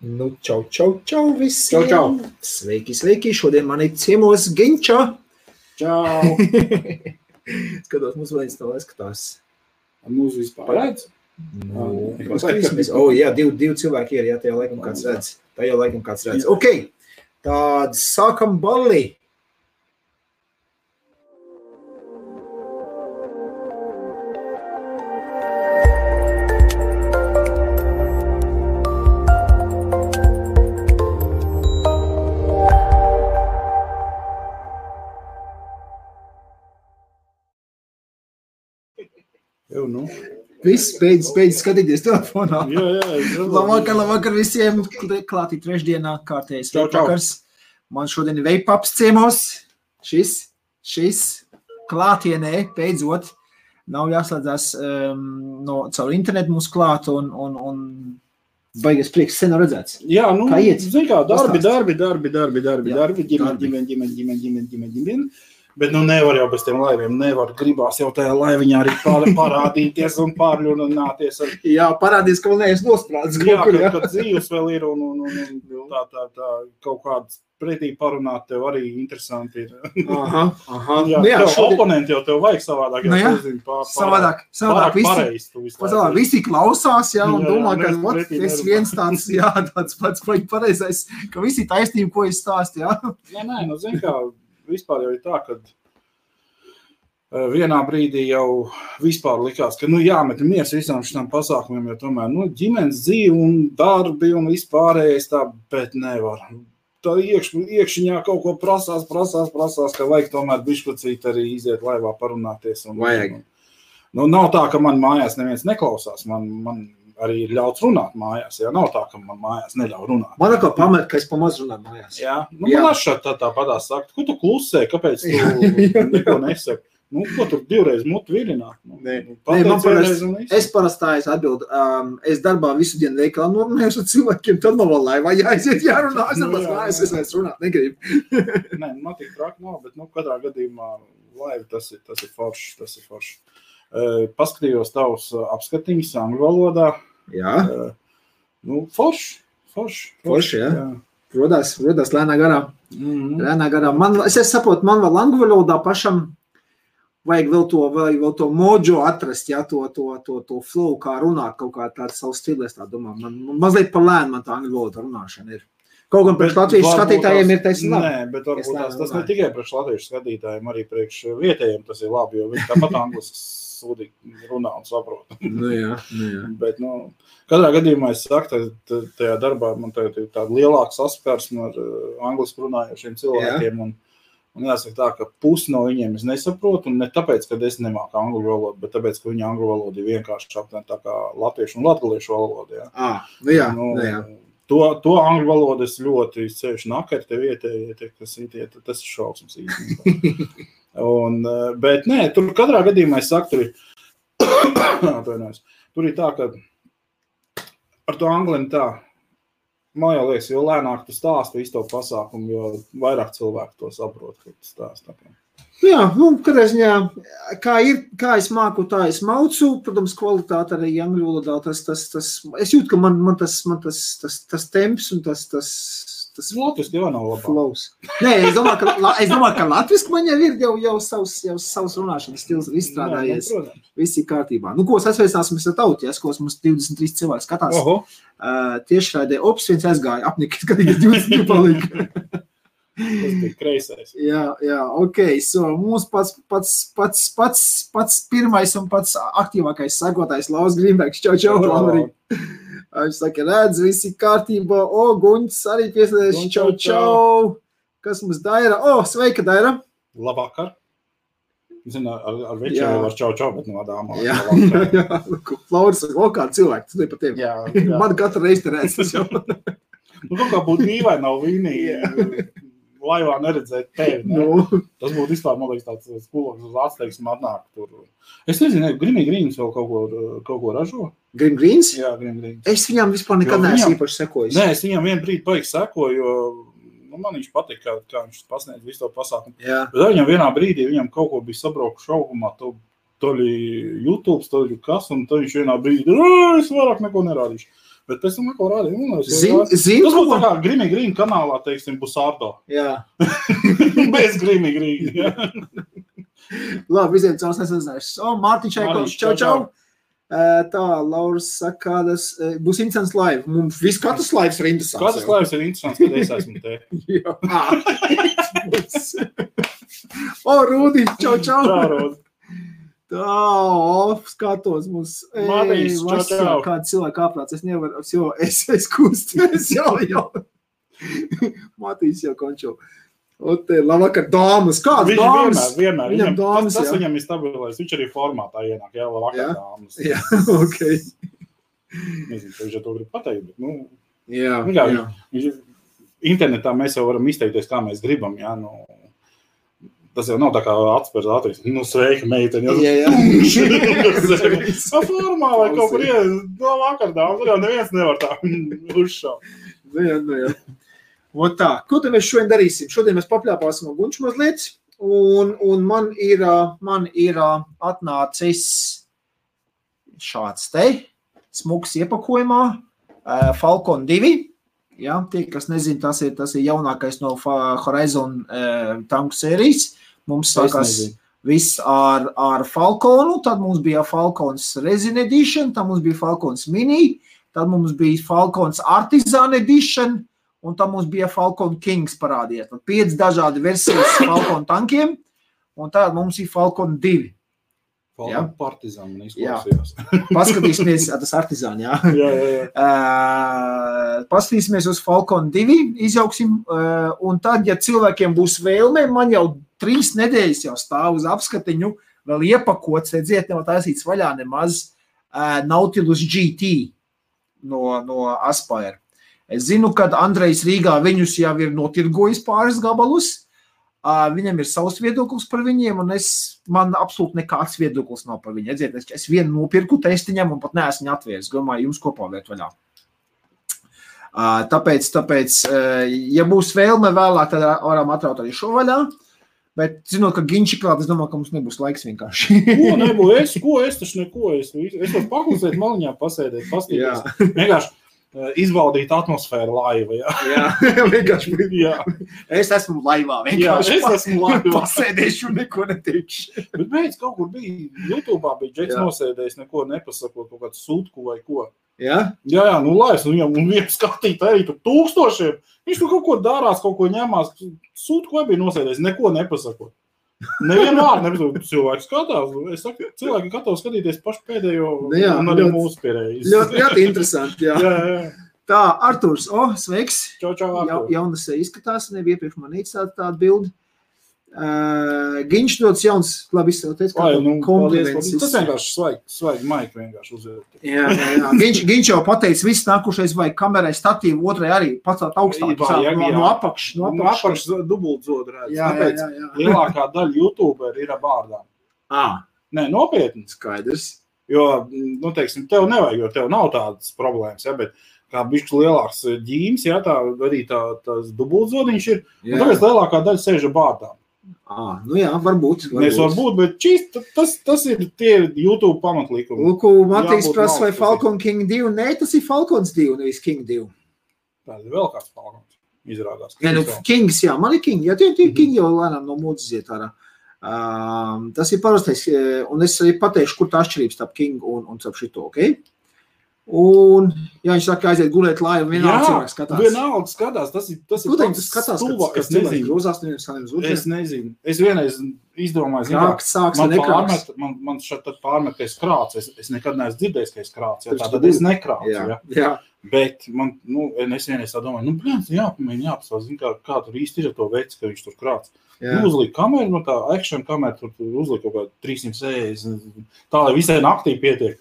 Nu, čau visiem! Čau. Sveiki! Šodien man ir ciemos Ginča. Čau! Skatos, mums vēl viens tā skatās. Mūsu vispār redz? Paskatīsimies. Jā, divi cilvēki ir, jā, tajā laikam kāds redz. Ok, tad sākam balli. Viss beidz skatīties telefonā. Jā. Labvakar visiem. Klātī trešdienā kārtējais vakars. Man šodien ir veipaps ciemos. Šis klātienē beidzot nav jāslēdzās caur internetu mums klāt un baigies prieks sen nav redzēts. Jā, kā iet? Zin kā, darbi, ģimeni. Bet nevar jau bez tiem laiviem, gribās jau tajā laiviņā arī parādīties un pārļunāties. Jā, parādīs, ka vēl neesi nosprādzis. Jā, kad dzīves vēl ir un tā kaut kāds pretī parunāt tev arī interesanti ir. Aha. Jā, oponenti jau tev vajag savādāk. Savādāk visi klausās, jā, un domā, ka es viens tāds pats pareizais, ka visi taisnība, ko es stāstu, jā. Nē, zin kā, vispār jau ir tā, ka vienā brīdī jau vispār likās, ka jāmet miers visām šitām pasākumiem, jo tomēr ģimenes dzīve un darbi un vispārējais tā, bet nevar. Tā iekšiņā kaut ko prasās, ka vajag tomēr bišķucīt arī iziet laivā parunāties. Vajag. Nav tā, ka man mājās neviens neklausās, man arī ir ļauts runāt mājās, jā, nav tā, ka man mājās neļauj runāt. Man atkal pamet, ka es pamaz runāju mājās. Jā, man atšķiet tāpatās sakt, ko tu klusē, kāpēc tu neko nesaki? Ko tu divreiz mutu vilināt? Es parastājos atbildu, es darbā visu dienu veikalā norunājos ar cilvēkiem, tad man vēl laivā jāiziet jārunā, es vairs runāt negribu. Nē, man tik traki nav, bet katrā gadījumā laiva tas ir forši. Paskatījos tavus apskatiņus angļu valodā. Jā. Forši, jā. Rodās lēnā garā. Es saprotu, man vēl angļu valodā pašam vajag vēl to mojo atrast, jā, to flow, kā runāt, kaut kā tāds savs stilēs, tā domā. Man mazliet par lēnu man tā angļu valoda runāšana ir. Kaut gan priekš latviešu skatītājiem ir taisnība. Nē, bet varbūt tas ne tikai priekš latviešu skatītājiem, arī priekš vietējiem tas ir labi, jo viņi tāpat anglis sūdīgi runā un saprot. Jā. Bet, katrā gadījumā es saku, tajā darbā man tagad ir tāda lielāka saskarsme ar angliski runājošiem cilvēkiem, un jāsaka tā, ka pusi no viņiem es nesaprotu, un ne tāpēc, ka es nemāku angļu valodu, bet tāpēc, ka viņa angļu valoda ir vienkārši aptuveni tā kā latviešu un latgaliešu valoda, jā. Jā. To angļu valodu es ļoti ceļšu nakari te vietēji, tas ir šausmas īstenībā. Bet nē, tur katrā gadījumā es saku, tur ir tā, ka ar to angliem tā, man jau liekas, jo lēnāk tu stāsti visu to pasākumu, jo vairāk cilvēku to saprot, ka tu stāsti. Jā, katrā ziņā, kā es māku, tā es maucu, protams, kvalitāte arī angļu valodā, es jūtu, ka man tas temps un tas latviski jau nav labāk. Flows. Nē, es domāju, ka latviski man jau ir savs runāšanas stils izstrādājies. Viss ir kārtībā. Ko es atsveicināsimies ar tauties, ko mums 23 cilvēki skatās. Tiešraidē viens aizgāja apnikt, kad 22 palika. Tas bija kreisais. Jā, ok. Mūsu pats pirmais un pats aktīvākais sekotājs Lauris Grīnbergs. Čau, Laurī. Viņš saka, redz, visi kārtībā. Guņs arī pieslēdz. Čau. Kas mums Daira? Sveika, Daira. Labvakar. Zinu, ar večiem var čau, bet no dāmā. Jā. Lauris, kāda cilvēka, tu par tevi. Jā. Man katru reizi te redz tas jau. Kaut kā būtu dīvaini nav vīnīgi. Laivā neredzēt tevi. Ne? Tas būtu vispār, man liekas, tāds skoloks uz atsteiksmu atnāk tur. Es nezinu, Grimmy Greens vēl kaut ko ražo? Grim Greens? Jā, Grim Greens. Es viņam vispār nekad neesmu īpaši sekojis. Nē, es viņam vienu brīdi paigi sekoju, jo man viņš patīk, kā viņš pasniedz visu to pasākumu. Jā. Bet viņam vienā brīdī, viņam kaut ko bija sabraukuši augumā, toļi YouTube, toļi kas, un tad viņš vienā brīdī, es vairāk neko nerādīšu. Bet pēc tam neko rādīju. Zin, tas būtu tā kā Grimy Green kanālā, teiksim, Busardo. Jā. Bez Grimy Green, jā. Labi, visiem caurs nesazinājuši. Mārtiņš Čaikovs, čau. Tā, Lauras saka, būs interesants live. Mums katrs lives ir interesants. Katrs lives ir interesants, kad es esmu te. Jā. Rūdi, čau. Čau, Rūdi. Tā, skatos mums. Mārtiņš, čau. Kāda cilvēka aprāts, es nevaru, es kusties, jau. Mārtiņš jau končo. Labvakar, dāmas. Kādas dāmas? Vienmēr. Viņam dāmas, tas viņam ir stabilais. Viņš arī formātā ienāk, jā, labvakar, dāmas. Jā, ok. Nezinu, ka viņš jau to grib pateikt, bet, jā. Internetā mēs jau varam izteikties, kā mēs gribam, jā, tas jau nav tā kā atspērs ātrīs. Sveika, meiteni. Jā. Formā vai kaut kur labvakar, dāmas. Tur jau neviens nevar tā uzšaut. Jā. Tā, ko te mēs šodien darīsim? Šodien mēs papļāpāsim Gunču mazliet, un man ir atnācis šāds te, smuks iepakojumā, Falcon 2. Jā, tie, kas nezin, tas ir jaunākais no Horizon tanku sērijas. Mums sākās viss ar Falconu, tad mums bija Falcons Resin Edition, tad mums bija Falcons Mini, tad mums bija Falcons Artisan Edition, un tam mums bija Falcon Kings parādījies. Tad 5 dažādi versijas Falcon tankiem, un tā mums ir Falcon 2. Falcon Partizan man izklausījās. Paskatīsimies, tas Artisan, jā. Jā. Paskatīsimies uz Falcon 2, izjauksim, un tad, ja cilvēkiem būs vēlme, man jau 3 nedēļas jau stāv uz apskatiņu, vēl iepakots, redziet, nevar taisīts vaļā nemaz Nautilus GT no Aspire. Es zinu, kad Andrejs Rīgā viņus jau ir notirgojis pāris gabalus, viņam ir savs viedoklis par viņiem, un man absolūti nekāds viedoklis nav par viņu. Redziet, es vienu nopirku testiņam un pat neesmu viņu atvērs, domāju, jums kopā vērt vaļā. Tāpēc, ja būs vēlme vēlāk, tad varam atraut arī šo vaļā, bet zinot, ka Ginči klāt, es domāju, ka mums nebūs laiks vienkārši. Ko es taču neko, es varu paklusēt maliņā, pasēdēt, pastīties. Vienkārši izbaudīt atmosfēru laiva, jā. Jā, vienkārši. Jā. Es esmu laivā, vienkārši. Jā, es esmu laivā. Pasēdēšu un neko neteikšu. Bet beidz kaut kur bija, YouTube'ā bija Džeks nosēdējis, neko nepasakot, kaut kādu sūtku vai ko. Jā? Jā, laivs, un viņam skatīt arī tur tūkstošiem. Viņš tur kaut ko darās, kaut ko ņemās. Sūtku vai bija nosēdējis, neko nepasakot. Nevienu vārdu nepasakot. Cilvēki skatās. Es saku, cilvēki gatavi skatīties pašu pēdējo un arī mūsu pierējas. Ļoti interesanti, jā. Jā. Tā, Arturs, sveiks. Čau, Artur. Jaunas izskatās, nebija iepriekš man tāda bildi. Ginč dots jauns, labi izsauties, kā kompliments. Tas vienkārši svaigi maiki vienkārši uzvērt. Jā. Ginč jau pateica, viss nākušais vajag kamerai statīvu, otrai arī pacelt augstāk. No apakšas dubultzod redz. Tāpēc lielākā daļa YouTuberi ir ar bārdām. Nē, nopietni. Skaidrs. Jo, teiksim, tev nevajag, jo tev nav tādas problēmas, ja, bet kā bišķi lielāks ģīms, ja, tā arī tās dubultzodiņš ir, un tāpēc lielākā daļa sēž ar bārdām. Varbūt. Bet tas ir tie YouTube pamatlīkumi. Lūku, Matīs prasa, vai Falcon King 2? Nē, tas ir Falcons 2, nevis King 2. Tā ir vēl kāds Falcons, izrādās. Kings, jā, man ir King, jā, tie King jau lēnām no mūdas iet ārā. Tas ir parastais, un es arī pateikšu, kur tā atšķirības starp King un starp šito, ok? Un, ja viņš saka, aiziet gulēt laivu, vienalga cilvēks skatās. Vienalga skatās, tas ir pats stulba, kas cilvēks grūzās, neviens kā nevis uzreiz. Es nezinu. Es vienreiz izdomāju, man šeit pārmet, ka es krācu. Es nekad neesmu dzirdējis, ka es krācu. Tātad es nekrācu. Jā. Bet man, es vienreiz tā domāju, jāpastāv, kā tur īsti ir to veids, ka viņš tur krāc. Uzlika kameru, tā action kamera, tur uzlika kaut kā 360, tā, lai visai naktī pietiek.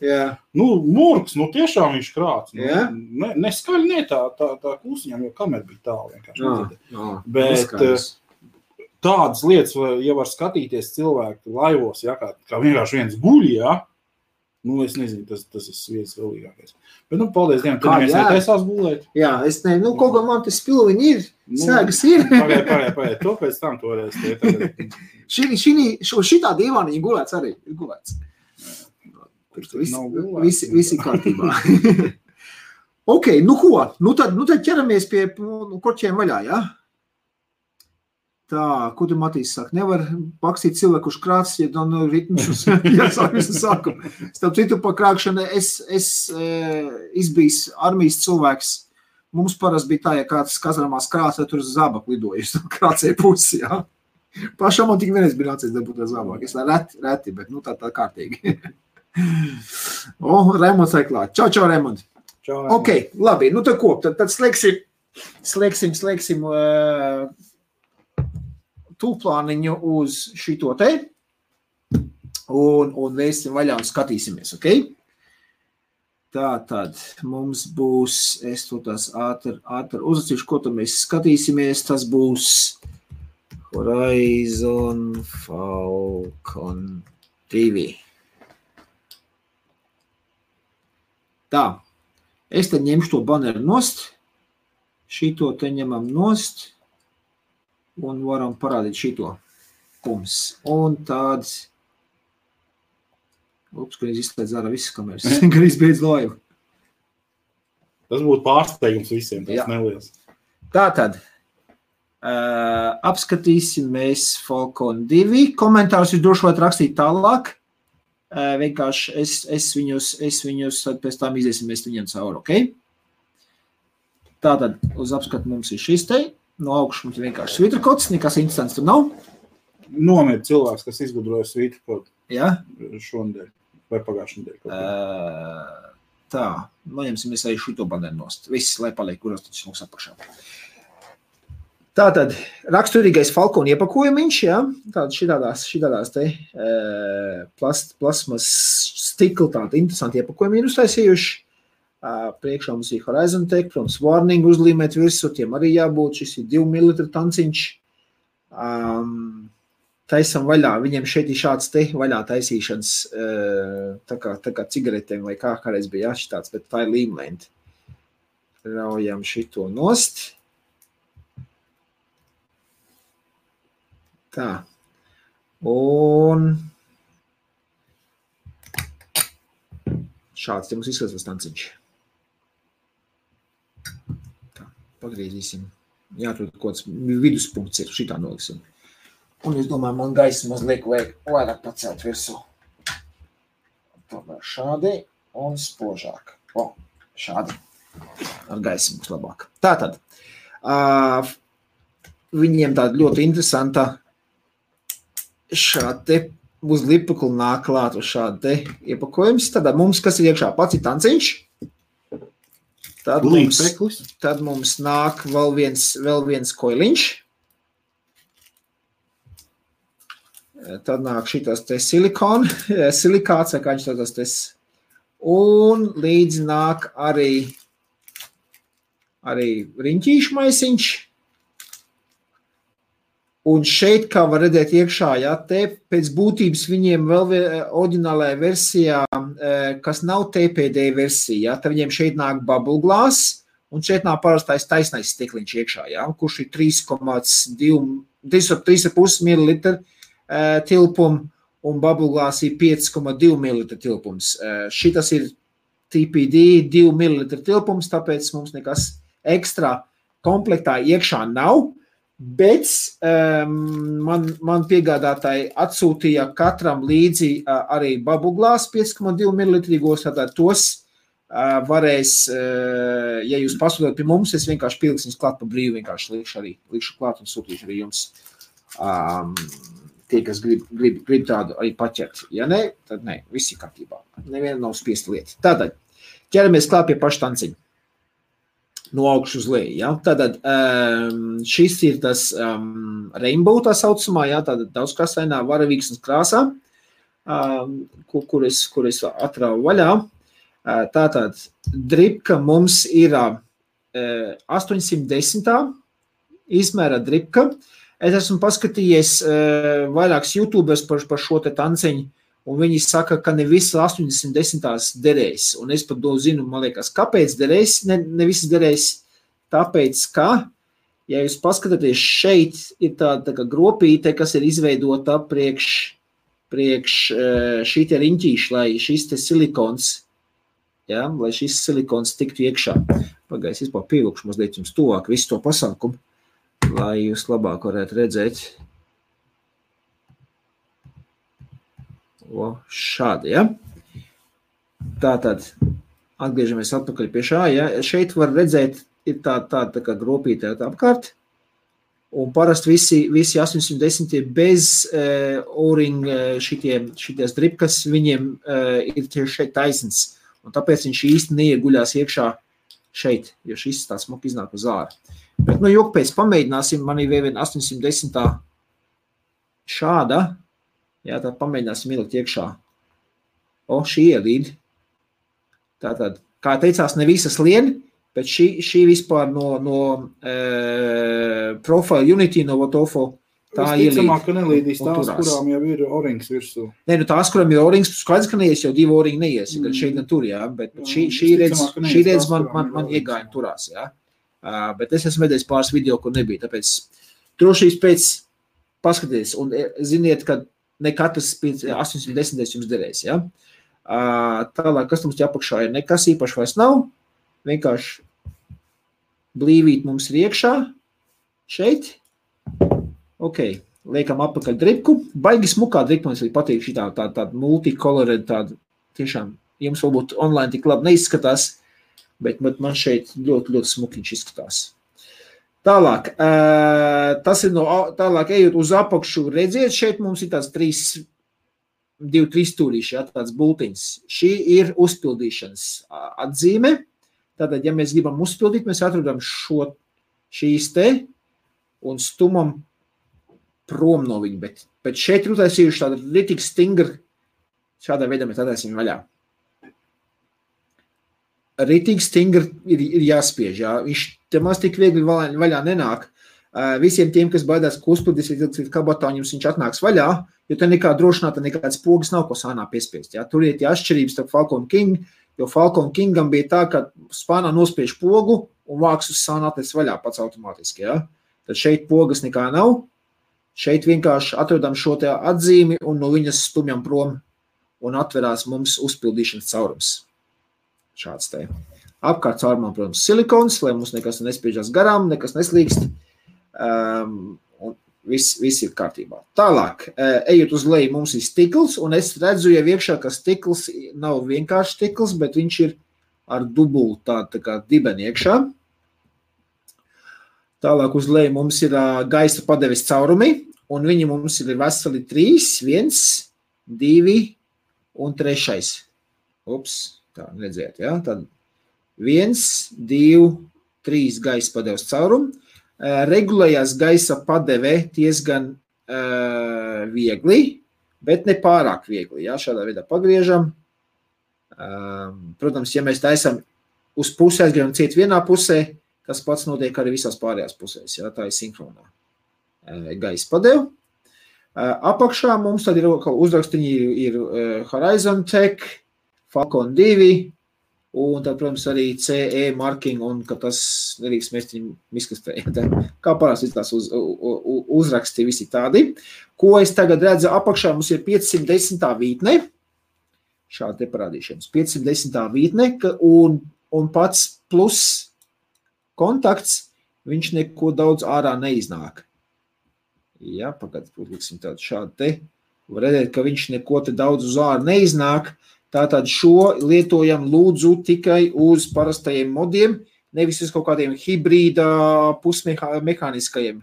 Murks, tiešām viņš krāc. Neskaļi, tā klusiņam, jo kamera bija tālu vienkārši. Bet tādas lietas, ja var skatīties cilvēku laivos, ja, kā vienkārši viens guļ, ja, es nezinu, tas ir viens vēlīgākais. Bet, paldies Dievam, tu neviens netaisās gulēt. Jā, es nezinu, kaut kā man tas spilviņi ir, sēgas ir. Pagaid, to pēc tam toreiz. Šitā divāniņa gulēts arī, ir gulēts. Visi kārtībā. Ok, nu ko? Nu tad ķeramies pie korķiem vaļā, jā? Tā, ko tu Matīs saka? Nevar pakstīt cilvēku, kurš krāts, ja nav ritmus, jāsāk visu sākumu. Starp citu, pa krākšanu es izbijis armijas cilvēks. Mums parasti bija tā, ja kāds kazarmās krāca, tur uz zābaku lidojas, krācēja pusi, jā. Pašam man tik vienreiz bija nācies dabūt ar zābaku. Es reti, bet nu tā kārtīgi. Raimonds vai klāt. Čau, Raimond. Ok, labi, nu tad ko? Tad slēgsim tūplāniņu uz šito te un vēsim vaļā un skatīsimies, ok? Tātad mums būs, es to tās ātri uzracīšu, ko tad mēs skatīsimies, tas būs Horizon Falcon 2. Tā, es tad ņemšu to baneru nost, šito te ņemam nost un varam parādīt šito pums. Un tāds, kad izslēdz ārā visas kameras, kad izbeidz laivu. Tas būtu pārsteigums visiem, tas neliels. Tātad, apskatīsim mēs Falcon 2. Komentārus jūs droši varat rakstīt tālāk. Vienkārši es viņus tad pēc tām iziesim mēs viņiem cauri, ok? Tātad uz apskatu mums ir šis te, no augšu mums ir vienkārši svītrakods, nekas instants tur nav. Nomir cilvēks, kas izgudroja svītrakodu šonedēļ vai pagājušajā nedēļ. Tā, noņemsimies arī šito baneru nost. Viss, lai paliek, kuros taču mums apakšā. Tātad, raksturīgais Falcon iepakojumiņš, jā, tātad šitādās te plasmas stikli, tāda interesanti iepakojumi ir uztaisījuši. Priekšā mums ir Horizon Tech, protams, warning uzlīmēt virsū, tiem arī jābūt, šis ir 2 ml tanciņš. Taisam vaļā, viņiem šeit ir šāds te vaļā taisīšanas, tā kā cigaretēm vai kāreiz bija jāšitāds, bet tā ir līmlenti. Raujam šito nost. Tā. Un šāds te mums izskatās tanciņš. Tā, pagriezīsim. Jāatrod kods viduspunkts ir, šitā noliksim. Un es domāju, man gaisa mazliet vajag vairāk pacelt virsū. Tomēr šādi un spožāk. Šādi. Ar gaisa būs labāk. Tātad, viņiem tāda ļoti interesanta šādi te uz lipaklu nāk klāt uz šādi te iepakojums. Tad mums, kas ir iekšā pats ir tanciņš. Tad mums nāk vēl viens koiliņš. Tad nāk šitas te silikāts, vai kā viņš tādas te. Un līdz nāk arī riņķīšu maisiņš. Un šeit, kā var redzēt iekšā, jā, te pēc būtības viņiem vēl oriģinālajā versijā, kas nav TPD versija, jā, tad viņiem šeit nāk bubble glass, un šeit nāk parastais taisnais stikliņš iekšā, jā, kurš ir 3,5 ml tilpumu, un bubble glass ir 5,2 ml tilpums. Šitas ir TPD 2 ml tilpums, tāpēc mums nekas ekstra komplektā iekšā nav. Bet man piegādātāji atsūtīja katram līdzi arī bubble glass 5,2 ml, tātad tos varēs, ja jūs pasūtot pie mums, es vienkārši pilksim klāt pa brīvu, vienkārši likšu klāt un sūtīšu arī jums tie, kas grib tādu arī paķert. Ja ne, tad ne, viss ir kārtībā. Neviena nav spiesta lieta. Tātad, ķeramies klāt pie paša tanciņa. No augšu uz leju, ja? Tātad šis ir tas rainbow tā saucamā, ja? Tātad daudzkrāsainā varavīksnes krāsā, kur es atrauju vaļā. Tātad dripka mums ir 810. izmēra dripka. Es esmu paskatījies vairākus YouTubers par šo te tanciņu, un viņi saka, ka ne visas 80 derēs. Un es pat zinu, man liekas, kāpēc derēs, ne visas derēs, tāpēc, ka, ja jūs paskatāties šeit, ir tāda kā gropīte, kas ir izveidota priekš priekš šī te riņķīši, lai šis te silikons, ja, lai šis silikons tiktu iekšā. Pagājis, vispār pievilkšu mazliet jums tuvāk visu to pasākumu, lai jūs labāk varētu redzēt. Šādi, ja. Tātad, atgriežamies atpakaļ pie šā, ja. Šeit var redzēt, ir tā kā gropītē apkārt, un parasti visi 810 bez O-ring šities dripkas, viņiem ir tieši šeit taisns, un tāpēc viņš īsti neieguļās iekšā šeit, jo šis tā smuki iznāk uz ārā. Bet, jok pēc pamēģināsim, man ir vēl 810 šāda, jā, tad pamēģināsim ielikt iekšā. Šī ielīd. Tātad, kā teicās, ne visas lien, bet šī vispār no Profile Unity, no Votofo, tā ielīd. Visticamāk, ka nelīdīs tās, kurām jau ir O-rings virsū. Nē, tās, kurām ir O-rings, skaidrs, ka neies, jau 2 O-ring neies, gan šeit, gan tur, jā, bet šī redz man iegāja turās, jā. Bet es esmu vedējis pāris video, kur nebija, tāpēc drošības pēc paskaties, un ziniet, ka ne katrs 810 jums derēs, ja? Tālāk, kas mums apakšā ir, nekas īpaši vairs nav, vienkārši blīvīt mums ir iekšā, šeit, ok, liekam apakaļ dripku, baigi smukā dripka, man patīk šī tāda multicolore, tāda tiešām, jums varbūt online tik labi neizskatās, bet man šeit ļoti, ļoti smukiņš izskatās. Tālāk, tas ir tālāk ejot uz apakšu, redziet, šeit mums ir tāds 2-3 stūrīši, ja, tāds bultiņs. Šī ir uzpildīšanas atzīme. Tātad, ja mēs gribam uzpildīt, mēs atrodam šīs te un stumam prom no viņu, bet šeit ir utaisījuši tāda ritīgi stingra, šādā veidā mēs ataisim vaļā. Ritīgi stingri ir jāspiež, jā. Viņš te maz tik viegli vaļā nenāk. Visiem tiem, kas baidās, ka uzpildīs līdz kabatā, viņš atnāks vaļā, jo te nekā drošināta, nekāds pogas nav, ko sānā piespiest. Jā. Tur ir tie atšķirības starp Falcon King, jo Falcon Kingam bija tā, ka spānā nospiež pogu un vāks uz sānā atnes vaļā pats automātiski. Jā. Tad šeit pogas nekā nav. Šeit vienkārši atrodam šo te atzīmi un no viņas stumjam prom un atverās mums uzpildīšanas caurums. Šāds te. Apkārt caurumā, protams, silikons, lai mums nekas nespiežās garām, nekas neslīkst. Un viss ir kārtībā. Tālāk, ejot uz leju, mums ir stikls, un es redzu jau iekšā, ka stikls nav vienkārši stikls, bet viņš ir ar dubulu tā kā dibeni iekšā. Tālāk uz leju mums ir gaisa padeves caurumi, un viņi mums ir veseli 3, 1, 2 un 3. Ups. Tā, redzēt, ja? Tad 1, 2, 3 gaisa padeves caurumu. Regulējās gaisa padeve diezgan viegli, bet ne pārāk viegli. Ja? Šādā veidā pagriežam. Protams, ja mēs taisam uz pusē, aizgribam ciet vienā pusē, tas pats notiek arī visās pārējās pusēs. Ja? Tā ir sinhronā gaisa padeve. Apakšā mums tad ir uzrakstiņi ir Horizon Tech, Falcon 2, un tad, protams, arī CE marking, un ka tas nerīks mēs viņu izkastē. Kā parasti tās uzraksti visi tādi. Ko es tagad redzu apakšā, mums ir 510. vītne. Šādi te parādīšanas. 510. vītne, un pats plus kontakts, viņš neko daudz ārā neiznāk. Jā, pagad, liksim tādu šādu te. Var redzēt, ka viņš neko te daudz uz ārā neiznāk. Tātad šo lietojam lūdzu tikai uz parastajiem modiem, nevis uz kaut kādiem hibrīda pusmehāniskajiem,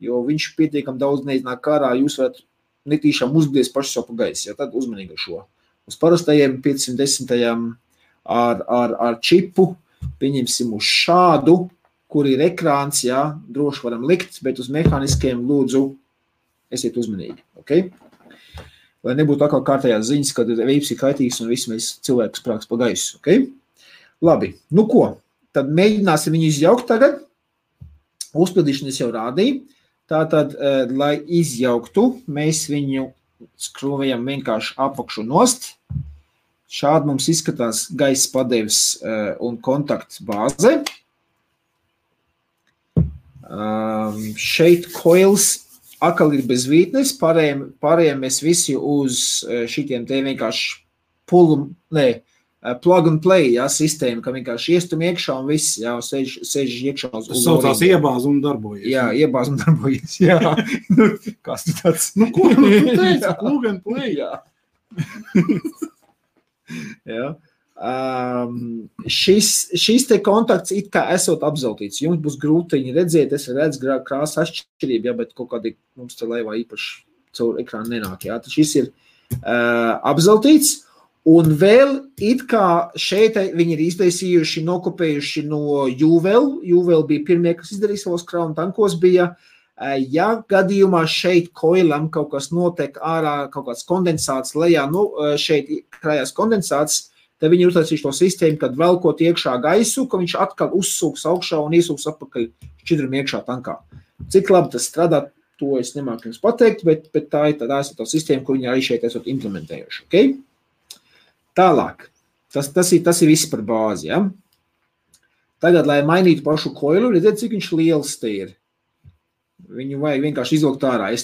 jo viņš pietiekam daudz neiznāk ārā, jūs varat netīšām uzblies paši savu pa gaisu, ja tad uzmanīgi šo. Uz parastajiem 510. ar čipu, pieņemsim uz šādu, kur ir ekrāns, jā, droši varam likt, bet uz mehāniskajiem lūdzu esiet uzmanīgi, ok? Lai nebūtu atkal kārtējās ziņas, kad veips ir kaitīgs un visi mēs cilvēkus prāks pa gaisu, ok? Labi, nu ko? Tad mēģināsim viņu izjaukt tagad. Uzpildīšanu es jau rādīju. Tātad, lai izjauktu, mēs viņu skrūvējam vienkārši apakšu nost. Šādi mums izskatās gaisa padeves un kontakts bāze. Šeit coils akal ir bez vītnes, pārējiem mēs visi uz šitiem te vienkārši plug and play, jā, sistēma, ka vienkārši iestum iekšā un viss, jā, sēž iekšā uz tas saucās iebāz un darbojies. Jā, iebāz un darbojies, jā. Kas tu tāds? Ko tu teici? Plug and play. Jā. Jā. Šis te kontakts it kā esot apzeltīts. Jums būs grūtiņi redzēt, es redzu krāsu atšķirību, jā, bet kaut kādi mums te laivā īpaši caur ekrānu nenāk, jā. Tad šis ir apzeltīts. Un vēl it kā šeit viņi ir iztaisījuši, nokopējuši no Juvel. Juvel bija pirmie, kas izdarīja savos kraunu tankos bija. Ja gadījumā šeit koilam kaut kas notiek ārā, kaut kāds kondensāts lejā, šeit krājās kondensāts, tad viņi ir uztaisījuši to sistēmu, kad velkot iekšā gaisu, ka viņš atkal uzsūks augšā un iesūks atpakaļ šķidram iekšā tankā. Cik labi tas strādā, to es nemāku jums pateikt, bet tā ir tā sistēma, kur viņi arī šeit esot implementējuši. Okay? Tālāk, tas ir viss par bāzi, ja? Tagad, lai mainītu pašu koilu, redziet, cik viņš liels te ir. Viņu vajag vienkārši izvilkt ārā.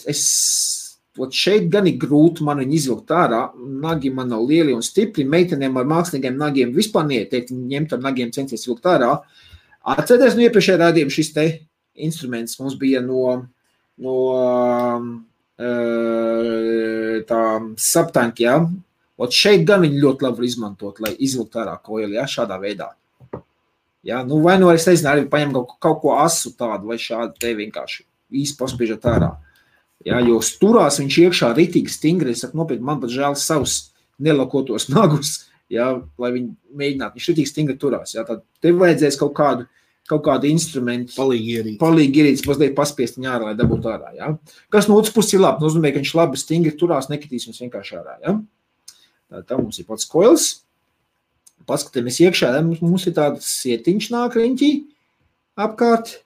Šeit gan ir grūti man viņu izvilkt ārā, nagi man nav lieli un stipri, meitenēm ar mākslīgiem nagiem vispār neieteikt, ņemt ar nagiem centies vilkt ārā. Atcerieties, no iepriekšējā rādījuma šis te instruments mums bija no tā subtank, ja? Šeit gan viņi ļoti labi var izmantot, lai izvilkt ārā koili, ja, šādā veidā. Ja, vai nu es nezinu, arī paņem kaut ko asu tādu, vai šādu te vienkārši īsti paspiežat ārā. Ja, jo turās viņš iekšā ritīgi stingri, es saku nopietni, man pat žēl savus nelakotos nagus, ja, lai viņi mēģinātu, viņš ritīgi stingri turās. Ja, tad tev vajadzēs kaut kādu instrumentu, palīgi ierīces, mazliet paspiest viņu ārā, lai dabūtu ārā. Ja. Kas no otras puses ir labi, nozīmē, ka viņš labi stingri turās, nekritīs viņus vienkārši ārā. Ja. Tā mums ir pats koils. Paskatāmies iekšā, mums ir tāds sietiņš nāk riņķī apkārt.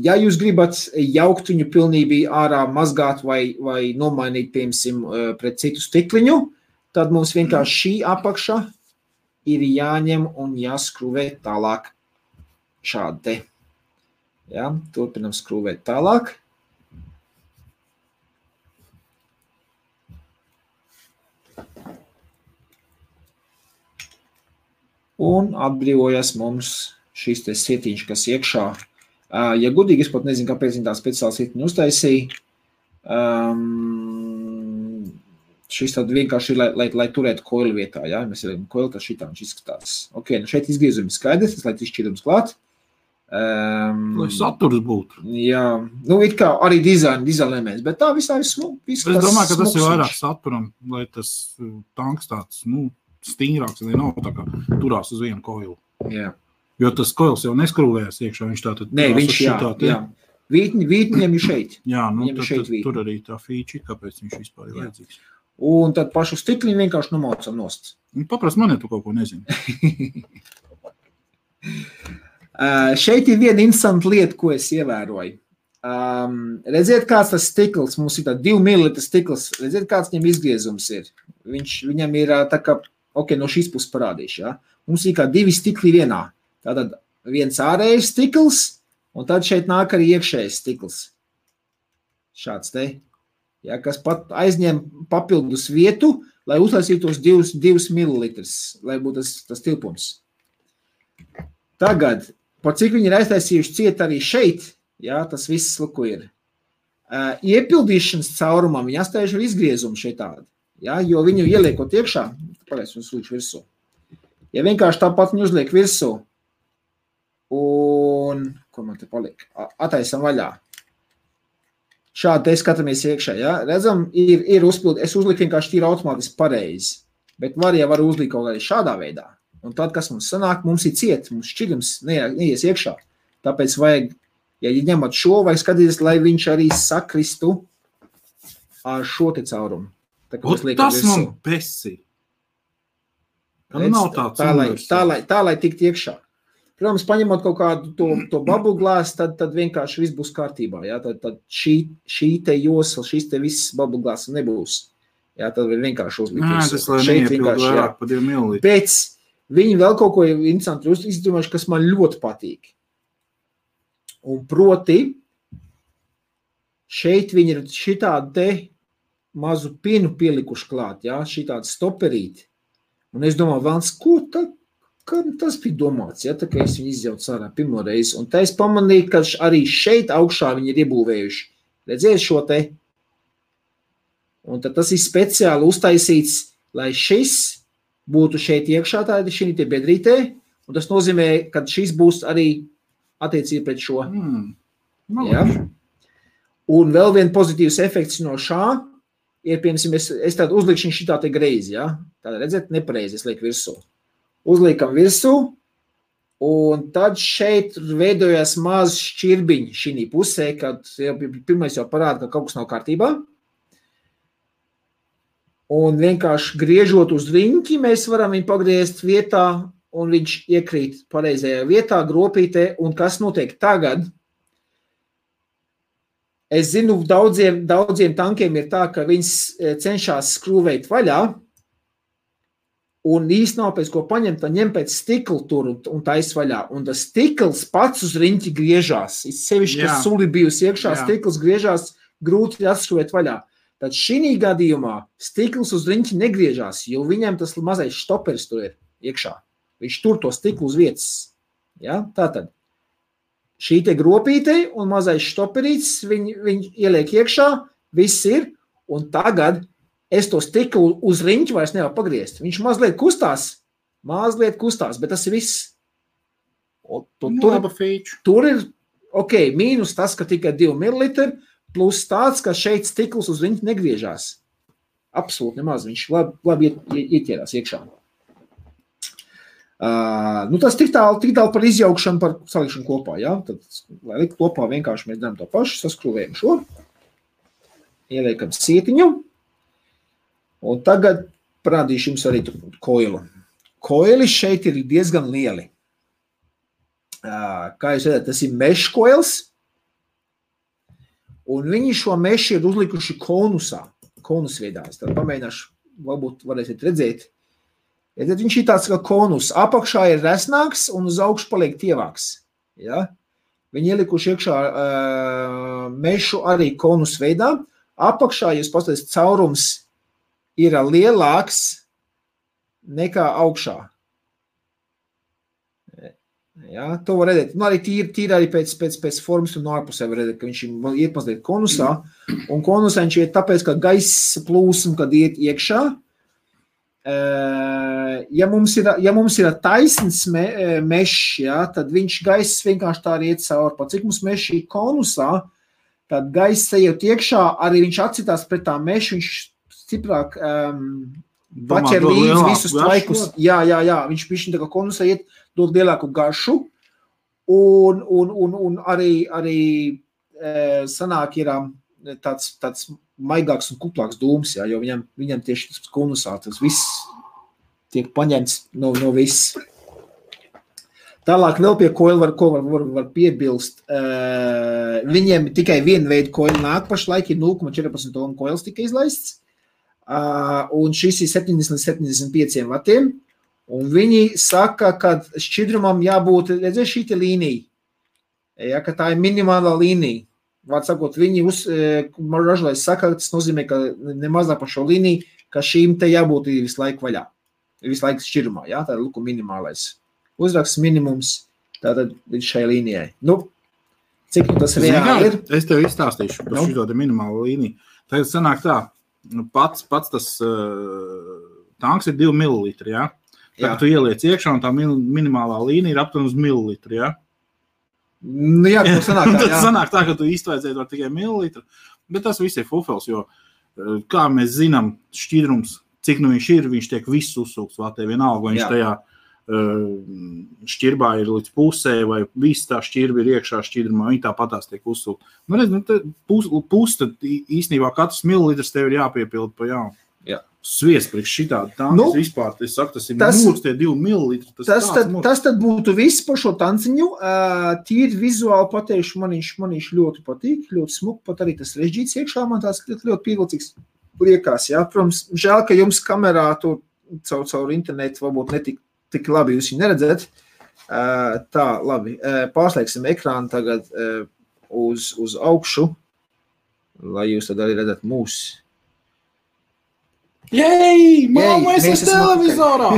Ja jūs gribat jaukt viņu pilnībā ārā, mazgāt vai nomainīt, piemēram, pret citu stikliņu, tad mums vienkārši šī apakša ir jāņem un jāskrūvē tālāk šādi te. Ja, turpinam skrūvēt tālāk. Un atbrīvojas mums šis te sietiņš, kas iekšā. Ja gudīgi, es pat nezinu, kāpēc viņi tā speciāli sietiņu uztaisīja. Šis tad vienkārši ir, lai turētu koili vietā. Ja? Mēs ielikam koili, tad šitā viņš izskatās. Ok, nu šeit izgriezumi skaidrs, tas lai izšķirums klāt. Lai saturs būtu. Jā, nu it kā arī dizaina elements, bet tā visā ir smuks. Es domāju, ka tas ir vairāk saturam, lai tas tanks tāds, stingrāks, lai nav tā kā turās uz vienu koilu. Jā. Jo tas koils jau neskrūvējas iekšā, viņš tātad... Nē, viņš jā. Vītņiem ir šeit. Jā, tur arī tā feature, kāpēc viņš vispār ir vajadzīgs. Un tad pašu stikliņu vienkārši nomaucam nost. Paprast man, ja tu kaut ko nezini. Šeit ir viena interesanta lieta, ko es ievēroju. Redziet, kāds tas stikls, mums ir tā 2 ml stikls, redziet, kāds viņam izgriezums ir. Viņam ir tā kā, ok, no šīs puses parādīšu, ja? Mums ir kā 2 stikli vienā. Tātad viens ārējais stikls, un tad šeit nāk arī iekšējais stikls. Šāds te, ja, kas pat aizņem papildus vietu, lai uzlaisītos 2 ml, lai būtu tas tilpums. Tagad, par cik viņi ir aiztaisījuši ciet arī šeit, ja, tas viss luku ir. Iepildīšanas caurumam viņi atstājuši ar izgriezumu šeit tādu, ja, jo viņu ieliekot iekšā, pagaids, un slīdš virsū. Ja vienkārši tāpat viņu uzliek virsū, un, ko man te paliek, attaisam vaļā. Šādi te skatāmies iekšā, ja? Redzam, ir uzpildi, es uzliku vienkārši tīri automātiski pareizi, bet var uzlikt kaut kādā šādā veidā. Un tad, kas mums sanāk, mums ir ciet, mums šķidrums neies iekšā. Tāpēc vajag, ja ņemat šo, vajag skatīties, lai viņš arī sakristu ar šo te caurumu. Tas man besi. Tā, lai tikt iekšā. Protams, paņemot kaut kādu to bubble glass, tad vienkārši viss būs kārtībā. Ja? Tad šī te josla, šis te viss bubble glass nebūs. Ja? Tad vienkārši uzlikt. Nē, tas lai neiepildu vairāk pa 2 ml. Pēc viņi vēl kaut ko interesanti izdomājuši, kas man ļoti patīk. Un proti, šeit viņi ir šitādu te mazu pinu pielikuši klāt, ja, šitādu stoperīti. Un es domāju, Vans, kam tas bija domāts, ja, tā kā es viņu izjaucu sārā pirmo reizi. Un tā es pamanīju, ka arī šeit augšā viņi ir iebūvējuši. Redziet šo te? Un tad tas ir speciāli uztaisīts, lai šis būtu šeit iekšā tādi šī te bedrītē, un tas nozīmē, ka šis būs arī attiecīgi pret šo. Ja? Un vēl vien pozitīvs efekts no šā ir, piemēram, es tādu uzlikšu šitā te greizi, ja? Tāda redzēt, nepareizi, es lieku virsū. Uzliekam virsū, un tad šeit veidojas maz šķirbiņi šī pusē, kad pirmais jau parāda, ka kaut kas nav kārtībā. Un vienkārši griežot uz riņķi, mēs varam viņu pagriezt vietā, un viņš iekrīt pareizajā vietā, gropītē, un kas notiek tagad? Es zinu, daudziem tankiem ir tā, ka viņas cenšas skrūvēt vaļā, un īsti nav pēc ko paņemt, tad ņem pēc stikla tur un tais vaļā. Un tas stikls pats uz riņķi griežās. Sevišķi, ka suli bijusi iekšā, stikls griežās, grūti atskrūvēt vaļā. Tad šī gadījumā stikls uz riņķi negriežās, jo viņam tas mazais štoperis tur ir iekšā. Viņš tur to stiklu uz vietas. Ja? Tātad šī te gropīte un mazais štoperīts, viņi ieliek iekšā, viss ir, un tagad es to stiklu uz riņķi vairs nevaru pagriezt. Viņš mazliet kustās, bet tas ir viss. Tur ir, ok, mīnus tas, ka tikai 2 ml, plus tāds, ka šeit stikls uz riņķi negriežās. Absolūti nemaz, viņš labi ieķērās iekšā. Tas tik tālu par izjaukšanu, par salikšanu kopā, ja? Tad, lai likt kopā, vienkārši mēs darām to pašu, saskrūvējam šo, ieliekam sietiņu, un tagad parādīšu jums arī koilu. Koili šeit ir diezgan lieli. Kā jūs redzat, tas ir mesh koils, un viņi šo mešu ir uzlikuši konusveidā. Es tad pamēģināšu, varbūt varēsiet redzēt. Tad viņš ir tāds kā konus. Apakšā ir resnāks un uz augšu paliek tievāks. Ja? Viņi ielikuši iekšā mešu arī konusveidā. Apakšā, jūs paskatāties, caurums ir lielāks nekā augšā. Ja, to var redzēt. Arī tīri arī pēc formas un ārpusē var redzēt, ka viņš iet mazliet konusā. Un konusā viņš iet tāpēc, ka gaisa plūsma, kad iet iekšā. Ja mums ir taisns mešs, ja, tad viņš gaiss vienkārši tā arī iet cauri. Pat cik mums mešs ir konusā, tad gaiss ejot iekšā, arī viņš atcitās pret tā mešu, viņš stiprāk paķer līdz visus tvaikus. Jā, viņš pišķi tā kā konusā iet, dod lielāku garšu, un arī sanāk ir tāds maigāks un kuplāks dūms, jā, jo viņam tieši tas konusā, tas viss tiek paņemts no viss. Tālāk vēl pie koila var piebilst. Viņiem tikai viena veida koila nāk pašlaik, ir 0,14 ohm koils tika izlaists, un šis ir 70-75 vatiem. Un viņi saka, ka šķidrumam jābūt, redziet, šī te līnija, ja, ka tā ir minimālā līnija. Vārds sakot, viņi ražotājs saka, tas nozīmē, ka nemazāk par šo līniju, ka šīm te jābūt visu laiku vaļā, visu laiku šķidrumā, ja, tā ir luku minimālais. Uzraksts minimums, tātad šai līnijai. Cik tas reāli ir? Es tev izstāstīšu par šito te minimālo līniju. Tagad sanāk tā, pats tas tanks ir 2 ml, ja? Tagad tu ieliec iekšā, un tā minimālā līnija ir aptuveni uz mililitru, ja? Jā, tas sanāk tā, jā. Tas sanāk tā, ka tu iztvaidzēt var tikai mililitru, bet tas viss ir fufels, jo, kā mēs zinām, šķidrums, cik viņš ir, viņš tiek viss uzsūkts vatē, vienalga, vai viņš tajā šķirbā ir līdz pusē, vai viss tā šķirba ir iekšā šķidrumā, viņi tāpatās tiek uzsūkt. Pus, tad īstenībā katrs mililitrs tev ir jāpiepilda pa jaunu. Jā. Sviest priekš šitādi tankas vispār, es saku, tas ir mūrs, tie 2 mililitri. Tas tad būtu viss par šo tanciņu. Tīri vizuāli pateikšu, man viņš ļoti patīk, ļoti smuk, pat arī tas režģīts iekšā, man tās ļoti pievilcīgs liekās. Jā. Protams, žēl, ka jums kamerā tur caur internetu varbūt netik labi jūs viņu neredzēt. Tā, labi, pārslēgsim ekrānu tagad uz augšu. lai jūs tad arī redzat mūs. Jei, mamma, es esmu televizorā!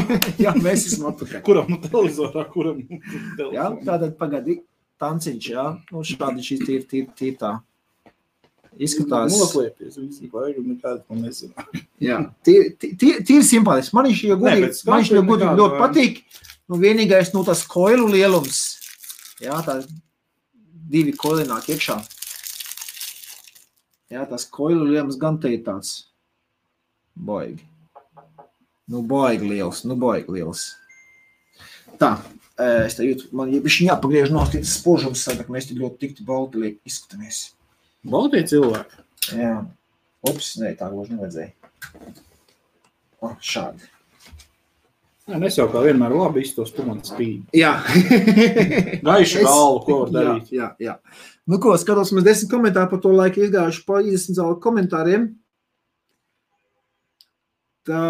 Jā, mēs esam atpakaļ. Kuram nu televizorā, kuram nu televizorā? Jā, tātad pagadi tanciņš, jā. Nu, šādi šīs tīr tā. Izskatās. Noslēpties, visi vajag un nekāds man nezinā. Jā, tīri simpātiski. Man viņš ļoti patīk. Nu, vienīgais, nu, tas koilu lielums. Jā, tā 2 koili nāk iekšā. Jā, tas koilu lielums gan te ir tāds. Baigi. Nu, baigi liels. Tā, es te jūtu, man viņš jāpagriež no tas spožums, ka mēs te ļoti tikti balti liek izskatāmies. Baltie cilvēki? Jā. Ups, ne, tā gluži nevajadzēja. O, šādi. Jā, nes jau kā vienmēr labi iztos, tu man spīd. Jā. Gaiši galvu, ko var darīt. Jā. Nu ko, skatos, mēs 10 komentāri par to laiku izgājuši pa 30 zālu komentāriem. Tā.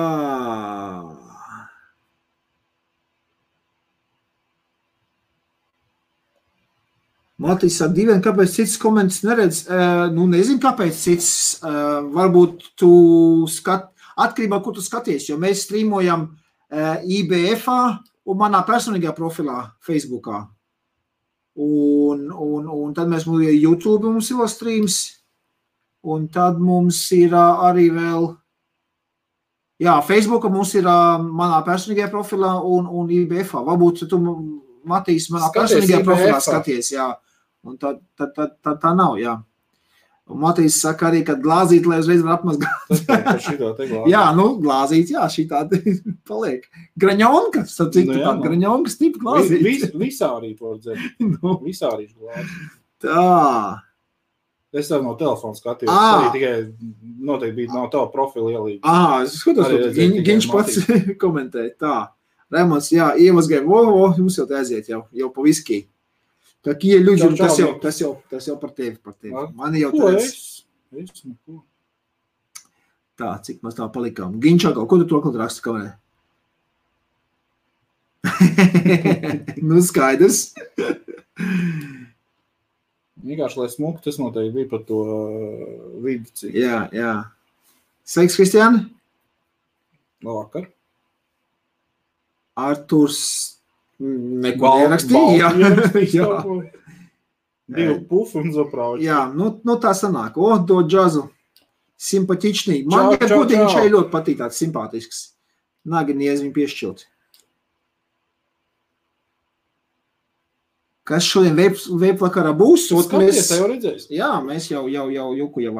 Matīs ar diviem, kāpēc cits komentus neredz? Nu, nezinu, kāpēc cits. Varbūt tu atkarībā, ko tu skaties, jo mēs streamojam IBF-ā un manā personīgajā profilā Facebookā. Un tad mēs YouTube mums ir streams, un tad mums ir arī vēl, jā, Facebookā mums ir manā personīgajā profilā un IBF-ā. Varbūt tu, Matīs, manā personīgajā profilā skaties, jā. Un tā nav, jā. Un Matīs saka arī, ka glāzīt, lai uzreiz var apmazgāt. Jā, nu, glāzīt, jā, šitā paliek. Graņonka, tāda graņonkas tipa glāzīt. Visārī pordzē. Visārīšu glāzīt. Tā. Es tev no telefona skatījos, arī tikai noteikti bija no tava profila ielīga. Es skatos, Giņš pats komentēja. Tā. Remons, jā, iemazgāja, jums jau te aiziet jau pa viskī. Tā kie ļuģi, tas jau par tevi. Mani jau tāds. Ko? Tā, cik mēs tā palikām. Giņšākā, ko tu to kaut raksta kamerē? Nu, skaidrs. Vienkārši, lai smuku, tas noteikti bija par to vidu. Jā. Sveiks, Kristiāni. Labvakar. Arturs neko nerakstīja. Jā. Divu pufu un zaprauči. Jā, nu tā sanāk. Do džazu. Simpatičnī. Man godīgi šai ļoti patīk tāds simpātisks. Nagi niez viņu piešķilt. Kas šodien veipvakarā būs? Skaties, tā jau redzēs. Jā, mēs jau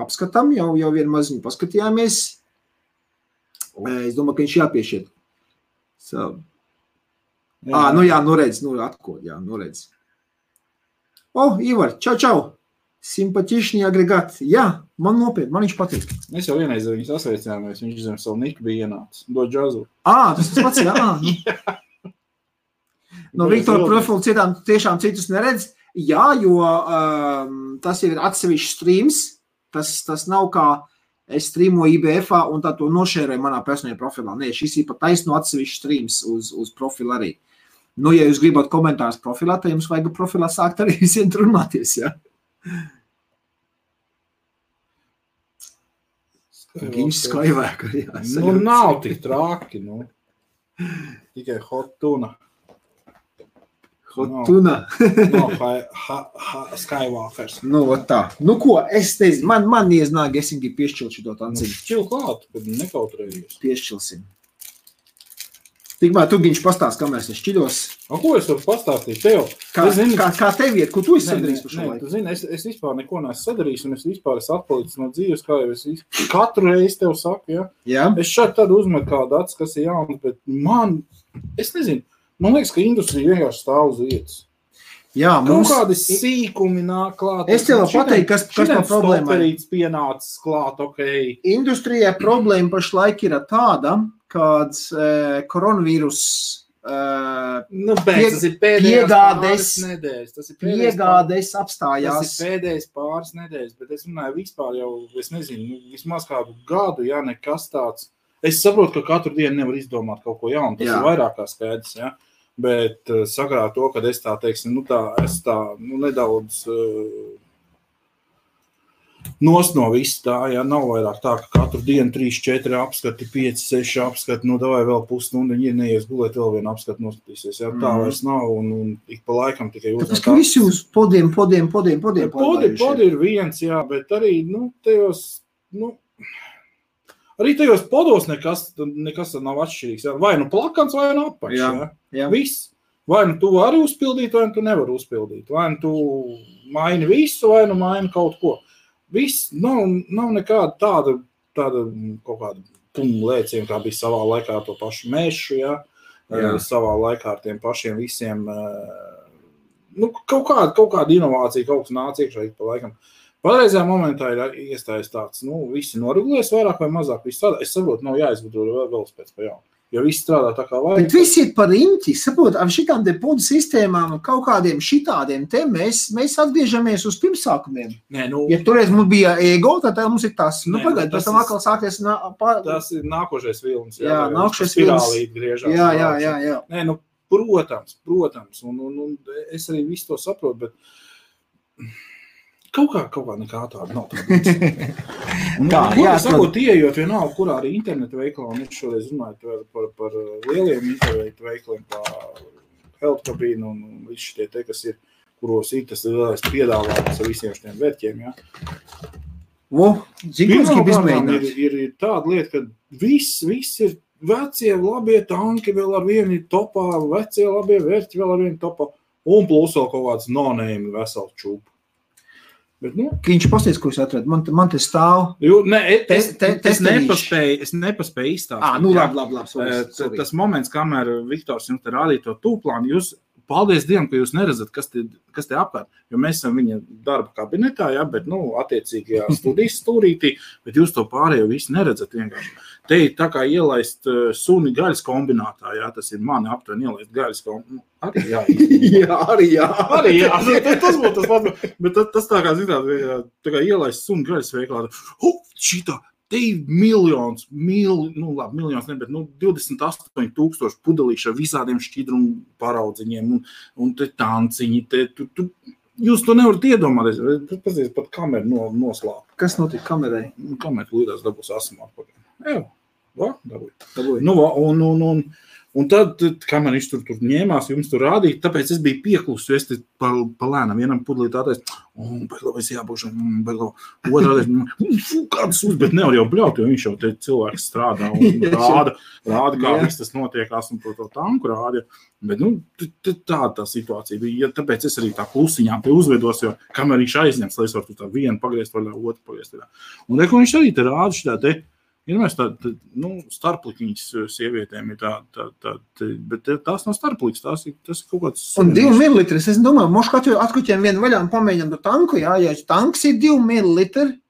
apskatām, jau vienu maziņu paskatījāmies. Es domāju, ka viņš jāpiešķiet. Nu redz, atkod, redz. Ivar, čau. Simpatišņi agregāti. Jā, man nopietni, man viņš patīk. Mēs jau vienreiz viņus asveicinājāmies, viņš zem savu niku bija ienācis. Do džazu. Tas pats, jā. No Viktora profilu tiešām citus neredz. Jā, jo tas jau ir atsevišķs streams. Tas nav kā es streamoju IBF-ā un tā to nošēroju manā personīgajā profilā. Nē, šis ir pat taisno atsevišķs streams uz profilu arī. Nu, ja jūs gribat komentārus profilā, tad jums vajag profilā sākt arī visiem runāties, jā. Giņš Skywalker, jā. Nu, nav tik traki, nu. Tikai hot tuna. Hotuna. Skywalkers. Nu, tā. Nu, ko, es teicu, man nieznāk, es viņu piešķilt šito tanciņu. Šķil klāt, kad nekautrējies. Piešķilsim. Tikmēr tu, Giņš, pastāst, kamēr es šķiļos. Ko es varu pastāstīt tev? Kā tev iet? Ko tu esi sadarījis par šo laiku? Tu zini, es vispār neko neesmu sadarījis, un es vispār esmu atpalicis no dzīves, kā jau es katru reizi tev saku, ja? Jā. Es šeit tad uzmetu kādu acis, kas ir jauns, bet es nezinu, man liekas, ka industrija vienkārši stāv uz vietas. Jā, mums kādi sīkumi nāk klāt. Es tev pateiktu, kas par problēmu. Stoperīts pienācis klāt, ok. Industrijā problēma pašlaik ir tāda, kāds koronavīrus tas ir piegādes apstājās. Tas ir pēdējais pāris nedēļas, bet es runāju vispār jau, es nezinu, vismaz kādu gadu, ja nekas tāds. Es saprotu, ka katru dienu nevar izdomāt kaut ko jaunu, tas ir vairāk kā skaidrs, ja. Bet sakarā to, kad es tā, teiksim, nedaudz Nost no viss tā, jā, nav vairāk tā, ka katru dienu 3, 4 apskati, 5, 6 apskati, nu davai vēl pusstundu, viņi neies gulēt, vēl vienu apskati noskatīsies, jā, tā vairs nav, un ik pa laikam tikai uzmanīt. Tāpēc, ka visi uz podiem. Podi ir viens, jā, bet arī, nu, tajos, nu, arī tajos podos nekas nav atšķirīgs, jā, vai nu plakans, vai nu apaļš, jā, viss. Vai nu tu vari uzpildīt, vai nu tu nevari uzpildīt, vai nu tu maini visu, vai nu maini kaut ko. Viss nav nekāda tāda kaut kāda lēciena, kā bija savā laikā to pašu mešu, jā. Savā laikā ar tiem pašiem visiem, nu, kaut kāda inovācija, kaut kas nāca iekšā pa laikam. Patreizajā momentā ir iestājies tāds, nu, visi noregulēs vairāk vai mazāk, viss tādā. Es saprotu, nav jāizgudro vēl pēc pa jaunu. Jo viss strādā tā kā vajag. Bet visi ir par riņķi, saprot, ar šitām te podu sistēmām un kaut kādiem šitādiem te mēs atgriežamies uz pirmsākumiem. Nē, nu. Ja toreiz mums bija ego, tad mums ir tas, nu pagaid, pēc tam atkal sākties. Tas ir nākošais vilnis. Jā, nākošais vilnis. Spirālīt griežās. Jā. Nē, nu, protams, un es arī visu to saprotu, bet kaut kā nekā tāda nav tāda. Sakot, ieejot vienalga, kurā arī interneta veikalā, un es šoreiz runāju par lieliem internetu veikaliem, par Health Cabine un visi šitie te, kas ir, kuros ir tas lielais piedāvājums ar visiem šiem vērķiem, jā. Pirmkārt, ir tāda lieta, ka viss ir vecie labie tanki vēl ar vienu topā, vecie labie vērķi vēl ar vienu topā, un plus vēl kaut kāds no-name vesels čūpu. Bet, nu, viņš pasties, ko es atradu. Man te stāv. Es nepaspēju izstāstīt. Nu labi. Tas moments, kamēr Viktors jums te rādīja to tūplānu, jūs, paldies Dievam, ka jūs neredzat, kas te apkārt. Jo mēs esam viņa darba kabinetā, jā, bet, nu, attiecīgajā studijas stūrītī, bet jūs to pārējo visu neredzat vienkārši. Te ir tā kā ielaist suni gaļas kombinātā, jā, tas ir mani aptuveni ielaist gaļas kombinātā. Arī jā. Tas būtu tas pats, bet tas tā kā zināt, tā kā ielaist suni gaļas veiklā. Šitā, te ir miljons, ne, bet 28,000 pudelīši ar visādiem šķidrumu paraudziņiem un te tanciņi, jūs to nevarat iedomāties, tas pat kameru noslāp. Kas notika kamerai? Kamera līdās dabūs asumā. Dabūja. Un tad, kamēr viņš tur ņēmās, jums tur rādīja, tāpēc es biju pieklusu, jo es te pa lēnam vienam pudelīt tātais, es jābūšu, otrādais, kādas bet nevar jau bļaut, jo viņš jau te cilvēks strādā un rāda, kā viss tas notiekās un to tanku rāda. Bet, nu, tā situācija bija, tāpēc es arī tā klusiņām te uzvedos, jo kamēr viņš aizņems, lai es varu tā vienu pagriezt vaļā, otru pagriezt vaļā. Un ko viņš arī te rāda šitā te, ir mēs starplikiņas sievietēm ir bet tās nav starpliks, tas ir kaut kāds... Un 2 mililitri, es domāju, mošu atkuķiem vienu vaļā un pamēģinām to tanku, jā, ja tanks ir 2 mililitri,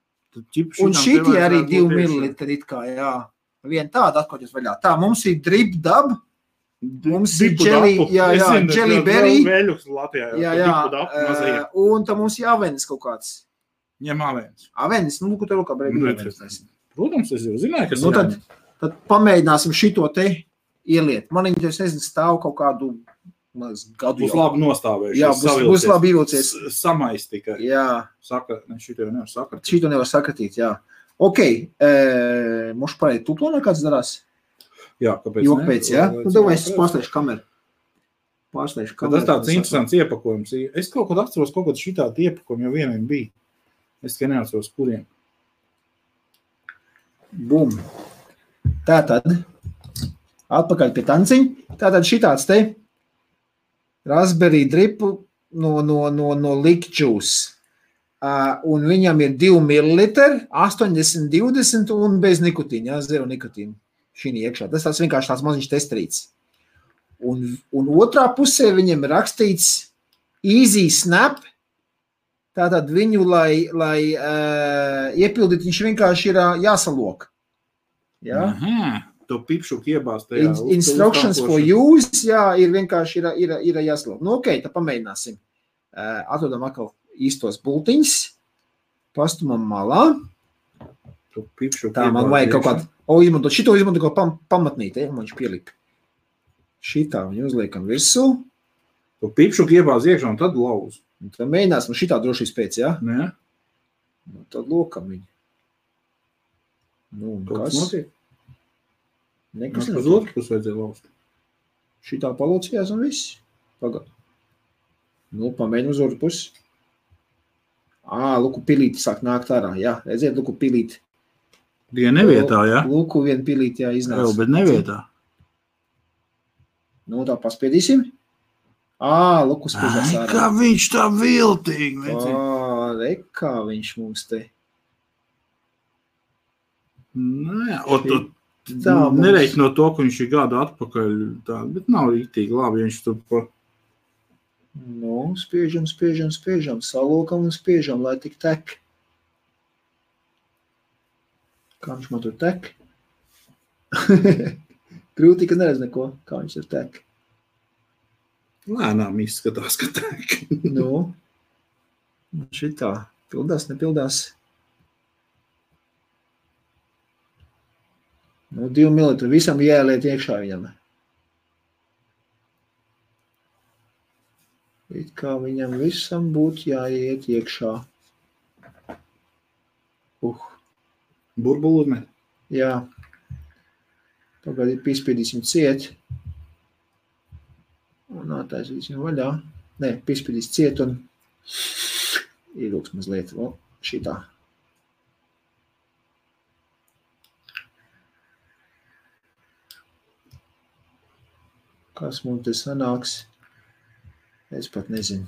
un šitie arī 2 mililitri it kā, jā. Vien tāda atkuķis vaļā. Tā, mums ir drip dab, mums ir jelly berry, un tā mums ir avenis kaut kāds. Ņem avenis. Avenis, nu, ko tev kā brēgi avenis. Protams, es jau zināju, kas tad pamēģināsim šito te ieliet. Man viņi, es nezinu, stāv kaut kādu gadu. Būs labi nostāvējuši. Jā, būs labi ievilcies. Samais tikai. Jā. Šito jau nevar sakratīt. Šito nevar sakratīt, jā. Ok, mošu pareizi tuplonā kāds darās? Jā, kāpēc ne? Pēc, jā? Nu, davai, es pārslēšu kameru. Tas tāds interesants iepakojums. Es kaut kad atceros, kaut kad šitādi iepakojumi jau vieniem bija. Es tikai neatceros, kuriem. Bum. Tātad, atpakaļ pie tanciņa. Tātad šitāds te raspberry dripu no Lick Juice. Un viņam ir 2 ml, 80-20 un bez nikotīna, jā, 0 nikotīna šī iekšā. Tas tāds vienkārši tāds maziņš testrīts. Un otrā pusē viņam ir rakstīts Easy Snap. Tātad viņu, lai iepildīt, viņš vienkārši ir jāsalok. Jā? Aha, to pipšuku iebāzt tajā. Instructions for use, jā, ir vienkārši ir jāsalok. Nu, ok, tad pamēģināsim. Atrodam atkal īstos bultiņus. Pastumam malā. To pipšuku tā, man vajag kaut kādu, šito izmantot kaut pamatnīt, man viņš pielika. Šitā viņu uzliekam virsū. To pipšuku iebāz iekšā un tad lauz. Un tad mēģināsim šitā drošības pēc, jā? Nē. Nu, tad lokam viņi. Nu, kas? Notiek? Nekas Uz nenotiek. otru pusi vajadzēja lauzt. Šitā palocījās un viss. Pagad. Nu, pamēģinu uz otru pusi. Luku pilīti sāk nākt ārā. Jā, redziet, luku pilīti. Tikai nevietā, jā? Luku vien pilīti, jā, iznāca. Jā, bet nevietā. Nu, tā paspiedīsim. Luku spiežās ārā. Kā viņš tā viltīgi. Kā viņš mums te. Nē, nereiķi no to, ka viņš ir gadu atpakaļ, tā, bet nav rīktīgi labi, ja viņš tur pa... Nu, spiežam, salokam un spiežam, lai tik tek. Kā viņš man tur tek? Grūti, ka neredz neko, kā viņš tur tek. Lēnām izskatās, ka tek. Nu, šitā. Pildās, nepildās. Nu, 2 mililitri. Visam jāieliet iekšā viņam. It kā viņam visam būtu jāiet iekšā. Burbulu ne? Jā. Tagad piespiedīsim ciet. Un attaisīsim vaļā. Nē, piespiedīs ciet un ielūks mazliet. Šitā. Kas mums te sanāks? Es pat nezinu.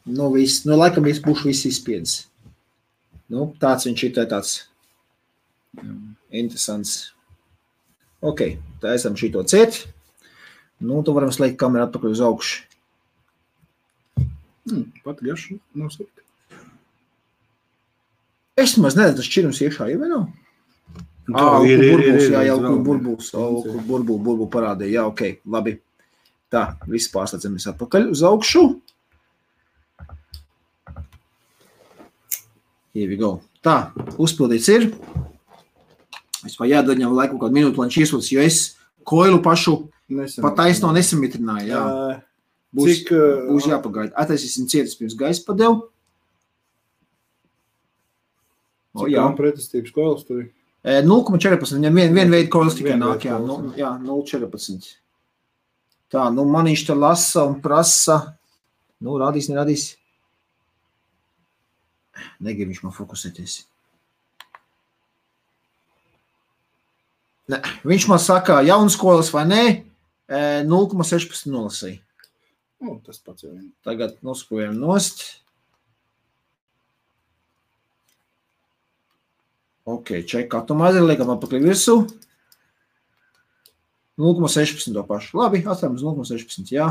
Nu, laikam būšu viss izspiedis. Nu, tāds viņš ir tāds interesants. Ok, tā esam šito ciet. Nu, tu varam slēgt kameru atpakaļ uz augšu. Pat gašu nav slikti. Es maz neredzu, tas šķirums iekšā jau vai nav? Burbuļs parādīja. Jā, ok, labi. Tā, viss pārslēdzamies atpakaļ uz augšu. Here we go. Tā, uzpildīts ir. Es vai jādod viņam laiku kādu minūtu, lai viņš iesūtas, jo es koilu pašu pat taisno nesamitrināju. Jā. Būs jāpagaida. Attaisīsim cietas pirms gaisa padevu. Cik tam pretestības koilas tur ir? 0,14. Viņam vien veidu koilas tikai nāk. Jā, 0,14. Tā, nu man viņš te lasa un prasa. Nu, rādīs, nerādīs. Negrib viņš man fokusēties. Ne, viņš man saka, jaunas koilas vai nē, 0,16 nolasīja. Tas pats jau vien. Tagad nospojam nost. Ok, ček, atomāzi liekam atpakaļ virsū. 0,16 to pašu. Labi, atstājam uz 0,16, jā.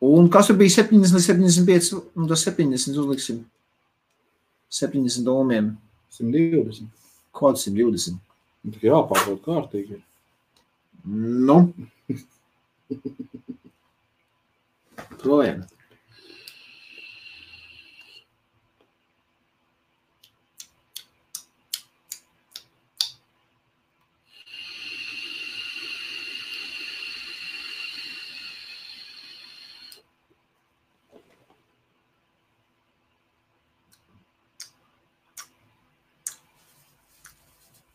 Un kas tur bija 70 līdz 75? Nu, tas 70 uzliksim. 70 ohmiem. 120. Kādu 120? Tikai jāpārbauda kārtīgi. Nu. Projām.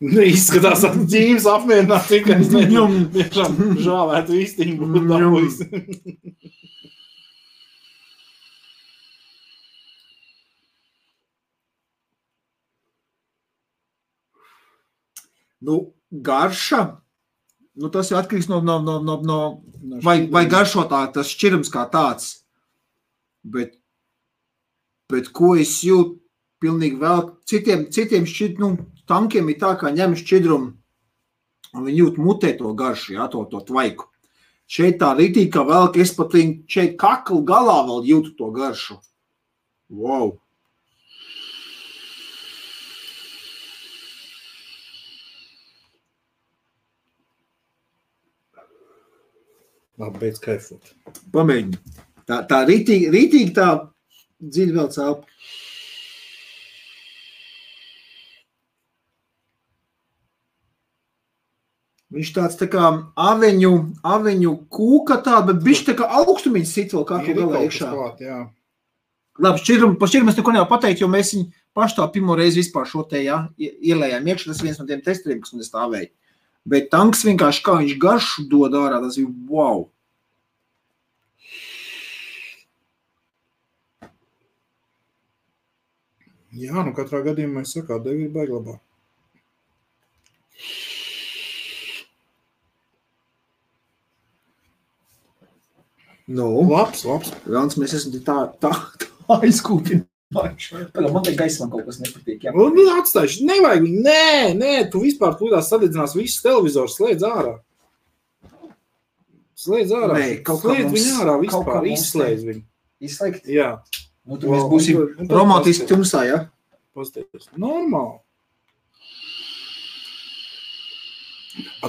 Izskatās, ka dzīves apmierināt, tikai es tiešām žāvētu īstiņu būtu dabūjis. Nu, garša, nu tas jau atkarīgs no vai garšo tas šķirums kā tāds. Bet ko es jūtu pilnīgi vēl, citiem tankiem ir tā, kā ņem šķidrumu un viņi jūt mutē to garšu, jā, to tvaiku. Šeit tā ritīgi, ka vēl, ka es pat šeit kaklu galā vēl jūtu to garšu. Wow! Labi, beidz kaifot. Pamēģini. Tā ritīgi tā dziļi vēl cēlpa. Viņš tāds tā kā aveņu kūka tāda, bet bišķi tā kā augstumiņas sit vēl kā galā iekšā. Labi, par šķiru mēs neko nevar pateikt, jo mēs viņu paši tā pirmo reizi vispār šo te, ielējām iekšā. Tas viens no tiem testeriem, kas man stāvēja. Bet tanks vienkārši kā viņš garšu dod ārā, tas ir wow. Jā, katrā gadījumā es sakā, degļi baigi labā. Labs. Velns, mēs esam tā aizkūpinājuši. Man te gaismā kaut kas nepatīk. Atstājuši, nevajag viņu, nē, tu vispār tūdās sadedzinās visus televizors, slēdz ārā. Slēdz viņu ārā vispār, izslēdz viņu. Izslēgt? Jā. Tur mēs būsim romantiski tumsā, ja? Pastāties. Normāli.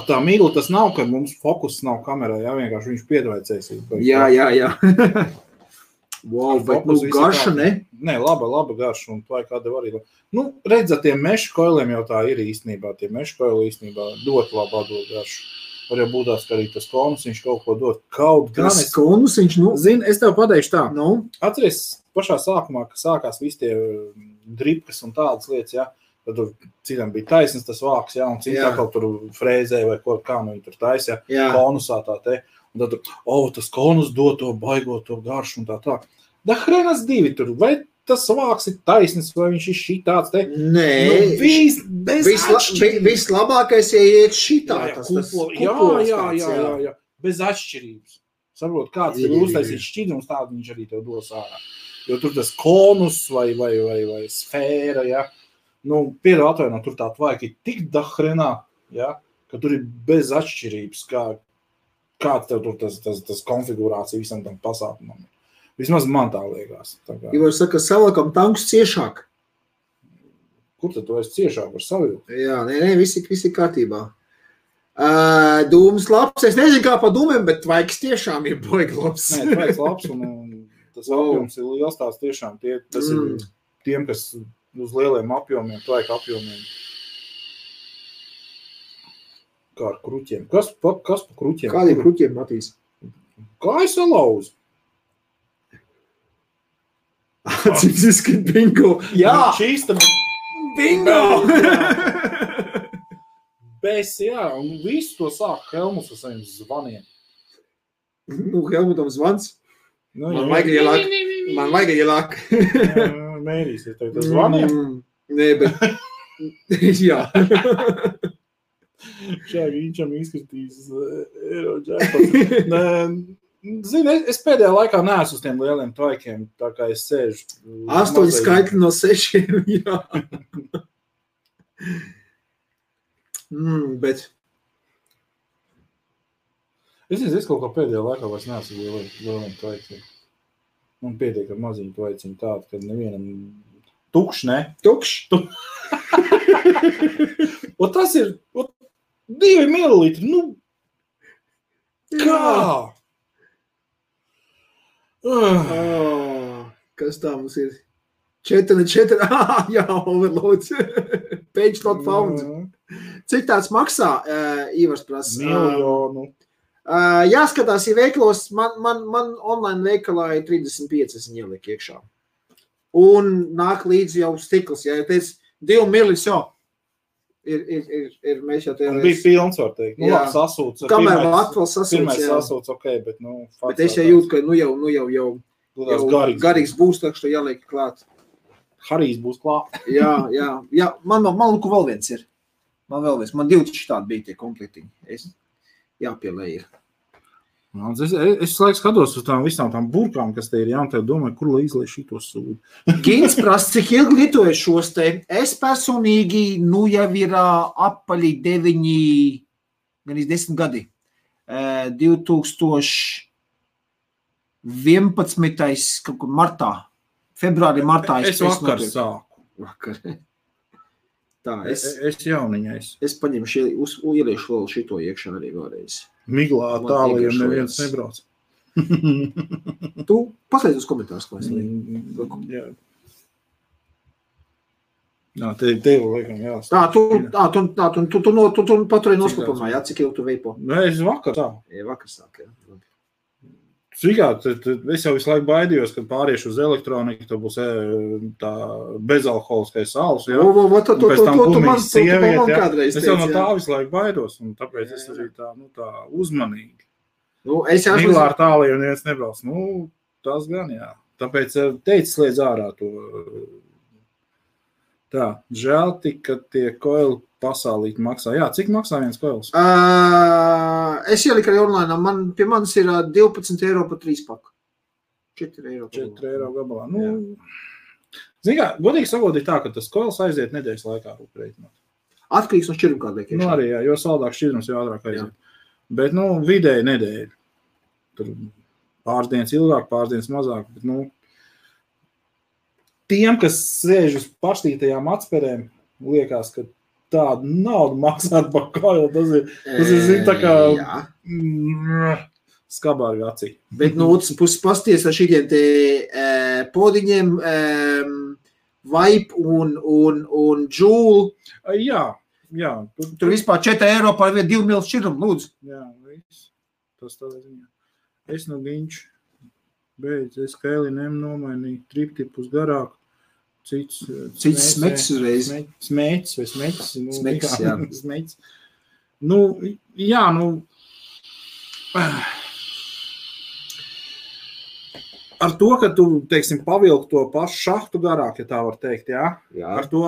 Tā mīgla tas nav, ka mums fokus nav kamerā, jā, vienkārši viņš piedvaicēs. Jā. Wow, bet garša, ne? Nē, laba garša, un tā kāda var arī. Redz, tiem mešu koiliem jau tā ir īstenībā. Tie mešu koili īstenībā dot labu atdot garšu. Var jau būtās, ka arī tas konus viņš kaut ko dot. Tas konus viņš, Zini, es tev pateikšu tā. Atceries pašā sākumā, ka sākās visi tie dripkas un tādas lietas, jā. Tad citam bija taisnes tas vāks, jā, un citā kaut tur frēzēja vai kā viņi tur taisa, jā, konusā tā te. Un tad tas konus dod to baigot to garšu un tā. Da hrenas divi tur, vai tas vāks ir taisnes, vai viņš ir šitāds te? Nē, vislabākais, ja iet šitā. Jā, bez atšķirības. Saprot, kāds ir uztaisīt šķidrums, tādu viņš arī tev dos ārā. Jo tur tas konus vai sfēra, jā. Piedāvā atvainot, tur tā tvaika ir tik dahrenā, ja, ka tur ir bez atšķirības, kāds tev tur tas konfigurācija visam tam pasākumam. Vismaz man tā liekas. Ivar saka, salakam tankus ciešāk. Kur tad tu esi ciešāk ar savilkt? Jā, nē, visi kārtībā. Dūmas labs, es nezinu kā pa dūmiem, bet tvaiks tiešām ir baigi labs. Nē, tvaiks labs un tas apjoms ir liels tās tiešām. Tas ir tiem, kas uz lieliem apjomiem, tvaika apjomiem. Kā ar kruķiem? Kas pa kruķiem? Kādiem kruķiem, Matīs? Kā es salauzu? Cik izskat bingo? Jā! Čīsta bingo! Bez, jā, un visu to sāk Helmuts ar saviem zvaniem. Helmutam zvans? Man vajag ielāk. Mērīsies tev tas zvaniem? Nē, bet... Jā. Viņam izskatīs Eirodžēpats. Zini, es pēdējā laikā neesmu uz tiem lieliem tvaikiem, tā kā es sēžu. 8 skaitļi no 6, jā. Bet... Es kaut kā pēdējā laikā vairs neesmu lieliem tvaikiem. Man pietiek ar maziņu tvaiciņu tādu, kad nevienam tukšs, ne? Tukšs? Un tas ir 2 mililitri, kā? Kas tā mums ir? 4, jā, overloads. Page not found. Cik tāds maksā, Ivars prasa? Miljonu. Jāskatās, ja veiklos, man online veikalā ir 35, es viņu ieliku iekšā. Un nāk līdzi jau stikls, ja teic 2 milis jau. Ir mēs jau un bija pilns, var teikt. Labi, sasūts. Kamēr atkal sasūts, pirmais sasūts, ok, bet, bet es jau jūtu, ka, jau garīgs būs, tā, ka jāliek klāt. Harijs būs klāt. Jā, man lūku vēl viens ir. Man 2 šitādi bija tie komplektiņi. Jāpielē ir. Es laiks skatos uz visām tām burkām, kas te ir, jā, un tev domāju, kur lai izlai šito sūdu. Gins prasa, cik ilgi lietoju šos te. Es personīgi, jau ir apaļi 9, gan 10 gadi. 2011. kaut kur martā. Martā. Es vakar sāku. Vakar. Tā, es jauniņais. Es paņemšu, ieliešu vēl šito iekšā arī vēlreiz. Miglā tālajiem neviens nebrauc. Tu paslēdz uz komentārus, ko es lieku. Jā. Jā, tev liekam, jā. Tu paturēji noslēpumā, jā, cik ilgi tu veipo? Nē, es vakar tā. Jā, vakar sāk, jā. Es jau visu laiku baidījos, kad pāriešu uz elektroniku, tad būs tā bezalkoholiskais sāls, jā. Un pēc tam kumīs sievieti, jā. Es jau no tā visu laiku baidos, un tāpēc es arī tā uzmanīgi. Mīlā ar tāliju un viens nebrauc. Tas gan, jā. Tāpēc teicis liedz ārā to. Tā, žēl tik, ka tie koili pasālīt maksā. Jā, cik maksā viens koils? Es ieliku arī online. Pie manis ir 12 eiro par 3 paku. 4 eiro. 4 eiro gabalā. Zin kā, godīgi sakot, ir tā, ka tas koils aiziet nedēļas laikā rūpreitināt. Atkarīgs no šķiruma kādēļ. Arī, jā, jo saldāk šķirums jau ātrāk aiziet. Jā. Bet, vidēji nedēļa. Tur pāris dienas ilgāk, pāris dienas mazāk. Bet, tiem, kas sēž uz paštītajām atspērēm, liekas, ka tādu naudu maksāt par koilu, tas ir tā kā skabārga acī. Bet no otras puses pasties ar šitiem te podiņiem, Vibe un Joule. Jā. Tur vispār 4 eiro par 2 mil šķirumu, lūdzu. Jā, viss. Tas tādā ziņā. Es viņš beidz, es Kēliniem nomainīju triptipus garāk. Cits smeks uzreiz. Smēķis vai smēķis. Smeks, jā. Smēķis. Ar to, ka tu, teiksim, pavilk to pašu šahtu garāk, ja tā var teikt, jā? Ar to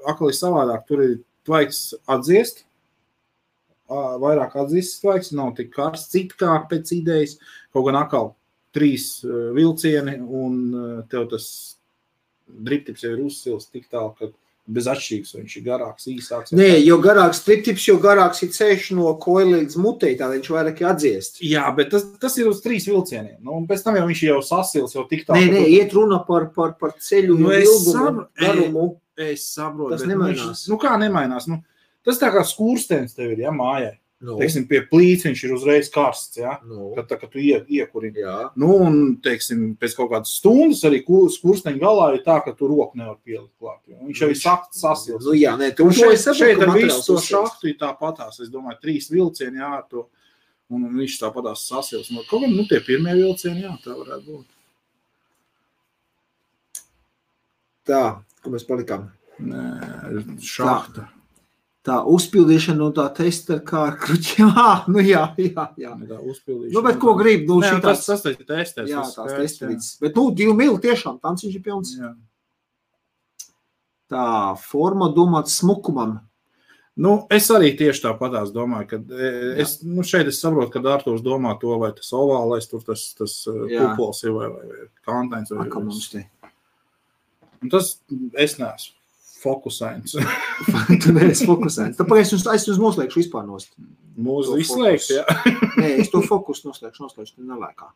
akli savādāk. Tur ir tvaiks atdziest, vairāk atdziest tvaiks, nav tik karsts, citkāk pēc idejas, kaut gan akal 3 vilcieni un tev tas driptips jau ir uzsils tik tālu, ka bez atšķirības, viņš ir garāks, īsāks. Nē, jo garāks driptips, jo garāks ir ceļš no koila līdz mutei, tā viņš vairāk atdziest. Jā, bet tas ir uz 3 vilcieniem. Un pēc tam jau viņš jau sasils, jau tik tālu. Nē, iet runa par ceļu ilgumu, garumu. Es saprotu. Tas nemainās. Kā nemainās? Tas tā kā skūrstens tev ir, jā, mājai. Teiksim, pie plīts viņš ir uzreiz karsts, jā, kad tu iekurini. Un, teiksim, pēc kaut kādas stundas arī skursteņa galā ir tā, ka tu roku nevar pielikt klāt. Viņš jau ir sasils. Jā, nē, tu šeit ar visu to šahtu ir tāpatās. Es domāju, 3 vilcieni, jā, to, un viņš tāpatās sasils. Kaut gan, tie pirmie vilcieni, jā, tā varētu būt. Tā, ko mēs palikām? Nē, šahta. Tā uzpildīšana no tā testa kā ar kruķiem. Jā. Tā uzpildīšana. Bet ko grib? Tas ir testēs. Jā, tās testītas. Bet 2 mili tiešām, tanciņš ir pilns. Jā. Tā forma domāts smukumam. Es arī tieši tāpatās domāju, ka šeit es saprotu, ka Artūrs domā to, vai tas ovālais, tur tas kupols ir vai kantains. Kā mums te? Un tas es neesmu. Fokusēns. Tu neesi fokusēns. Tāpēc es jums noslēgšu vispār nost. Mūsu izslēgts, jā. Nē, es to fokusu noslēgšu, tu nelēkā.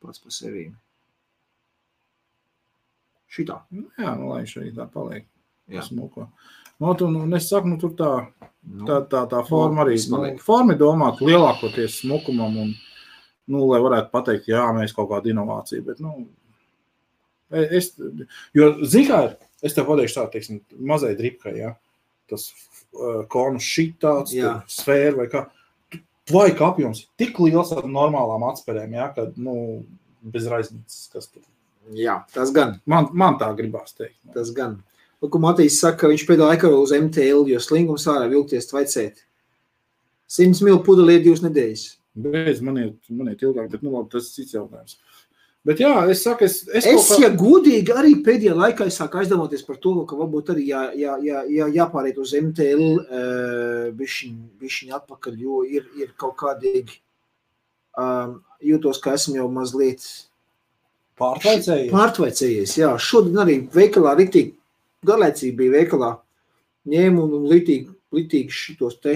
Pats pa sevīm. Šitā. Jā, lai šeit tā paliek. Smuko. Es saku, tur tā forma arī. Forma ir domāt lielākoties smukumam un, lai varētu pateikt, jā, mēs kaut kādu inovāciju, bet, jo, zikā ir, es tev pateikšu tā, teiksim, mazai dripkai, jā, tas konus šitāds, sfēra vai kā, tvaika apjoms ir tik liels ar normālām atspērēm, jā, kad, bez raiznicas, kas tur. Jā, tas gan. Man tā gribās teikt. Tas gan. Ko Matīs saka, ka viņš pēdējā laikā uz MTL, jo slingums ārā vilkties tvaicēt. 100 mil pudeli ir 2 nedēļas. Beidz, man iet ilgāk, bet, labi, tas ir cits jautājums. Bet jā, es saku, ja godīgi arī pēdējā laikā es sāku aizdomāties par to, ka varbūt arī jāpāriet uz MTL bišķiņ atpakaļ, jo ir kaut kādīgi jūtos, ka esmu jau mazliet pārtvaicējies. Jā, šodien arī veikalā ritīgi, garlaicīgi bija veikalā, ņēmu un litīgi šitos te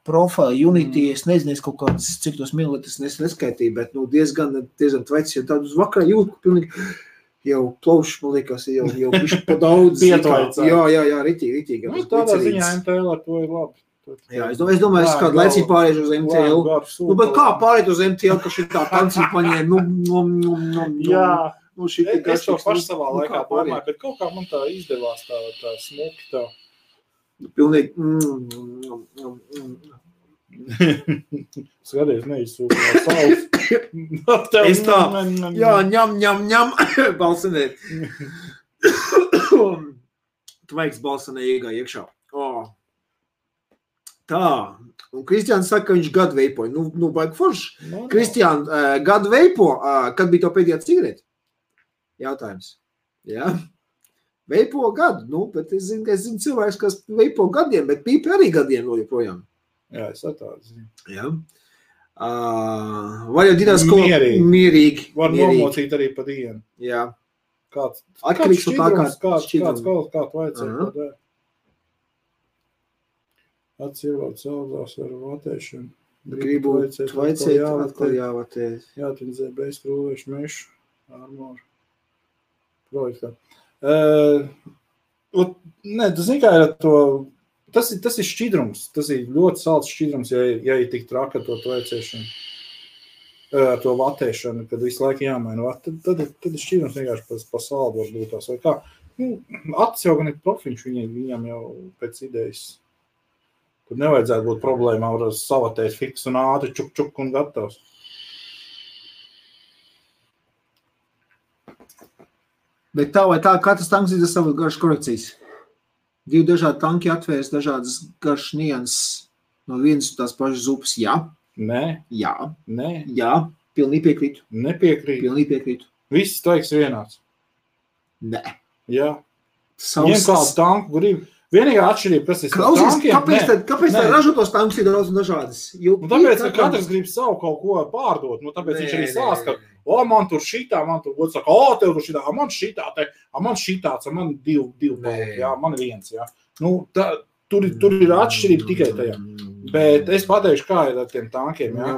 profili, Unity, es nezinu, kaut kāds, cik tos mililitrs neskaitīju, bet diezgan tveicis, jo tādu uz vakarā jūt, ka pilnīgi jau plaušs, man liekas, jau bišķi pa daudz. Jā, ritīgi. Tādā ziņā MTL ar to ir labi. Jā, es domāju, es kādu laicību pārēšu uz MTL. Bet kā pārēt uz MTL, ka šitā tancī paņēma, Es to pašu savā laikā domāju, bet kaut kā man tā izdevās tā smuki tā. Pilnīgi. Skaties, neizsūkā saules. Es tā, jā, ņem, balsanēt. Tvaiks balsanē iekšā. Tā, un Kristiāns saka, ka viņš gadu veipoja. Nu baigi forši. Kristiāns, gadu veipo, kad bija to pēdējā cigareti? Jautājums. Jā. Veipo gadu, bet es zinu cilvēks, kas veipo gadiem, bet pīpi arī gadiem vēl joprojām. Jā, es tādu zinu. Jā. Var jau dinās, ko mierīgi. Var nomocīt arī pa dienu. Jā. Kāds šķidrums, kāds vajadzētu. Atsievāt caldās ar vatēšanu. Gribu tvaicēt, atkal jāvatēt. Jātindzē bez krūvēšu mešu, armoru projektā. Nē, tu zini, kā ir to, tas ir šķidrums, tas ir ļoti salds šķidrums, ja ir tik traka to tvaicēšanu, to vatēšanu, kad visu laiku jāmaina. Tad ir šķidrums vienkārši pa saldu var būt tās, vai kā. Acis jau gan ir profiņš, viņam jau pēc idejas. Tur nevajadzētu būt problēmā, var savatēt fiks un ātri, čuk un gatavs. Bet tā vai tā, katrs tanks ir savas garšas korekcijas. Divi dažādi tanki atvērs dažādas garšas nianses no vienas tās pašas upes. Jā. Nē. Jā. Nē. Jā. Pilnīgi piekrītu. Nepiekrītu. Pilnīgi piekrītu. Viss teiks vienāds. Nē. Jā. Ņem kādu tanku grib. Vienīgā atšķirība, kas ir tankiem. Kāpēc tā ražotos tanks ir daudz un dažādas? Tāpēc, ka katrs grib savu kaut ko pārdot. Tāpēc viņš arī sāst, ka man tur šitā, man tur gods saka, tev tur šitā, man šitā, man šitāds, man divi paliki, jā, man viens, jā. Tur ir atšķirība tikai tajā. Bet es pateikšu, kā ir ar tiem tankiem, jā.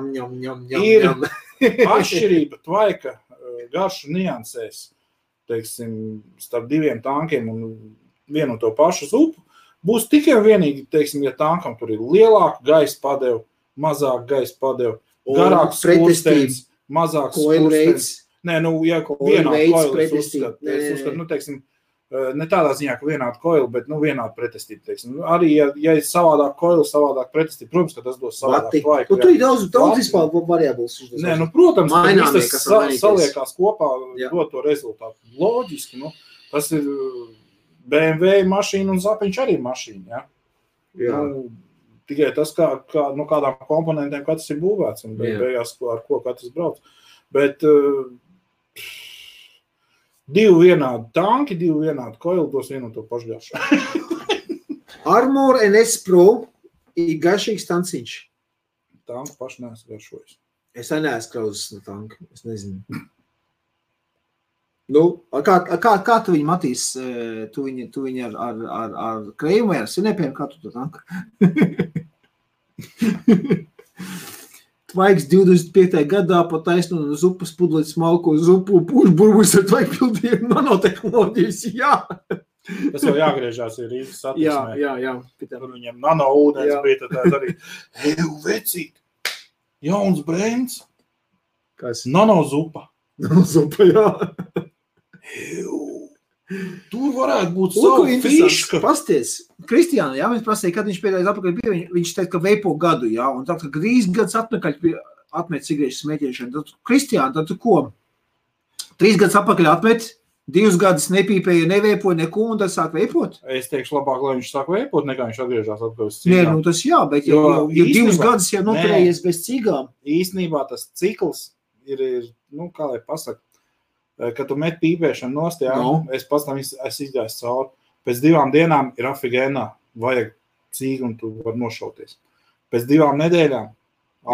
Ir atšķirība tvaika garšu niansēs, teiksim, starp diviem tankiem un vienu to pašu zupu, būs tikai vienīgi, teiksim, ja tankam tur ir lielāka gaisa padeva, mazāk gaisa padeva, garāks skursteins, mazāks skursteins. Nē, ja vienādu koilu es uzskatu, teiksim, ne tādā ziņā, ka vienādu koilu, bet, vienādu pretestību, teiksim. Arī, ja ir savādāk koilu, savādāk pretestību, protams, ka tas dos savādāk tvaiku. Tu ir daudz vispār variables. Nē, protams, ka viss tas saliekās kopā, dod to rezultātu. Loģiski, tas ir BMW mašīna un zapiņš arī mašīna, ja? Tikai tas, kādām komponentiem katrs ir būvēts un beigās, ar ko katrs brauc. Bet divi vienādi tanki, divi vienādi koili dos vienu to pašgaršu. Armor NS Pro ir garšīgs tanciņš. Tanku paši neesmu garšojis. Es neesmu krauzes no tanka, es nezinu. Kā tu viņu matīs? Tu viņu ar krējumu vai ar sinepiem? Kā tu to tanku? Tvaiks 25. gadā pa taisnu no zupas pudlēt smalko zupu, pūš burbuļs ar tvaiku pildījumu nanotehnoloģijas. Jā! Tas jau jāgriežās ir Rīgas satiksmē. Jā. Tur viņam nanoūdens bija, tad arī, vecīt, jauns brēns. Kas? Nanozupa. Nanozupa, jā. Tur varētu būt savu fiška. Pasties, Kristiāna, jā, mēs prasīja, kad viņš pēdējais atpakaļ bija, viņš teica, ka veipo gadu, jā, un tā, ka 3 gadus atpakaļ atmet cigarešu smēķēšanu. Tad, Kristiāna, tad tu ko? 3 gadus atpakaļ atmet, 2 gadus nepīpēja, neveipoja neko, un tad sāk veipot? Es teikšu labāk, lai viņš sāk veipot, nekā viņš atgriežās atpakaļ uz Nē, cigām. tas jā, bet jau 2 gadus jau noturējies bez cigām. Īstenībā tas cikls ir, kā lai pasaka, kad tu met pīpēšanu nost, es pats tam izgāju cauri. Pēc 2 dienām ir afigēnā, vajag cīgu un tu var nošauties. Pēc 2 nedēļām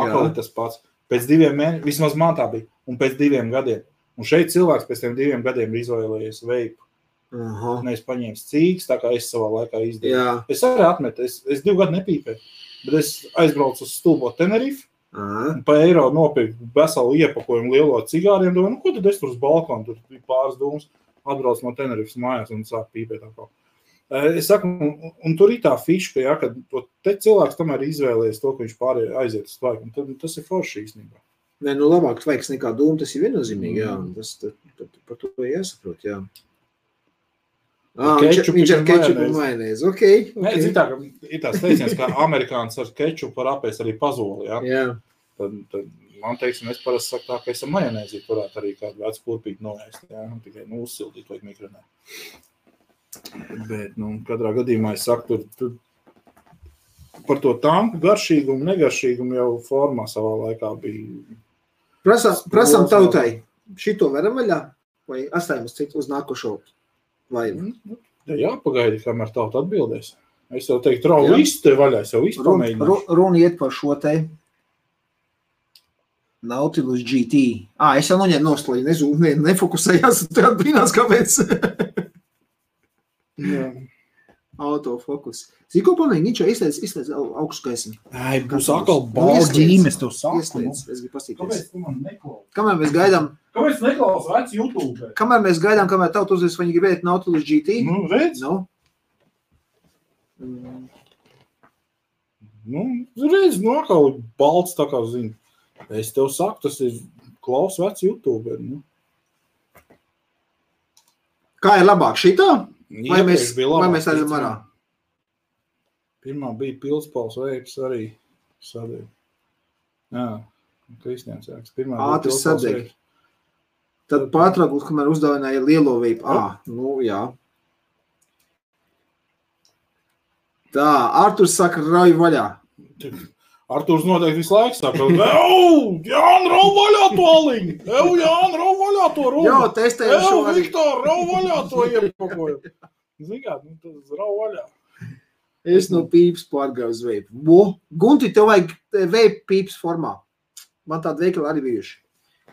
atkal ir tas pats. Pēc 2 mēnešiem, vismaz man tā bija, un pēc 2 gadiem. Un šeit cilvēks pēc tiem 2 gadiem ir izvēlējies veipu. Nevis paņēmis cīgas, tā kā es savā laikā izdarīju. Es arī atmetu, es 2 gadu nepīpēju, bet es aizbraucu uz stulbo Tenerife, un pa eiro nopirku veselu iepakojumu lielo cigāriem, domāju, ko tad es tur uz balkonu, tur bija pāris dūmus, atbraucu no Tenerifes mājās un sāk pīpēt atkal. Es saku, un tur ir tā fiška, kad te cilvēks tomēr izvēlējies to, ka viņš pārējai aiziet uz tvaiku, un tas ir forši īstenībā. Nē, nu labāk tvaiks nekā dūma, tas ir viennozīmīgi, jā. Tas par to jāsaprot, jā. Viņš ar kečupu un majonēzi, okei. Nē, zin tā, ka ir tās teiciens, ka amerikāns ar kečupu var apēst arī pazoli, jā. Jā. Tad man teiksim, es parasti saku tā, ka es ar majonēzi varētu arī kādu vecu kurpīti noēst, jā. Tikai, uzsildīt vajag mikronē. Bet, katrā gadījumā es saku, tur par to tanku garšīgumu, negaršīgumu jau formā savā laikā bija. Prasam tautai, šito varam vaļā? Vai atstājamies citu uz nākošo laivu? Jā, pagaidi, kamēr tauta atbildēs. Es jau teiktu, rau visu te vaļā, es jau visu pamēģināšu. Runa iet par šo te Nautilus GT. Es jau noņēmu nostlaļu, nefokusējās, tad brīnās, kāpēc. Jā. Autofokus. Zini, ko panīgi, viņš izslēdz augstu gaismu. Būs atkal balģīmes, tu saku. Izslēdz, es gribu pastīties. Kāpēc tu man neklausi? Kamēr mēs gaidām... Kāpēc neklausi vec YouTube? Kamēr mēs gaidām, kamēr tautu uzvis, viņi gribēt Nautilus GT. Redz? Redz, atkal balts tā kā zini. Es tev saku, tas ir klaus vec YouTube. Kā ir labāk šitā? Vai mēs aizam arā? Pirmā bija Pilspals veips arī sadeg. Jā, Kristians jāks. Ātri sadeg. Tad pārtraukums, kamēr uzdāvināja lielo veipu. Jā. Tā, Arturs saka, rauj vaļā. Arturs noteikti visu laiku saka, Jāni, rauj vaļā to aliņu! Jāni, rauj vaļā to runu! Jā, testējam šo arī. Viktor, rauj vaļā to iepakoju! Zini kā, tas rauj vaļā. Es no pīps pārgāju uz veipu. Gunti, tev vajag veipu pīps formā. Man tāda veikala arī bijuši.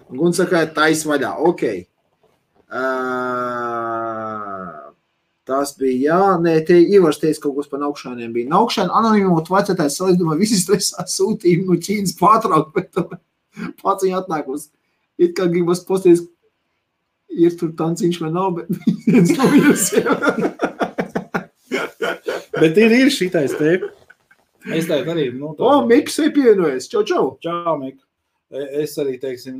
Gunti saka, tais vaļā. Ok. Tas bija, te Ivars teica kaut kas par naukšāniem bija. Naukšāni anonimot vecētājs salīdumā visi stresā sūtījumi no Ķīnas pārtraukt, bet pats viņa atnākos. It kā gribas posties, ir tur tanciņš vai nav, bet viens no viņus jau. Bet ir šitais te. Es teicu arī, Miks ir pievienojies. Čau. Čau, Mik. Es arī, teiksim,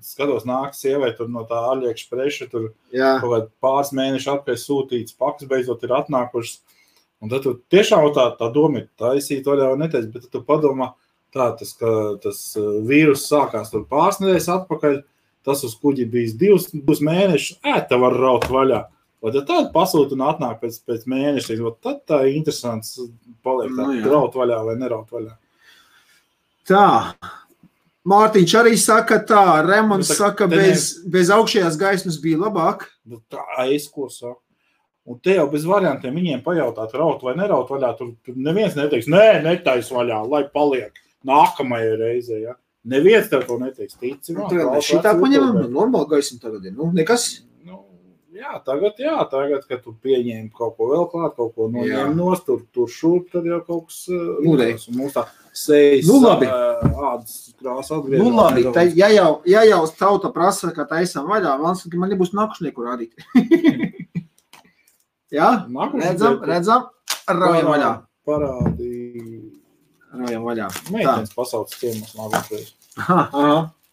skatos nāk sievai tur no tā AliExpressa, tur kaut kād pāris mēneši atpēc sūtīts, pakas beidzot ir atnākušas. Un tad tu tiešām tā doma ir taisīt vaļā vai neteic, bet tu padomā tas vīrus sākās tur pāris nedēļas atpakaļ, tas uz kuģi bijis 2 mēnešus, te var raut vaļā. Vai tad tādu pasūt un atnāk pēc mēneša, tad tā ir interesants paliek tā, raut vaļā vai neraut vaļā. Tā. Mārtiņš arī saka tā, Remons saka, bez augšējās gaismas bija labāk. Tā, es ko saku. Un te jau bez variantiem viņiem pajautāt, raut vai neraut vaļā, tur neviens neteiks, netais vaļā, lai paliek nākamajai reizē, ja. Neviens tev to neteiks, tici. Šitā paņemam, normāli gaismu tagad ir, nekas. Tagad, kad tu pieņēmi kaut ko vēl klāt, kaut ko noņēmi nost, tur šurp, tad jau kaut kas mūdējs. Un mums tā sejas ādas krāsa atgriežas. Labi, ja jau tauta prasa, ka taisam vaļā, man nebūs nākušnieku rādīt. Jā? Redzam, raujam vaļā. Parādīja. Raujam vaļā. Meitenes pasauc ciemos nākušreiz.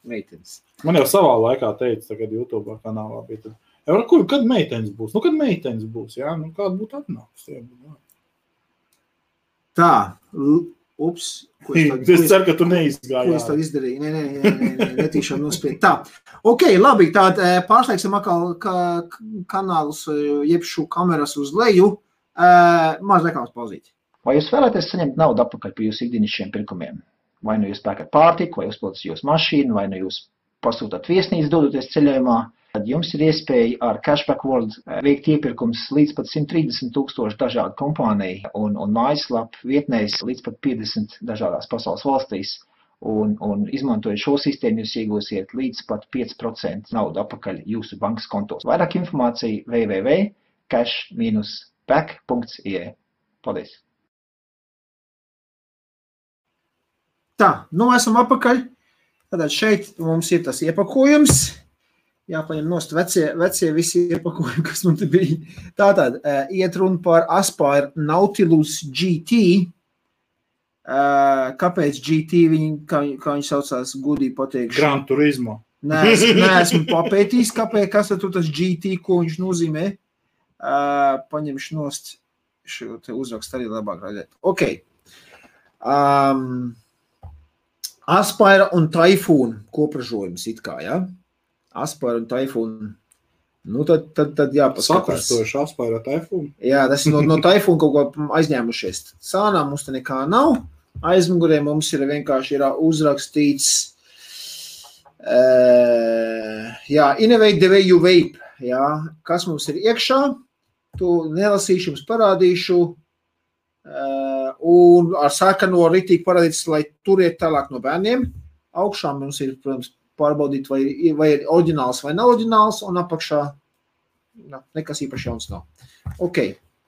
Meitenes. Man jau savā laikā teica, tagad YouTube kanālā bija tad. Kad meitenes būs? Kad meitenes būs, jā? Kāda būtu atnākusi? Tā, ups. Es ceru, ka tu neizgāji. Ko es tad izdarīju? Nē, netīšām nospied. Tā, ok, labi, tād pārslēgsim atkal kanālus, jebšu kameras uz leju. Maz reklāmas pauzīt. Vai jūs vēlaties saņemt naudu atpakaļ par jūsu ikdienišķiem pirkumiem? Vai nu jūs pērkat pārtiku, vai uzpildat jūsu mašīnu, vai nu jūs pasūtat viesnīcu dodoties ceļojumā? Tad jums ir iespēja ar Cashback World veikt iepirkums līdz pat 130,000 dažādu kompāniju un mājaslapu vietnēs līdz pat 50 dažādās pasaules valstīs. Un izmantojot šo sistēmu, jūs iegūsiet līdz pat 5% naudu atpakaļ jūsu bankas kontos. Vairāk informācija www.cash-back.ie. Paldies! Tā, esam atpakaļ. Tātad šeit mums ir tas iepakojums. Jāpaņem nost vecie visi iepakojumi, kas mums bija. Tātad, iet runa par Aspire Nautilus GT. Kāpēc GT kā viņi saucās, gudīgi pateikšu? Gran Turismo. Neesmu papētījis, kas tur tas GT, ko viņš nozīmē. Paņemšu nost šo te uzrakstu arī labāk redzēt. Ok. Aspire un Typhoon kopražojums it kā, ja? Aspire un Typhoon. Nu, tad jāpaskatās. Sakustoši Aspire Typhoon? Jā, tas no Typhoon kaut ko aizņēmušies. Sānā mums te nekā nav. Aizmugurē mums ir vienkārši uzrakstīts Innovate the way you vape. Jā, kas mums ir iekšā? To nelasīšu, jums parādīšu. Un ar sarkano ritīgi parādīts, lai turiet tālāk no bērniem. Augšā mums ir, protams, pārbaudīt, vai ir oriģināls vai nav oriģināls, un apakšā nekas īpaši jauns nav. Ok,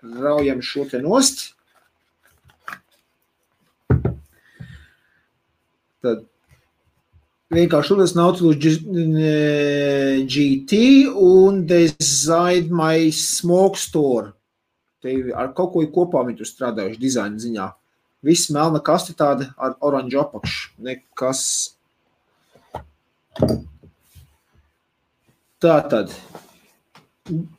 raujam šo te nost. Tad vienkārši šodien Nautilus GT un Design My Smoke Store. Te ar kaut ko kopā viņi tur strādājuši dizaina ziņā. Viss melna kaste tāda ar oranžu apakšu. Nekas. Tātad.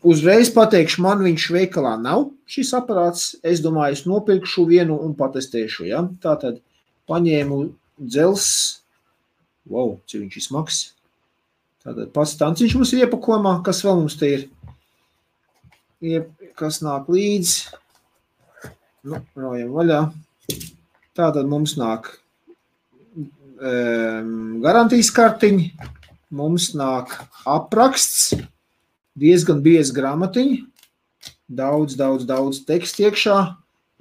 Uzreiz pateikšu, man viņš veikalā nav šis aparāts. Es domāju, es nopirkšu vienu un patestēšu. Ja? Tātad paņēmu dzels. Wow, cik viņš ir smags. Tātad pats tanciņš mums ir iepakojumā. Kas vēl mums te ir? Kas nāk līdz? Nu, raujam vaļā. Tātad mums nāk garantijas kartiņi. Mums nāk apraksts. Diezgan bieza gramatiņa. Daudz tekstu iekšā.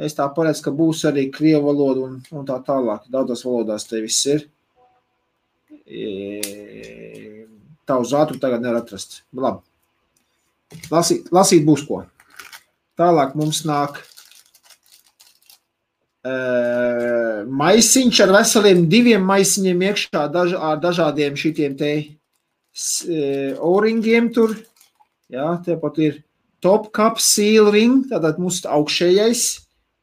Es tā paredzu, ka būs arī krievu valoda un tā tālāk. Daudzās valodās te viss ir. Tā uz ātru tagad nevar atrast. Labi. Lasīt būs ko. Tālāk mums nāk maisiņš ar veseliem 2 maisiņiem iekšā ar dažādiem šitiem te o-ringiem tur. Jā, tepat ir top cup seal ring, tātad mums augšējais.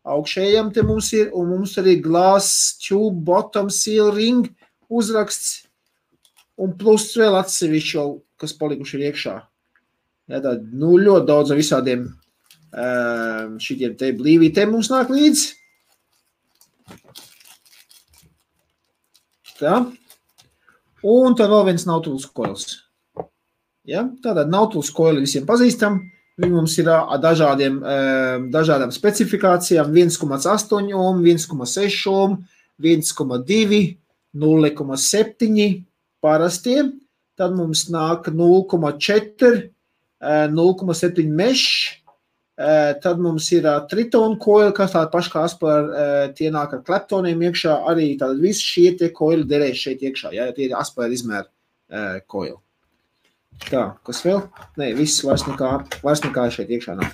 Augšējam te mums ir, un mums arī glass tube bottom seal ring uzraksts. Un plus vēl atsevišķi, kas palikuši ir iekšā. Jā, tad, ļoti daudz visādiem šitiem te blīvītēm mums nāk līdz. Tā. Un tad vēl viens Nautilus coils. Ja? Tātad Nautilus coili visiem pazīstam. Viņi mums ir dažādām specifikācijām 1,8 ohm, 1,6 ohm, 1,2, 0,7 parastiem. Tad mums nāk 0,4, 0,7 mesh. Tad mums ir Triton coil, kas tāda paša kā Aspire, tie nāk ar kleptoniem iekšā, arī tātad visi šie tie coili derēs šeit iekšā, ja tie ir Aspire izmēra coil. Tā, kas vēl? Nē, viss vairs nekā šeit iekšā nav.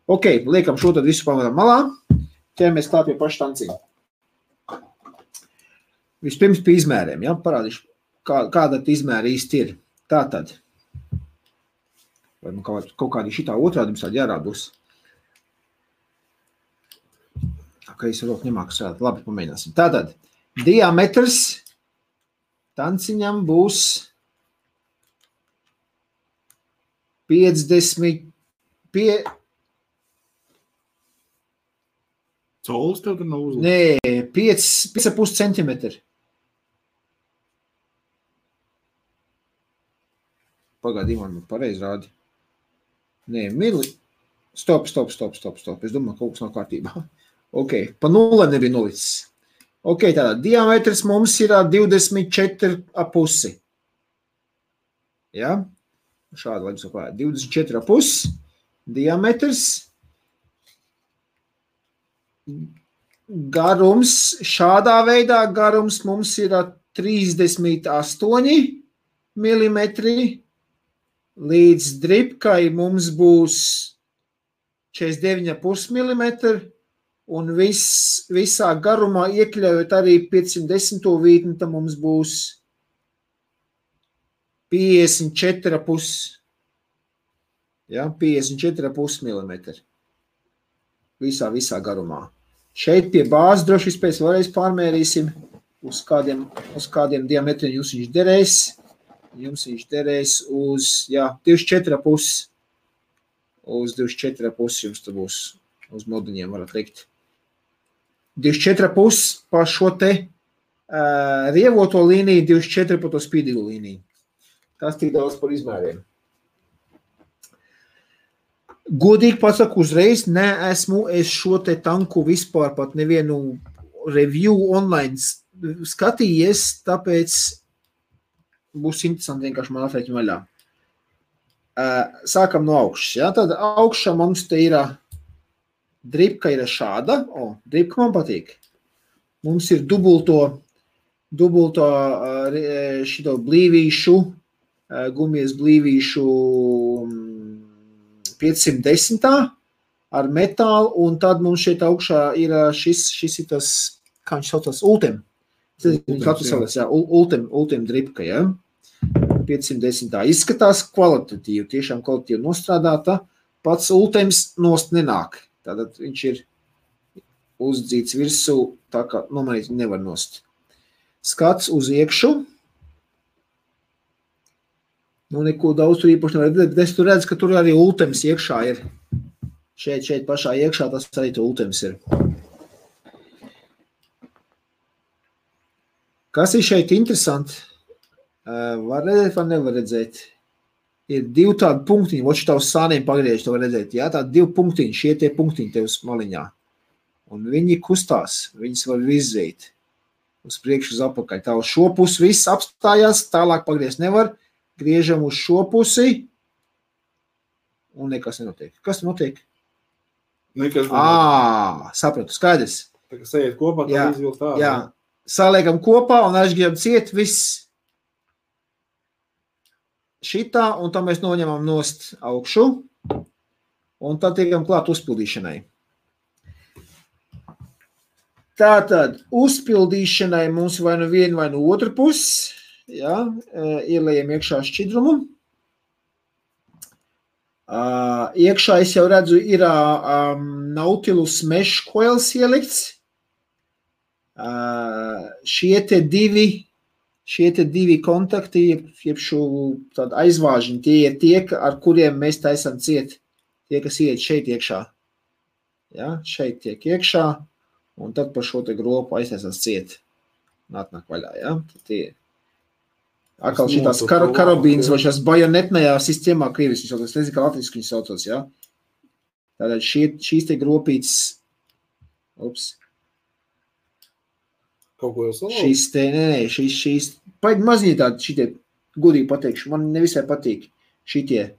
Ok, liekam šo tad visu pamatam malā, ķeramies klāt pie paša tanciņa. Vispirms pie izmēriem, ja, parādīšu, kāda izmēra īsti ir. Tātad. Vai man kaut kādi šitā otrādi mums tādi jārād būs. Ka es roku nemāku strādāt. Labi, pamēģināsim. Tātad, diametrs tanciņam būs 50 Colis tev tur nav uzlikt? Nē, 5,5 centimetri. Pagaidī, man pareizi rādi. Nē, Stop. Es domāju, kaut kas nav kārtībā. Ok, pa 0 nebija nolicis. Ok, tātad diametrs mums ir 24,5. Ja? Šādi, lai jums apāja. 24,5 diametrs. Garums, šādā veidā garums mums ir 38 milimetri. Līdz dripkai mums būs 49,5 mm un visā garumā iekļaujot arī 510. vītni, tad mums būs 54,5. Ja, 54,5 mm. Visā garumā. Šeit pie bāzes droši vispēc vēlreiz pārmērīsim, uz kādiem diametriem jums viņš derēs. Jums viņš derēs uz, 24,5. Uz 24,5 jums te būs, uz moduņiem varat likt. 24,5 pa šo te rievoto līniju, 24 pa to spīdīgu līniju. Tas tik daudz par izmēriem. Godīgi pasaku uzreiz, neesmu es šo te tanku vispār pat nevienu review online skatījies, tāpēc būs interesanti vienkārši man atrēķi vaļā. Sākam no augšas, ja? Tad augšā mums te ir dripka ir šāda, dripka man patīk. Mums ir dubulto šito blīvīšu, gumijas blīvīšu 510 ar metālu, un tad mums šeit augšā ir šis ir tas, kā viņš saucās, Ultem. Ultem dripka, ja? 510. Izskatās kvalitatīvi, tiešām kvalitatīvi nostrādāta. Pats Ultems nost nenāk. Tātad viņš ir uzdzīts virsū, tā kā nomainīt nevar nost. Skats uz iekšu. Nu, neko daudz tur īpaši nevar redzēt, bet es tur redzu, ka tur arī Ultems iekšā ir. Šeit pašā iekšā tas arī tu Ultems ir. Kas ir šeit interesanti? Var redzēt, vai nevar redzēt? Ir divi tādi punktiņi, voči tavs sāniem pagriež, to var redzēt, jā? Tādi divi punktiņi, šie tie punktiņi tev uz maliņā. Un viņi kustās, viņas var virzīt uz priekšu uz apakaļ. Tā uz šo pusi viss apstājās, tālāk pagriezt nevar. Griežam uz šo pusi, un nekas nenotiek. Kas notiek? Nekas nenotiek. Sapratu, skaidrs. Tā kā sajiet kopā, tā izvilkt tā. Jā, saliekam kopā un aizgribam ciet viss šitā, un tā mēs noņemam nost augšu, un tad tiekam klāt uzpildīšanai. Tātad, uzpildīšanai mums vai nu vienu, vai nu otru pusi, ja, ielējam iekšā šķidrumu. Iekšā es jau redzu, ir Nautilus mesh coils ielikts. Šie te divi kontakti, jeb šo tādu aizvāžiņu, tie ir tie, ar kuriem mēs taisam ciet. Tie, kas iet šeit iekšā. Ja, šeit tiek iekšā, un tad par šo te gropu aiztaisās ciet. Nāk vaļā, ja. Tie atkal šitās karabīnas vai šās bajonetnējā sistēmā krievis, es nezinu, kā latviski viņas saucos, ja. Tātad šīs te gropītes, Kaut ko jau salauzt? Šīs, paigi maziņi tādi šitie, gudīgi pateikšu, man nevisai patīk šitie,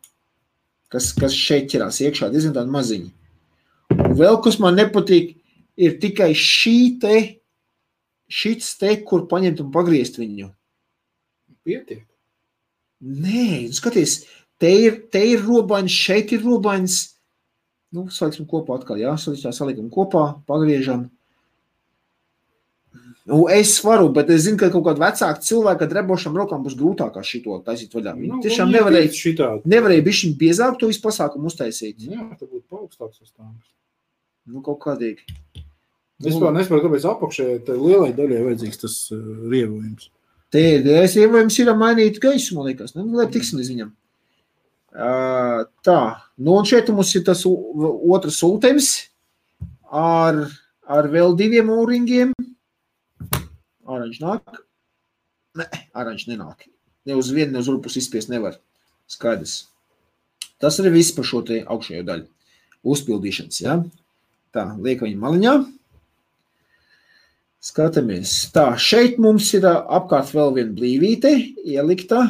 kas šeit ķerās iekšā, diezgan tādi maziņi. Un vēl, kas man nepatīk, ir tikai šits te, kur paņemt un pagriezt viņu. Pietiek. Nē, skaties, te ir robaņas, šeit ir robaņas. Nu, saliksim kopā atkal, jā, salikam kopā, pagriežam. Nu, es varu, bet es zinu, ka kaut kādu vecāku cilvēku ar drebošām rokām būs grūtākā šito taisīt vaļā. Viņi tiešām nevarēja bišķiņ biezāk to visu pasākumu uztaisīt. Jā, tā būtu paaugstāks uz tām. Nu, kaut kādīgi. Es nesaprotu, kāpēc apakšē lielai daļai vajadzīgs tas rievojums. Te rievojums ir mainīt gaisu, man liekas. Nu, lai tiksim līdz viņam. Tā, nu un šeit mums ir tas otrs Ultems ar vēl diviem O-ringiem. Oranž nāk? Nē, oranž nenāk. Ne uz vienu, ne uz otru pusi izspiest nevar. Skaidrs. Tas arī viss par šo te augšējo daļu. Uzpildīšanas, ja? Tā, liekam viņu maliņā. Skatāmies. Tā, šeit mums ir apkārt vēl viena blīvīte ielikta.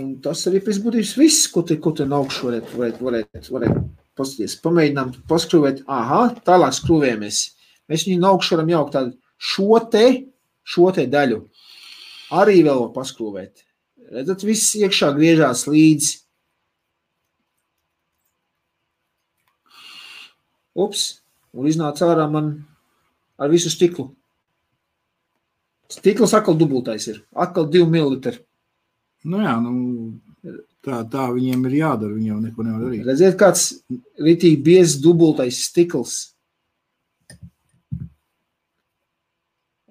Un tas arī pēc būtības viss, ko te augšu varētu paskatīties. Pamēģinām paskrūvēt. Aha, tālāk skrūvējamies. Mēs viņu no augšu varam jaukt tādu šo te daļu. Arī vēl paskrūvēt. Redzat, viss iekšā griežās līdz. Un iznāca ārā man ar visu stiklu. Stikls atkal dubultais ir. Atkal 2 ml. Nu jā, Tā viņiem ir jādara, viņiem neko nevar darīt. Redziet, kāds ritīgi biezs dubultais stikls.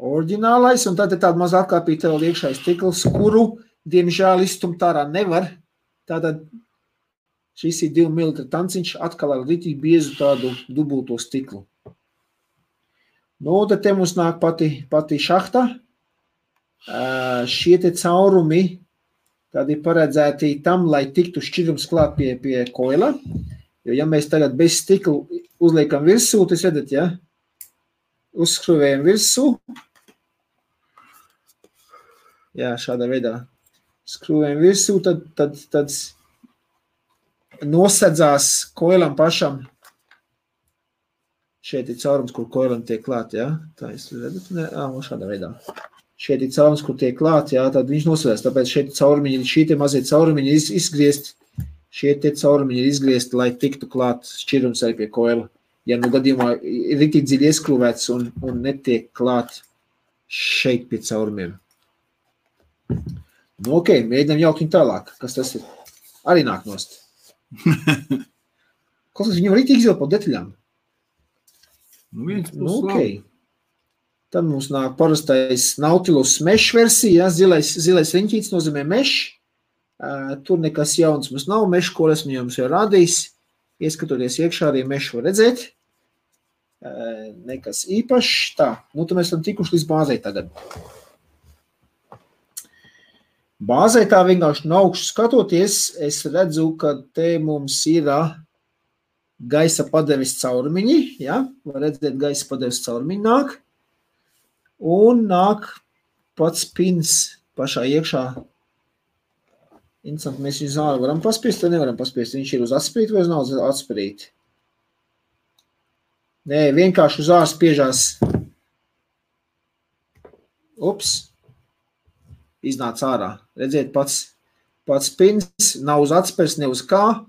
Oriģinālais, un tad ir tāda maza atkāpīta vēl iekšāja stikls, kuru, diemžēl, izstumt ārā nevar. Tātad šis ir 2 mm tanciņš atkal ar ritīgi biezu tādu dubulto stiklu. Nu, tad te mums nāk pati šahta. Šie te caurumi tādi paredzēti tam, lai tiktu šķirums klāt pie koila. Jo, ja mēs tagad bez stiklu uzliekam virsū, tas redat, ja? Uzskruvējam virsū. Jā, šādā veidā. Skruvējam virsū, tad nosedzās koilam pašam. Šeit ir caurums, kur koilam tiek klāt, jā? Tā es redat, šādā veidā. Šeit ir caurums, kur tiek klāt, jā, tad viņš nosvedās. Tāpēc šeit caurumiņi, šī te mazie caurumiņi ir izgriezt, šie te caurumiņi ir izgriezt, lai tiktu klāt šķirums arī pie koila. Ja nu gadījumā ir rītīgi dziļi ieskrūvēts un netiek klāt šeit pie caurumiem. Nu, ok, mēģinām jaukt viņu tālāk. Kas tas ir? Arī nāk nost. Kaut kas viņam rītīgi izvēl pa detaļām. Nu, ok. Tad mums nāk parastais Nautilus mesh versija, zilais riņķīts nozīmē mesh. Tur nekas jauns mums nav, mesh, ko esmu jums jau rādījis. Ieskatoties iekšā arī mesh var redzēt. Nekas īpašs. Tā, nu tad mēs esam tikuši līdz bāzei tagad. Bāzei tā vienkārši no augšu skatoties, es redzu, ka te mums ir gaisa padeves caurumiņi, ja? Var redzēt, gaisa padeves caurumiņi nāk. Un nāk pats pins pašā iekšā. Interesanti, mēs viņu zāli varam paspiest, vai nevaram paspiest? Viņš ir uz atspirīt vai uz nav uz atspirīt? Nē, vienkārši uz ārs spiežās. Ups. Iznāca ārā. Redziet, pats pins nav uz atspirs, ne uz kā.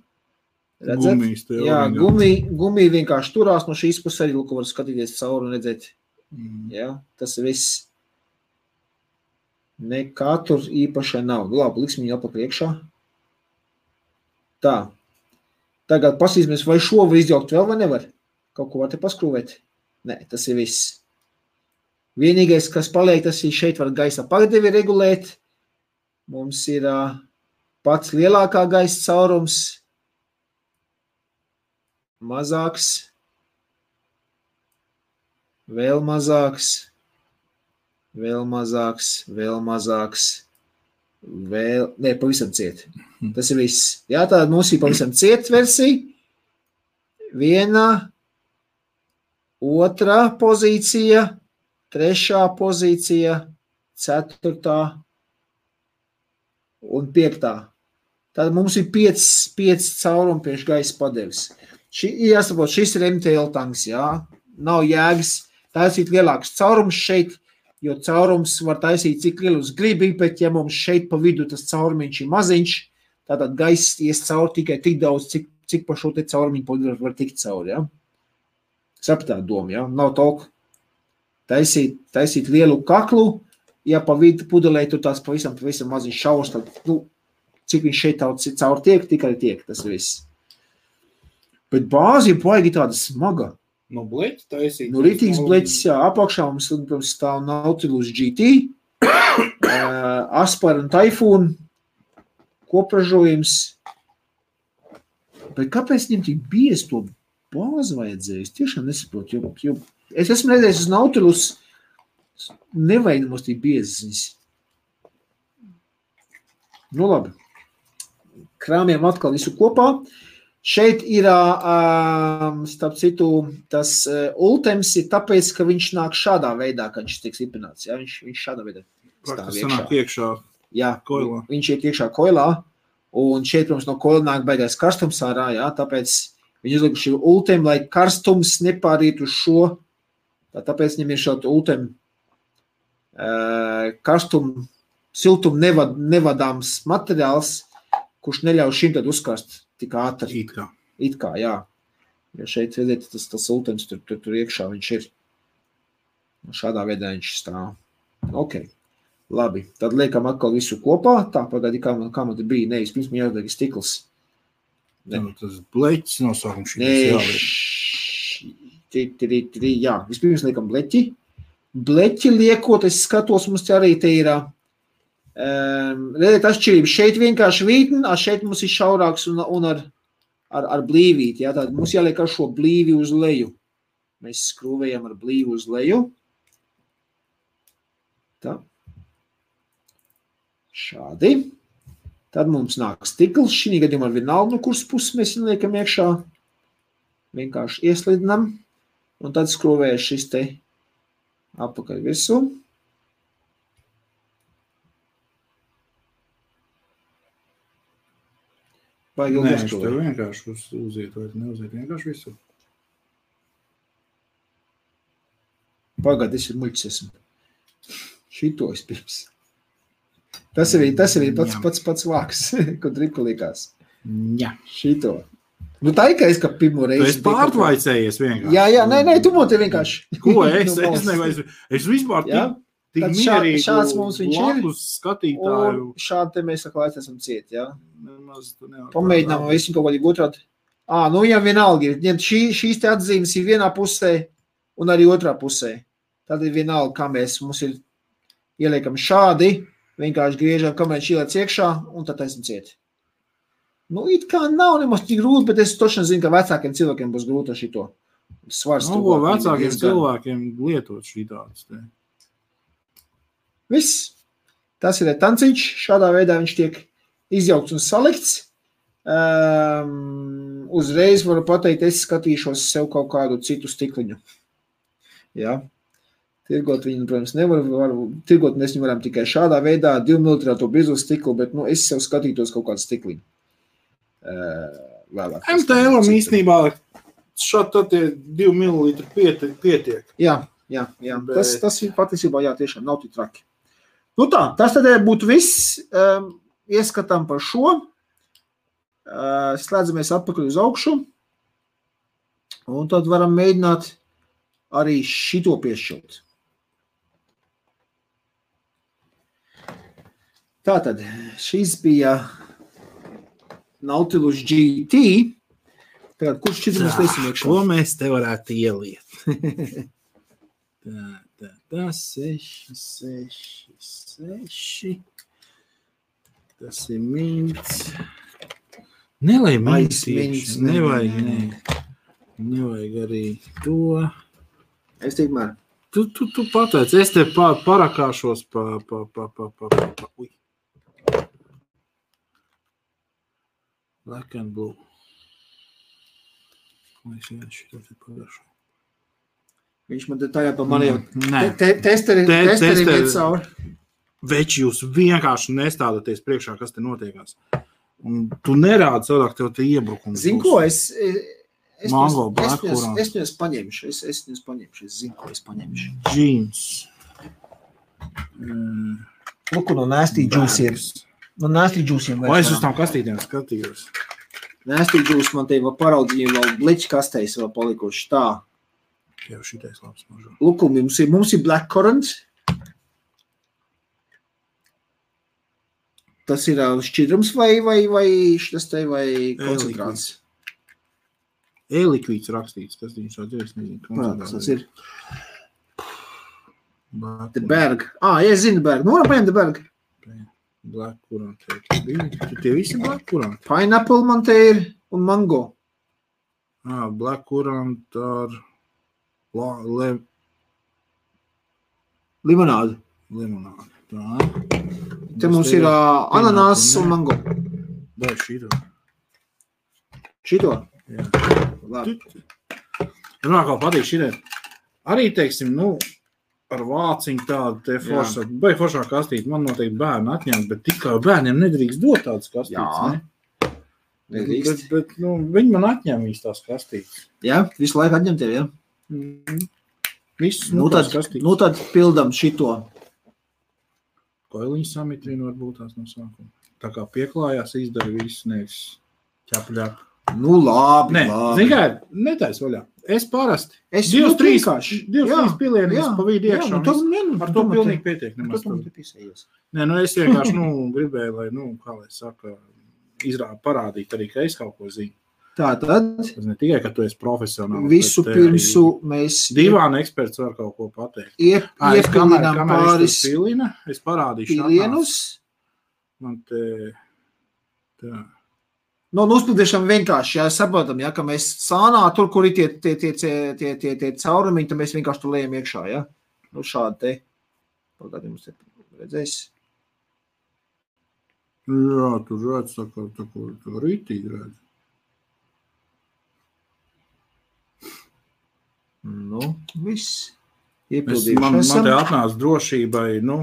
Redzēt? Jā, gumī vienkārši turās no šīs puses arī, ko var skatīties cauri un redzēt. Jā, tas ir viss. Nekā tur īpašai nav. Labi, liksim viņu apakaļ iekšā. Tā. Tagad pasīsimies, vai šo var izjaukt vēl vai nevar? Kaut ko var te paskrūvēt? Nē, tas ir viss. Vienīgais, kas paliek, tas ir šeit var gaisa padevi regulēt. Mums ir pats lielākā gaisa caurums. Mazāks. Vēl mazāks. Vēl mazāks. Vēl mazāks. Vēl, ne, pavisam ciet. Tas ir viss. Jā, tāda mums ir pavisam ciet versija. Viena, otrā pozīcija, trešā pozīcija, ceturtā un piektā. Tad mums ir 5 caurumi priekš gaisa padeves. Jāsaprot, šis ir MTL tanks, jā. Nav jēgas taisīt lielāks caurums šeit, jo caurums var taisīt cik lielus gribi, bet ja mums šeit pa vidu tas caurumiņš ir maziņš, tātad gaiss ies cauri tikai tik daudz, cik pa šo te caurumiņu var tikt cauri, jā. Sapratāt domu, jā. Nav tolku taisīt lielu kaklu, ja pa vidu pudelē tur tās pavisam maziņš šaurs, tad, cik viņš šeit cauri tiek, tikai tiek, tas viss. Bet bāzi ir baigi tāda smaga. No bleķa taisīt? No rītīgs bleķis, jā, apakšā mums stāv Nautilus GT, Aspar un Typhoon, kopražojums. Bet kāpēc viņam tik biezi to bāzi vajadzēja? Es tiešām nesaprotu, jo es esmu redzējis uz Nautilus, nevajag mums tik biezes. Nu labi, krāmjam atkal visu kopā. Šeit ir, starp citu, tas ultems ir tāpēc, ka viņš nāk šādā veidā, kad viņš tiek stiprināts. Ja? Viņš šādā veidā stāv iekšā. Jā, koilā. Viņš iet iekšā koilā, un šeit, protams, no koila nāk baigais karstums ārā, jā, tāpēc viņi uzlikuši ultem, lai karstums nepāriet uz šo. Tāpēc viņam ir šādi ultem karstumu, siltumu nevadāms materiāls, kurš neļauj šim tad uzkast tik ātri. It kā, jā. Jo šeit, redziet, tas ultems tur iekšā viņš ir. Šādā veidā viņš stāv. Ok. Labi, tad liekam atkal visu kopā. Tā, pagādi, kā man te bija. Nē, pirms man jāatliek stikls. Tas bleķis nosaukums Jā, vispirms liekam bleķi. Bleķi liekot, es skatos, mums arī te ir redziet atšķirība. Šeit vienkārši vītni, šeit mums ir šaurāks un ar blīvīti. Jā, tātad mums jāliek ar šo blīvi uz leju. Mēs skrūvējam ar blīvi uz leju. Tā. Šādi. Tad mums nāk stikls. Šī gadījumā vienalga, no kuras puses mēs liekam iekšā. Vienkārši ieslidinam. Un tad skrūvējas šis te apakaļ visu. Vai Nē, viņš tev vienkārši uziet vai neuziet vienkārši visu. Pagad, es ir muļķis esmu. Šito es pirms. Tas arī pats vāks, ko dripka likās. Jā. Šito. Nu tā ir, ka es kā pirmo reizi... Tu esi pārtvaicējies vienkārši. Jā, nē, tu man te vienkārši. Ko es vispār tik mierīgi šāds mums viņš ir. Skatītāju. Un šādi te mēs laist esam ciet, jā. Nemaz tu nevar. Pamēģinām visu kaut kādi otrādi. Nu jā, vienalga ir. Šīs te atzīmes ir vienā pusē un arī otrā pusē. Tad ir vienalga, kā mums ir ieliekam šādi, vienkārši griežam, kamēr šīlēts iekšā un tad esam ciet. Nu, it kā nav nemaz tik grūti, bet es toši zinu, ka vecākiem cilvēkiem būs grūti ar šito. Svars ko vecākiem cilvēkiem lietot šī tādas te? Viss. Tas ir tanciņš. Šādā veidā viņš tiek izjaukts un salikts. Uzreiz varu pateikt, es skatīšos sev kaut kādu citu stikliņu. Jā. Tirgot viņu, protams, tirgot mēs viņu varam tikai šādā veidā, 2 mm bizu stiklu, bet es sev skatītos kaut kādu stikliņu. MTL-am īstenībā šādi tad 2 ml pietiek. Jā. Bet... Tas ir patiesībā, jā, tiešām nav tik traki. Nu tā, tas tad būtu viss. Ieskatām par šo. Slēdzamies atpakaļ uz augšu. Un tad varam mēģināt arī šito piešķilt. Tātad, šis bija Nautilus GT. Tagad, kurš šķiet mēs liesim iekšā? Ko mēs te varētu ieliet? Tā, 6. Tas ir mints. Nelai mints. Nevajag arī to. Es tikmēr. Tu pateic, es te parakāšos Ui. Black and blue. Viņš man tajā pa mani jau testeri iet cauri. Veči, jūs vienkārši nestādaties priekšā, kas te notiekās. Un tu nerādi cilvēku tev te iebrukums. Zinu, ko es viņus paņemšu. Es zinu, ko es paņemšu. Jeans. Luku no Nasty Juice ir. No Nasty Juice'iem. O, es uz tām kastītēm skatījos. Nasty Juice man te vēl paraudzīja, vēl bleķi kastēs vēl palikuši tā. Jau šitais labs mažo. Luku, mums ir blackcurrant. Tas ir šķidrums vai šitas te vai koncentrāts? E-likvīds rakstīts, kas viņš tāds ir, es nezinu. Tas ir. The Berg. Es zinu Berg. Nu, varam paņemt The Berg. Black currant. Tie visi black currant. Pineapple man te ir un mango. Black currant ar limonādu. Tā. Te mums ir ananās un mango. Dai šito. Šito? Jā. Labi. Man kā patīk šitai. Arī, teiksim, ar vāciņu tādu te foršā kastīti. Man noteikti bērni atņemt, bet tikai bērniem nedrīkst dot tādas kastītes, ne? Nedrīkst. Bet viņi man atņem visi tās kastītes. Jā, visu laiku atņem tev, jā? Visus tās kastītes. Tad pildam šito. Koiliņu samitrinu varbūt tās no sākuma. Tā kā pieklājās, izdara visu, nevis ķap. Nu, labi. Zini kā, netais vaļā. Es parasti. Es Divas, trīs jā, pilienis jā, pa vidu jā, iekšā. nu, tas- Ar to pilnīgi pietiek. Nu, Nemaz tu man tur. te pisējies. Nē, nu es vienkārši, gribēju, lai, kā lai saka, parādīt arī, ka es kaut ko zinu. Tātad, Tas ne tikai, ka tu esi profesionāls. visu bet te arī pirmsu mēs Divāna eksperts var kaut ko pateikt. Es iepilinām pāris pilina, es parādīšu. pilienus. Man te, tā. Nu, uzpildīšam vienkārši, jā, saprotam, jā, ka mēs sānā, tur, kur ir tie caurumiņi, tad mēs vienkārši tur lejam iekšā, jā. Nu, šādi te. Pagādi mums te redzēs. Jā, tur redz, tā kā rītīgi redz. Nu, viss. Man Iepildījuši te esam. atnāca drošībai, no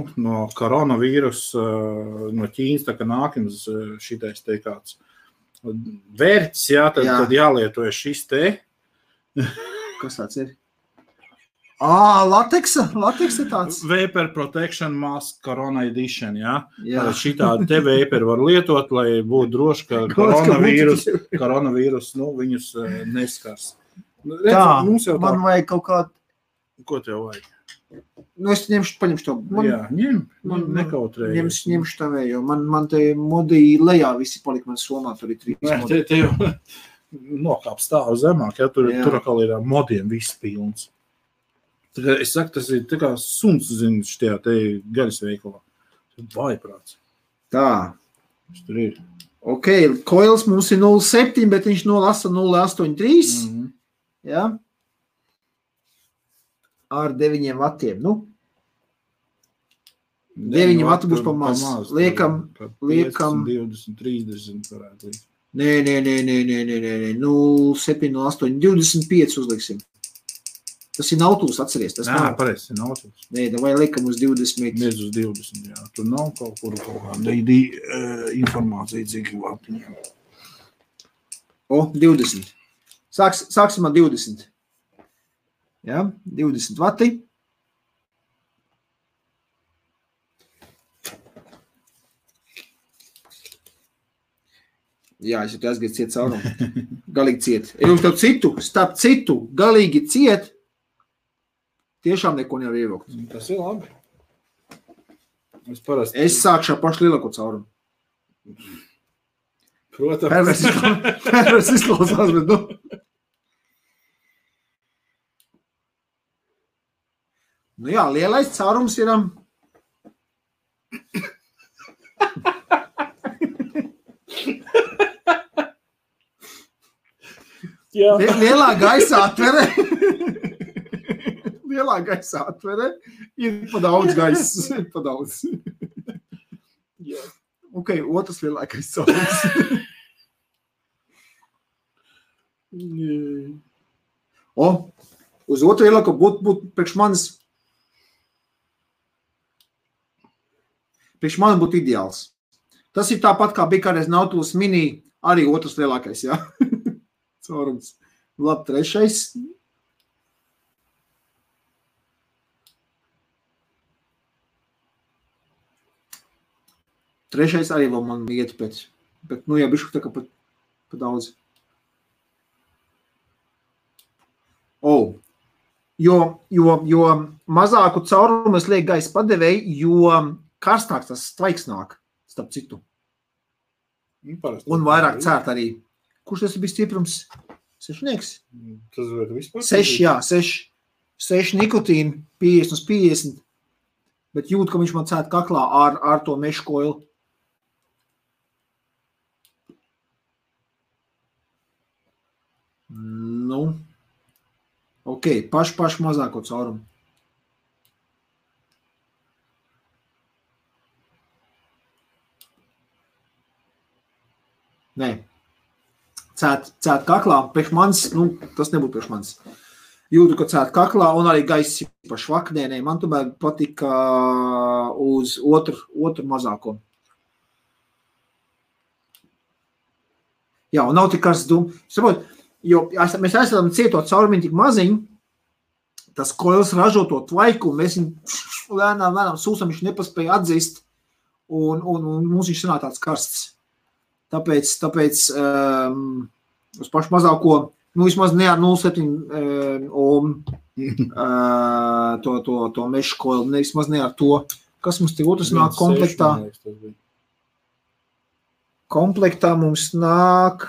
koronavīrusa, no Ķīnas, tā kā nākams šitais te kāds vērts, jā, tad jālieto šis te. Kas tāds ir? Lateksa tāds. Vapor Protection Mask Corona Edition, jā. Jā. Šitādi te vapor var lietot, lai būtu droši, ka koronavīrus, viņus neskars. Redz, Tā, mums jau man vajag kaut kādu. Ko tev vajag? Nu, es paņemšu to. Jā, nekautrēji. Ņemšu tavējo. Man te modī lejā visi palika man somā, tur ir 3 modi. Te jau nokāp stāv zemāk, ja tur atkal ir modiem viss pilns. Tā kā es saku, tas ir tā kā suns, zinu, štajā te gaļas veikalā. Vaiprāts. Tā. Tas tur ir. Ok, koils mums ir 0,7, bet viņš nolasa 0,83. Jā. Ar 9 vatiem. Nu. 9 vati būs pa maz. Liekam. 20, 30 varētu likt. Nē. 0,7, 0,8, 25 uzliksim. Tas ir nautūs, atceries. Tas nav. Pareizi, ir nautūs. Nē, vai liekam uz 20. Uz 20, jā. Tur nav kaut kāda informācija, cik vatiņiem. 20. Sāksim ar 20. Jā, 20 vati. Jā, es jau te aizgāju ciet caurumu. Galīgi ciet. Ja jums tev starp citu, galīgi ciet, tiešām neko nevar ievilkt. Tas ir labi. Es sākšu ar pašu lielāko caurumu. Protams. Pervers izklausās, bet nu. Nu jā, lielais caurums ir... Lielā gaisa atvere. Lielā gaisa atvere. Ir pa daudz gaisas. Pa daudz. Ok, otrs lielākais caurums. Uz otru lielāko būtu priekš manis būtu ideāls. Tas ir tāpat, kā bija kādreiz Nautilus Mini, arī otrs lielākais, jā. Caurums. Labi, trešais. Trešais arī vēl man iet pēc. Bet, nu, jā, bišku tā kā pa daudz. Jo mazāku caurumu es lieku gaisa padevēju, jo karstāks tas tvaiks nāk, starp citu. Un vairāk cērt arī. Kurš tas bija stiprums? 6? Tas var vispār? 6, jā, 6. 6 nikotīna, 50 uz 50. Bet jūt, ka viņš man cērt kaklā ar to mešu koilu. Nu, ok, pašu mazāko caurumu. Nē, cēt kaklā, priekš manis, nu, tas nebūtu priekš manis. Jūtu, ka cēt kaklā un arī gaiss pa švaknē, man tomēr patika uz otru mazāko. Jā, un nav tik karsts dūmu. Saprot, jo mēs esam cietot caurumiņu tik maziņu, tas koils ražo to tvaiku, un mēs viņu lēnām sūsam, viņš nepaspēja atzīst, un mums viņš sanāk tāds karsts. Tāpēc uz pašu mazāko Nu, vismaz ne ar 0,7 ohm to mešu koili, vismaz ne ar to. Kas mums te otrs nāk komplektā? Komplektā mums nāk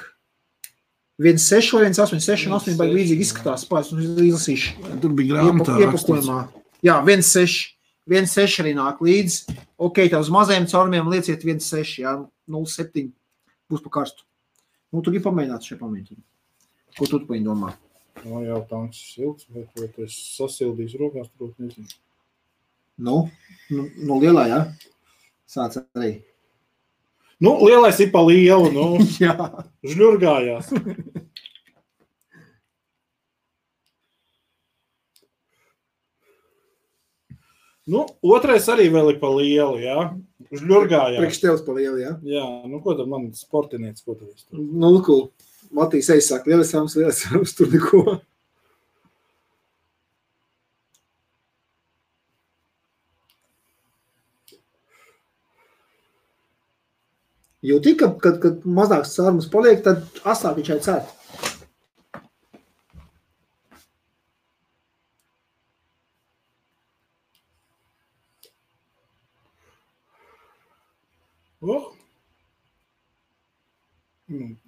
1,6 vai 1,8. 6,8 baigi līdzīgi izskatās. Pēc mums izlasīšu. Tur bija grāmatā iepakojumā. Jā, 1,6. 1,6 arī nāk līdzi. Ok, tā uz mazajiem caurumiem lieciet 1,6, jā, 0,7 būs pa karstu. Nu, tu gribi pamēģināt šeit pamēģināt. Ko tu paņi domā? No, jā, tanks silts, bet vai tu esi sasildījis rokās, tur nezinu. Nu, lielā, jā? Sāc arī. Nu, lielais ir pa lielu, nu. Jā. Žļurgājās. Nu, otrais arī vēl ir pa lielu, jā. Žļurgājās. Priekš tevs pa lielu, jā? Jā, nu, ko tad man sportinieci, ko tad es tur? Nu, cool. Matīs aizsāk, lielas sāmas, tur neko. Jūtī, kad mazāks sārums paliek, tad asāk viņš cērt.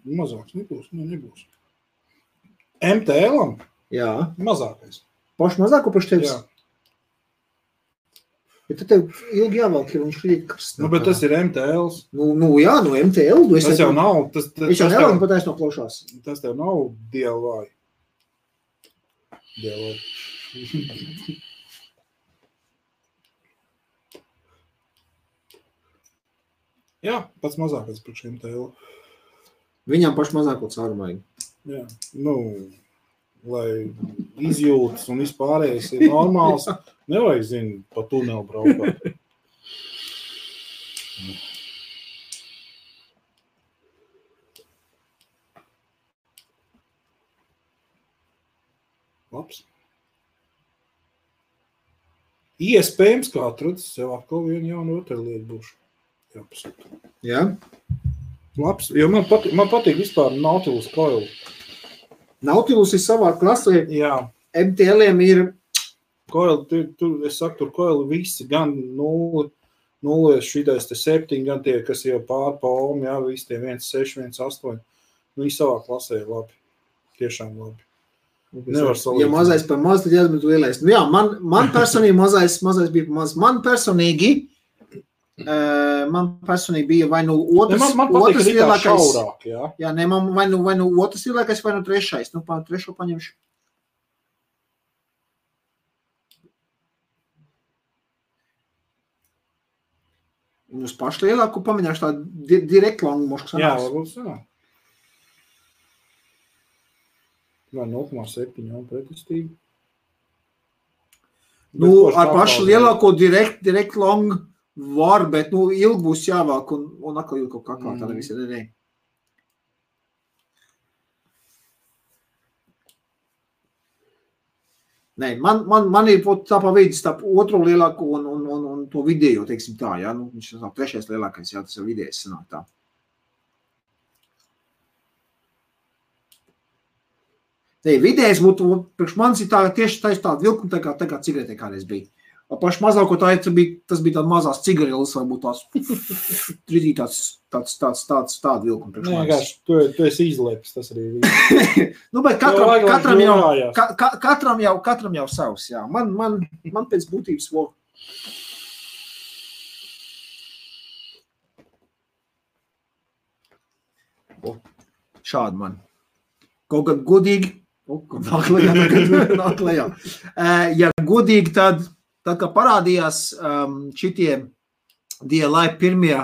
Mazāks nebūs. MTL-am? Jā. Mazākais. Paši mazāko paši tevis? Jā. Bet tad tev ilgi jāvalk, ja viņš krīt karstā. Nu, bet tas ir MTLs. Nu jā, no MTL. Tas jau nav. Viņš jau nevalk pat aiz no plaušās. Tas tev nav DLY. Jā, pats mazākais priekš MTL. Viņam paši mazāko cārumāju. Jā, nu, lai izjūtas un vispārējais ir normāls, nevajag, zinu, pa tunelu braukāt. Labs. Iespējams, kā atrads, sev atkal vienu jaunu rotaļlietu būšu. Jāpasūta. Jā? Labs, jo man patīk vispār Nautilus koili. Nautilus ir savā klasē. Jā. MTL-iem ir... Koili, es saku, tur koili visi, gan 0, šitais te 7, gan tie, kas jau pār pa ohm, jā, visi tie 1,6, 1,8. Viņi savā klasē ir labi. Tiešām labi. Nevar salīdzināt. Ja mazais par maz, tad jāsmet lielais. Nu jā, man personīgi mazais bija par maz. Man personīgi bija vai nu otrs lielākais. Šaurāk, jā. Jā, ne, man vai nu otrs lielākais, vai nu trešais. Nu, trešo paņemšu. Un uz pašu lielāku pamēģināšu tādu direkt longu mošku sanāks. Jā, varbūt sanāk. Vai 0,7 jau pretestīgi. Nu, ar pašu lielāko direkt longu var, bet, nu, ilgi būs jāvāk un atkal ilgi kaut kā tāda visi. Ne. Nē, man ir tā pa vidus, tā otro lielāko un to vidējo, teiksim tā, jā, nu, viņš ir trešais lielākais, jā, tas ir vidējais sanāk tā. Nē, vidējais būtu, priekš manis ir tā, tieši tāda vilkuma, tā kā cigaretē kādreiz bija. Paši mazāko tas bija tāda mazās cigareles, varbūt tāda vilkuma priekš manis. Nē, tu esi izlēpis, tas arī bija. Nu, bet katram jau savs, jā. Man pēc būtības vēl. Šādi man. Kaut kad godīgi, nāk lejā. Ja godīgi, tad kā parādījās šitie DLI pirmie,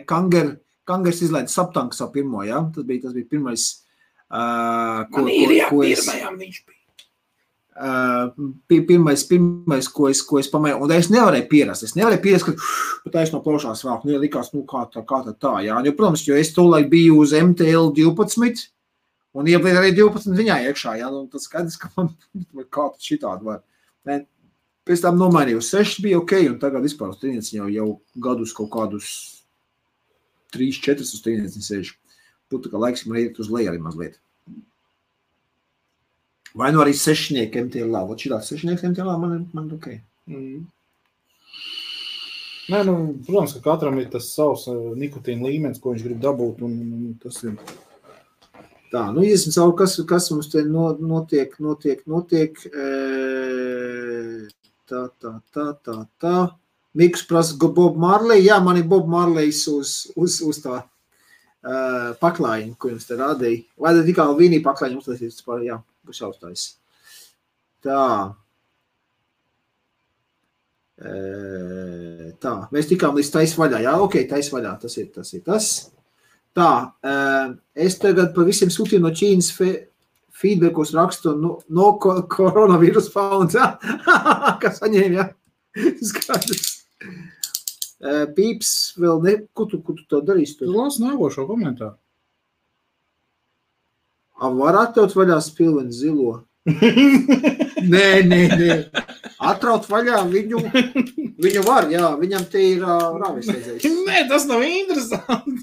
Kangers izlaida Saptank savu pirmo, jā? Tas bija pirmais, pirmajām viņš bija. Pirmais, ko es pamēju, un es nevarēju pierast, ka taisno plaušās vēl, nu, likās, nu, kā tā, jā. Jo, protams, jo es tolaik biju uz MTL 12, un iebliet arī 12 viņā iekšā, jā, un tas skaidrs, ka man kā tad šitādi var. Pēc tam nomainīju, 6 bija ok, un tagad vispār uz trīnieci jau gadus kaut kādus 3-4 uz trīnieci sēžu. Būtu, ka laiks man iet uz leju arī mazliet. Vai nu arī sešnieki MTLā. Vot šitās sešnieks MTLā man ok. Nē, protams, ka katram ir tas savs nikotīna līmenis, ko viņš grib dabūt, un tas ir. Tā, iesim savu, kas mums te notiek. Tā. Miks prasa Bob Marley. Jā, man ir Bob Marleys uz tā paklājiņu, ko jums te rādīja. Vai tad tikai Vīnī paklājiņu uztaisīts par, jā, būs jāuztais. Tā. Tā, mēs tikām līdz tais vaļā. Jā, ok, tais vaļā, tas ir tas. Tā, es tagad pa visiem sūtīju no Ķīnas feedbackos rakstu no coronavirus found, jā? Kas saņēma, jā? Skaidrs. Pīps vēl ne, ko tu to darīsi? Tu lasi nākošo komentāru. Var atļaut vaļā spilveni zilo? Nē. Atraut vaļā viņu var, jā, viņam te ir rāvis redzējis. Nē, tas nav interesanti.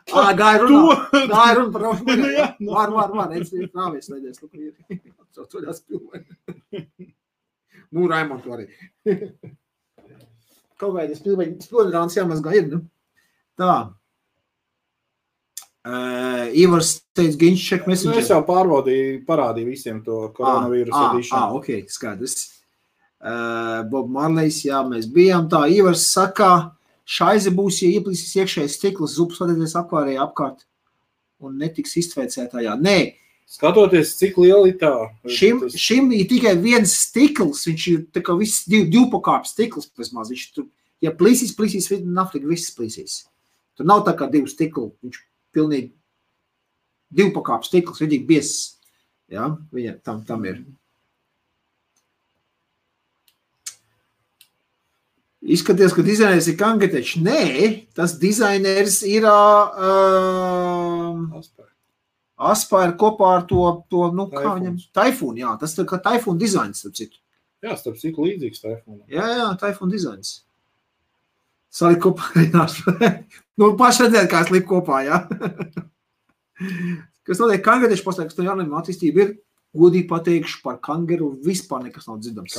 Gāja runa par rāvis redzējis. Var, es rāvis redzējis. Atraut vaļā spilveni. Raimond arī. Kaut kādi spilveni rāns jāmazgā ir, Tā. Ivars teica, Ginč check messenger. Es jau parādīju visiem to koronavīrusu edišanu. Ok, skaidrs. Bob Marleys, jā, mēs bijām tā. Ivars saka, šaize būs, ja ieplīsīs iekšējais stikls, zupas vadēties akvārējā apkārt un netiks iztveicētājā. Nē. Skatoties, cik liela ir tā. Šim ir tikai viens stikls, viņš ir tā kā viss divpakāpes stikls, vismaz. Viņš tur, ja plīsīs, naflīgi viss plīsīs. Tur nav tā kā divu stiklu, viņš pilnīgi divpakāpes stikls, viņīgi biezs. Jā, viņa tam ir. Izskaties, ka dizainers ir Kangetečs. Nē, tas dizainers ir Aspire kopā ar to kā viņam, Taifūn, jā, tas ir kā Taifūn dizains, starp citu. Jā, starp citu līdzīgs Taifūnam. Jā, Taifūn dizains. Salik kopā arī paši redzēt, kā es liku kopā, jā. Kas notiek Kangetečs paslēg, kas to jaunajam attīstība ir, godīgi pateikšu par Kangeru, vispār nekas nav dzirdams.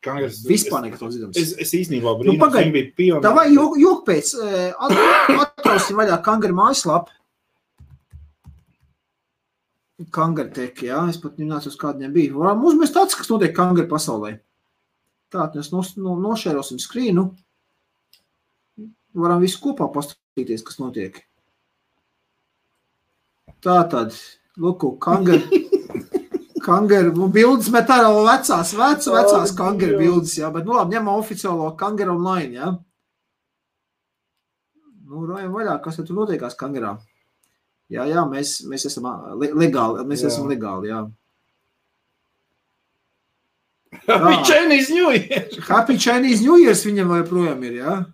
Kangers vispār nekas nav dzirdams. Es īstenībā brīnums, viņi bija pionēri. Tā vai jok pēc, atrausim vaļā Kangeru mājaslapu. Kangartek, jā, es pat nemācu, uz kādu viņam bija. Varam uzmest tāds, kas notiek Kangaru pasaulē. Tātad mēs nošērosim skrīnu. Varam visu kopā paskatīties, kas notiek. Tātad, lūku, Kangaru bildes met ārā vecās Kangaru bildes, jā, bet labi, ņemam oficiālo Kangaru online, jā. Rājam vaļā, kas tur notiekās Kangarā. Jā, mēs esam legāli, jā. Happy Chinese New Year! Happy Chinese New Year viņam joprojām ir, jā.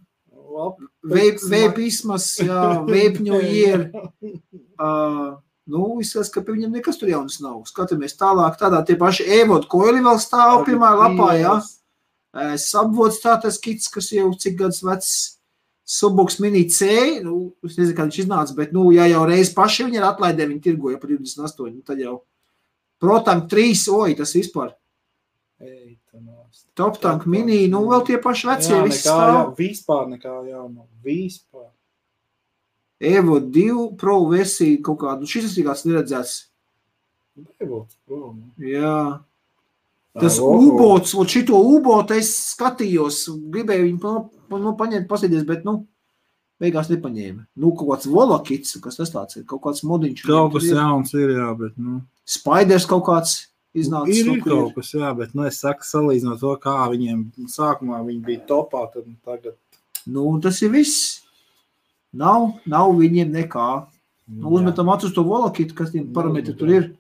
Veipismas, jā, Vape New Year. Izskatās, ka pie viņam nekas tur jaunas nav. Skatāmies tālāk, tādā tie paši e-vodu koili vēl stāv pirmā lapā, jā. Subvods tā tas kits, kas jau cik gadus vecs. Subox Mini C, es nezinu, kā viņš iznāca, bet, ja jau reiz paši viņi ir atlaidē, viņi tirgoja par 28, tad jau Protank 3, tas vispār. Top Tank Mini, vēl tie paši vecie, viss stāv. Vispār nekā jauna, vispār. Evo 2 Pro versija kaut kādu, šis ir kāds neredzēts. Evo Pro. Jā. Tas U-bots, šito U-botu es skatījos, gribēju viņu paņemt, pasēdies, bet, beigās nepaņēma. Kaut kāds volakits, kas tas tāds ir, kaut kāds modiņš. Kaut kas jauns ir, jā, bet, Spiders kaut kāds iznācis. Ir kaut kas, jā, bet, es saku, salīdzinot to, kā viņiem sākumā viņi bija topā, tad tagad. Tas ir viss. Nav viņiem nekā. Uzmetam acu uz to volakitu, kas tiem parametri tur ir.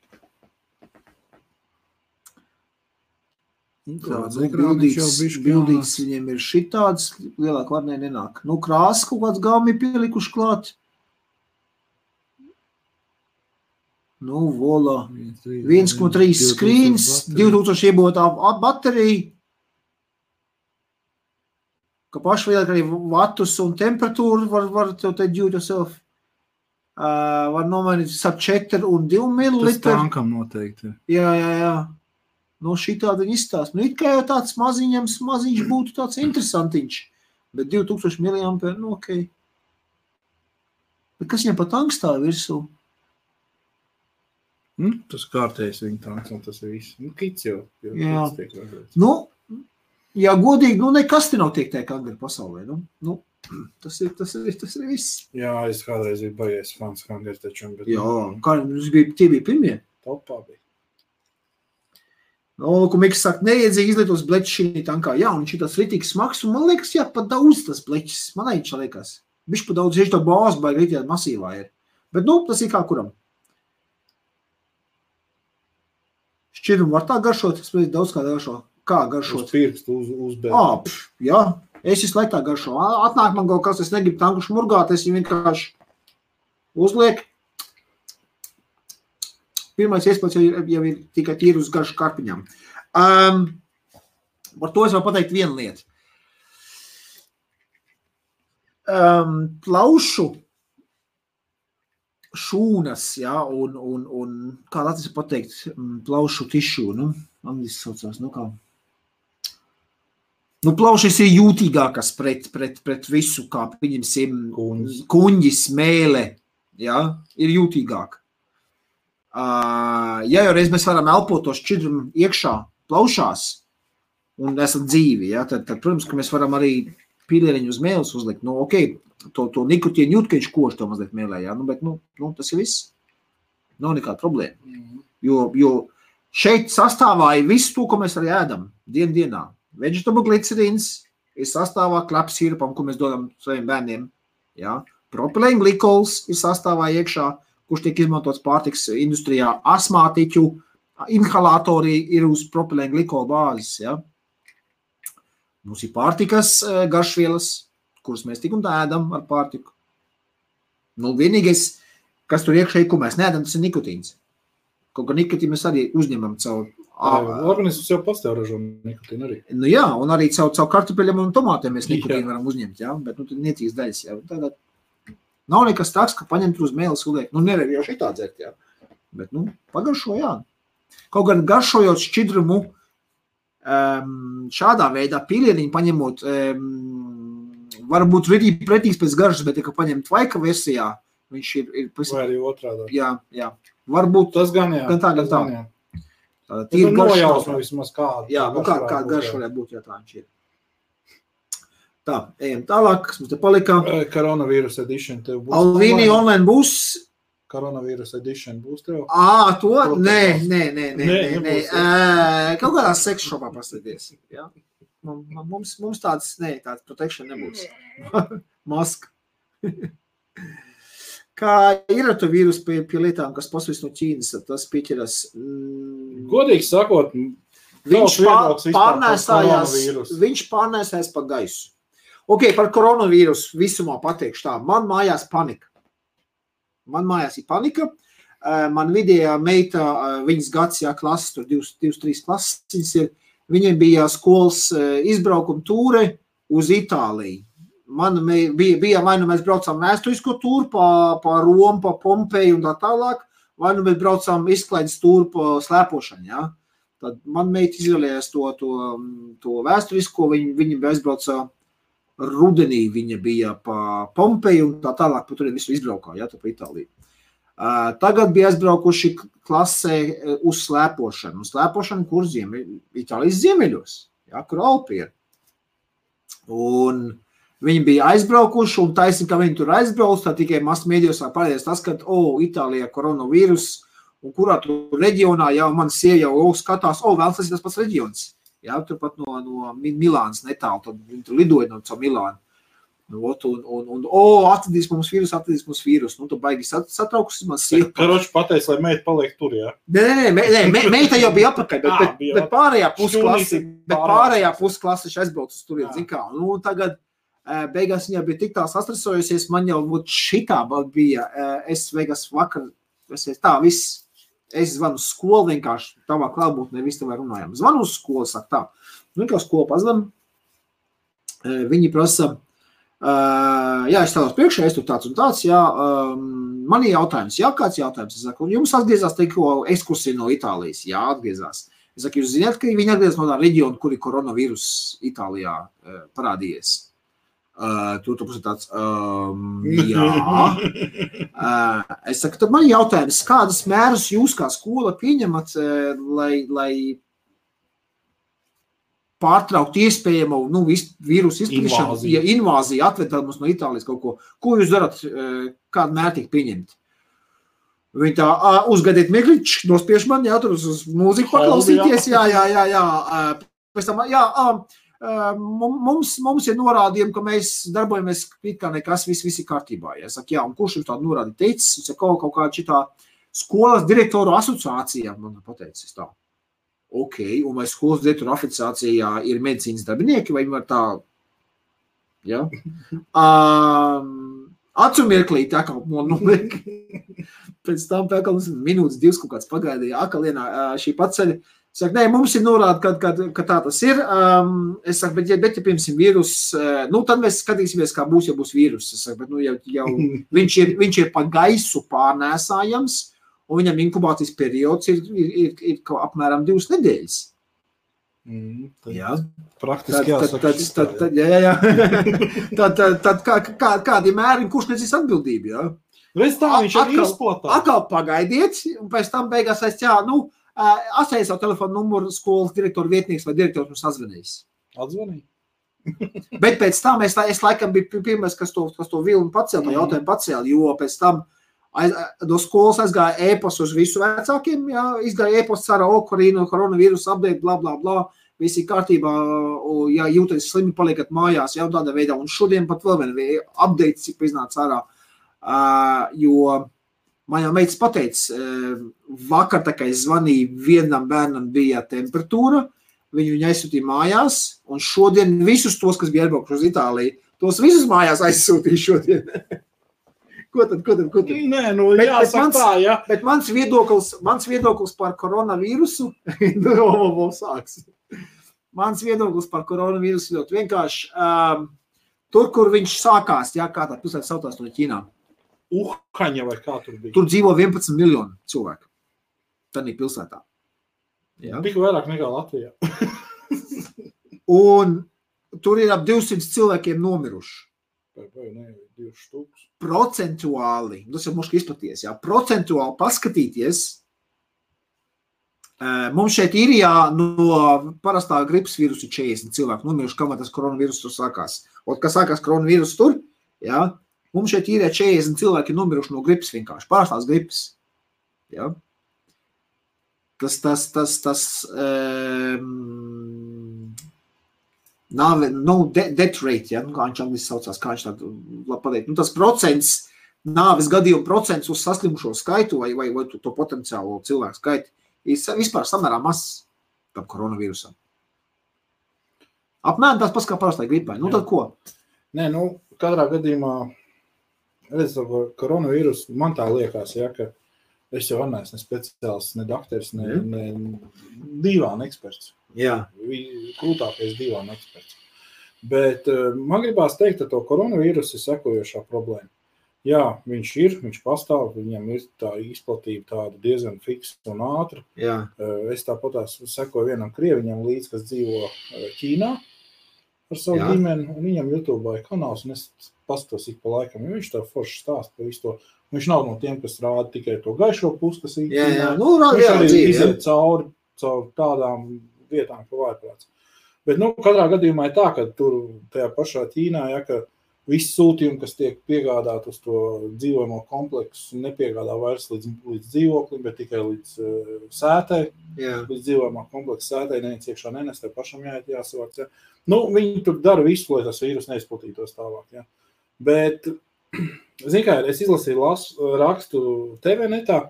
Bildīgs viņiem ir šitāds, lielāk varnē nenāk. Krāsas kaut kāds galmi pielikuši klāt. Vola. 1,3 skrīns, 2000 iebotā baterija. Ka paši lielāk arī vatus un temperatūru var tev te do it yourself. var nomainīt ap 4 un 2 mililitri. Tas tankam noteikti. Jā. No šitādi viņi izstāst. Nu, it kā jau tāds maziņš būtu tāds interesantiņš. Bet 2000 mAh, nu, okei. Bet kas viņam pa tankstāja virsū? Tas kārtējs viņa tanks, un tas ir viss. Nu, kits jau. Jā. Nu, jā, godīgi, nu, nekas te nav tiek tā kangari pasaulē. Nu, tas ir viss. Jā, es kādreiz biju bajies fans kangari taču. Bet... Jā, kā tie bija pirmie? Topā bija. Nu, ko Miks saka, neiedzīgi izlietos bleķis šī tankā. Jā, un šī tas ritīgs smags, un man liekas, jā, pat daudz tas bleķis. Man aičā liekas. Bišķi pat daudz, tā bāzi baigi ritījā masīvā ir. Bet, nu, tas ir kā kuram. Šķirumu var tā garšot, es pēc daudz kā garšo. Kā garšot? Uz pirkstu, uz bēdu. Jā, es visu laiku tā garšo. Atnāk man kaut kas, es negribu tanku šmurgāt, es viņu vienkārši uzliek. Pirmais iespējas jau ir tikai tīri uz garšu karpiņām. Par to es varu pateikt vienu lietu. Plaušu šūnas, jā, un kā latvijas pateikt, plaušu tišu, nu, angliski saucās, nu kā. Nu, plaušas ir jūtīgākas pret visu, kā pieņemsim kuņģis, mēle, jā, ir jūtīgāk. Ja jau reiz mēs varam elpot to šķidrumu iekšā plaušās un esam dzīvi, ja, tad, protams, ka mēs varam arī pīlieriņu uz mēles uzlikt. Nu, okei, to nikotīnu jūt, ka viņš kož to mazliet mēlē, ja, bet, nu, tas ir viss. Nav nekāda problēma. Jo šeit sastāvā ir viss to, ko mēs arī ēdam dienā. Vegetable glicerīns ir sastāvā klepsīrupam, ko mēs dodam saviem bērniem. Ja. Propilēna glikols ir sastāvā iekšā, kurš tiek izmantots pārtiks industrijā, asmātiķu, inhalatori ir uz propilēna glikola bāzes, ja. Mums ir pārtikas garšvielas, kuras mēs tik un tā ēdam ar pārtiku. Nu, vienīgais, kas tur iekšēji, ko mēs neēdam, tas ir nikotīns. Kaut kā nikotīnu mēs arī uzņemam caur... Organisms jau pastāv ražo nikotīnu arī. Nu jā, un arī caur kartupeļiem un tomātiem mēs nikotīnu varam uzņemt, jā, bet nu, tad niecīgs daļas, jā. Tādā nav nekas tāds, ka paņemt uz mēles uliek. Nu, nevar jau šitā dzert, jā. Bet, nu, pagaršo, jā. Kaut gan garšojot šķidrumu šādā veidā pīlieniņu paņemot, varbūt pretīgs pēc garšas, bet, ja paņemt vaika versijā, viņš ir vai arī otrādā. Jā. Varbūt tas gan jā. Gan tā. Tas ir nojausma vismaz kāda. Jā, nu kāda garša varētu būt, ja tā viņš ir. Tā, ejam tālāk, kas mums te palika. Koronavīrus edition tev būs. Alvīni online būs. Koronavīrus edition būs tev. To? Nē. Kaut kādā seks shopā pasēties. Ja? Mums tāds protection nebūs. Maska. Kā ir ar to vīrusu pie lietām, kas pasvis no Ķīnas, tas pieķeras? Godīgi sakot, viņš pārnēsājās pa gaisu. Ok, par koronavīrusu visumā pateikšu tā. Man mājās panika. Ir panika. Man vidējā meita, viņas gads, jā, klases, tur 2-3 klases ir, viņiem bija skolas izbraukuma tūre uz Itāliju. Man bija vai nu mēs braucām vēsturisko tūru pa Romu, pa Pompeju un tā tālāk, vai nu mēs braucām izklaides tūru pa slēpošanu, jā. Tad man meita izvēlējās to vēsturisko, viņa aizbrauca rudenī, viņa bija pa Pompeju un tā tālāk, pa turien visu izbraukā, jā, tā pa Itāliju. Tagad bija aizbraukuši klasē uz slēpošanu. Slēpošanu, kur Itālijas ziemeļos, jā, kur Alpi ir. Un viņi bija aizbraukuši, un taisni, ka viņi tur aizbrauc, tā tikai masmēdījos parādījās tas, ka, Itālijā koronavīrus, un kurā tur reģionā jau man sieva jau skatās, vēl tas ir tas pats reģions. Jā, turpat no Milānas netālu, tad viņi tur lidoja no Milānu. Atradīs mums vīrus. Nu, tu baigi satraukus, man sieva. Karoči pateica, lai meita paliek tur, jā? Nē, meita jau bija apakaļ, bet pārējā pusklasi aizbrauc uz turien, zin kā. Nu, tagad beigās viņa bija tik tā sastresojusies, man jau šitā bija, es beigās vakar, viss. Es zvanu uz skolu vienkārši, tavā klātbūtnē visu tev runājām. Zvanu uz skolu, saka tā. Nu, kā skolu pazvan, viņi prasa, Jā, es tādos priekšā, es tur tāds un tāds, jā, man ir jautājums, jā, kāds jautājums, es saku, jums atgriezās tikko ekskursija no Itālijas, jā, atgriezās. Es saku, jūs zināt, ka viņi atgriezās no tā reģiona, kur ir koronavīrus Itālijā parādījies. Tur tāds, jā. Es saku, tad man ir jautājums, kādas mērus jūs kā skola pieņemat, lai pārtraukt iespējamo vīrusu izplatīšanu, ja invāzija atvedā mums no Itālijas kaut ko. Ko jūs darat, kādu mērķi pieņemt? Viņi tā, uzgadiet Migličs, nospiež man, jā, tur uz mūziku paklausīties, jā. Pēc tam, jā, mums ir norādījumi, ka mēs darbojamies it kā nekas, viss ir kārtībā. Ja? Saku, jā, un kurš jums tādu norādi teicis? Es saku, kaut kā šitā skolas direktoru asociācijā, man pateicis tā. Ok, un vai skolas direktoru asociācijā ir medicīnas darbinieki, vai viņi var tā, ja? Acu mirklīt, atkal noliek. Pēc tam minūtes, 2 kaut kāds pagaidīja, akalienā šī paceļa. Saka, nē, mums ir norāda, ka tā tas ir. Es saku, bet ja piemēram vīrus, tad mēs skatīsimies, kā būs, ja būs vīrus. Es saku, bet jau viņš ir pa gaisu pārnēsājams, un viņam inkubācijas periods ir apmēram 2 nedēļas. Jā, praktiski jāsaka. Jā. Tad kādi mēri, kurš nezīs atbildību, jā? Reiz tā viņš arī izplatā. Atkal pagaidiet, un pēc tam beigās atstāja savu telefonu numuru skolas direktoru vietnieks vai direktors mums sazvanījis. Atzvanīja? Bet pēc tam es laikam biju pirmais, kas to vilnu pacēl, jautājumu pacēl, jo pēc tam no skolas aizgāja e-posts uz visu vecākiem, jā, izgāja e-posts ar koronavīrus update, bla, bla, bla, visi kārtībā, ja jūties slimi, paliekat mājās, jau tādā veidā, un šodien pat vēl vien update, cik iznāca ārā, jo man jau meitas pateica, vakar tā kā es zvanīju, vienam bērnam bija temperatūra, viņu aizsūtīja mājās, un šodien visus tos, kas bija aizbraukuši uz Itāliju, tos visus mājās aizsūtīja šodien. Ko tad? Nē, jāsaka tā, jā. Bet mans viedoklis par koronavīrusu, sāks. Mans viedoklis par koronavīrusu ļoti vienkārši. Tur, kur viņš sākās, jā, kā tā pilsēta sautās no Ķīnā. Uhaņa vai kā tur bija? Tur dzīvo 11 miljoni cilvēku. Tādā pilsētā. Jā. Tik vairāk nekā Latvijā. Un tur ir ap 200 cilvēkiem nomiruši. Vai ne, 2 štuks. Procentuāli, tas jau muški izplaties, jā, procentuāli paskatīties, mums šeit Īrijā no parastā gripas vīrusu 40 cilvēku nomiruši, kamēr tas koronavīrus tur sākās. Un, kas sākās koronavīrus tur, jā, mums šeit Īrijā 40 cilvēki nomiruši no gripas vienkārši, parastās gripas. Jā. Death rate, ja, kā viņš angliski saucās, kā viņš tādu pateikt. Tas procents, nāves gadījumu procents uz saslimušo skaitu vai to potenciālo cilvēku skaitu ir vispār samērā mazs tam koronavīrusam. Apmēram tās pats kā parastai gripai. Tad ko? Nē, katrā gadījumā, koronavīrus, man tā liekas, ja, ka es jau neesmu ne speciālists, ne dakteris, ne divāna eksperts. Jā. Krūtākais divāna eksperts. Bet man gribās teikt, ka to koronavīrusu ir sekojošā problēma. Jā, viņš pastāv, viņam ir tā izplatība tāda diezgan fiksa un ātra. Jā. Es tāpatās sekoju vienam krieviņam līdz, kas dzīvo Ķīnā ar savu ģimeni, un viņam YouTube kanāls, un es paskatos ik pa laikam, jo viņš tā forši stāst par visu to. Viņš nav no tiem, kas rāda tikai to gaišo pusi, kas ir Ķīnā. Viņš arī iziet cauri tādām vietām, ka vājprāts. Bet, katrā gadījumā ir tā, ka tur tajā pašā Ķīnā, ja, ka visi sūtījumi, kas tiek piegādāt uz to dzīvojamo kompleksu, nepiegādā vairs līdz dzīvoklim, bet tikai līdz sētai, līdz dzīvojamā kompleksa sētai, neviens iekšā nenest, tev pašam jāsavāc. Ja. Viņi tur dara visu, lai tas vīrus neizplatītos tālāk. Ja. Bet, zini kā, es izlasīju rakstu TV netā,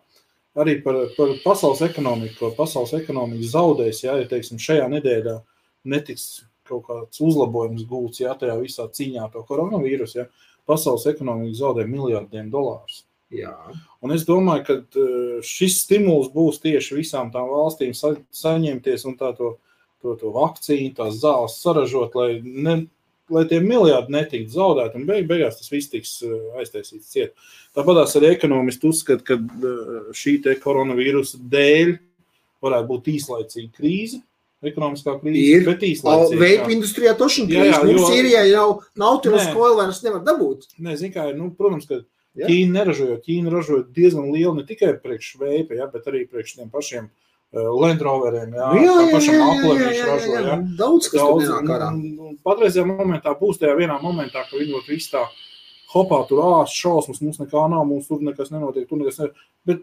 arī par pasaules ekonomiku, pasaules ekonomiku zaudēs, ja teiksim, šajā nedēļā netiks kaut kāds uzlabojums gūts, ja tajā visā cīņā to koronavīrusu, ja pasaules ekonomika zaudē miljardiem dolārus. Jā. Un es domāju, ka šis stimuls būs tieši visām tām valstīm saņemties un to vakcīnu, tās zāles saražot, lai lai tie miljardi netiktu zaudēti, un beigās tas viss tiks aiztaisīts ciet. Tāpatās arī ekonomisti uzskata, ka šī te koronavīrusa dēļ varētu būt īslaicīga krīze, ekonomiskā krīze, bet īslaicīga. Veipa industrijā tošana krīze, mums Sīrijā jau Nautilus Coil vairs nevar dabūt. Nē, zin kā, protams, ka Ķīna ražoja diezgan lielu ne tikai priekš veipa, bet arī priekš tiem pašiem Land Roveriem, pašam Apple viņš ražoja. Daudz, kas tur nenāk ārā. Patreizajā momentā būs tajā vienā momentā, ka viņi būtu viss tā hopā, tur šausmas, mums nekā nav, mums tur nekas nenotiek, tur nekas nevar. Bet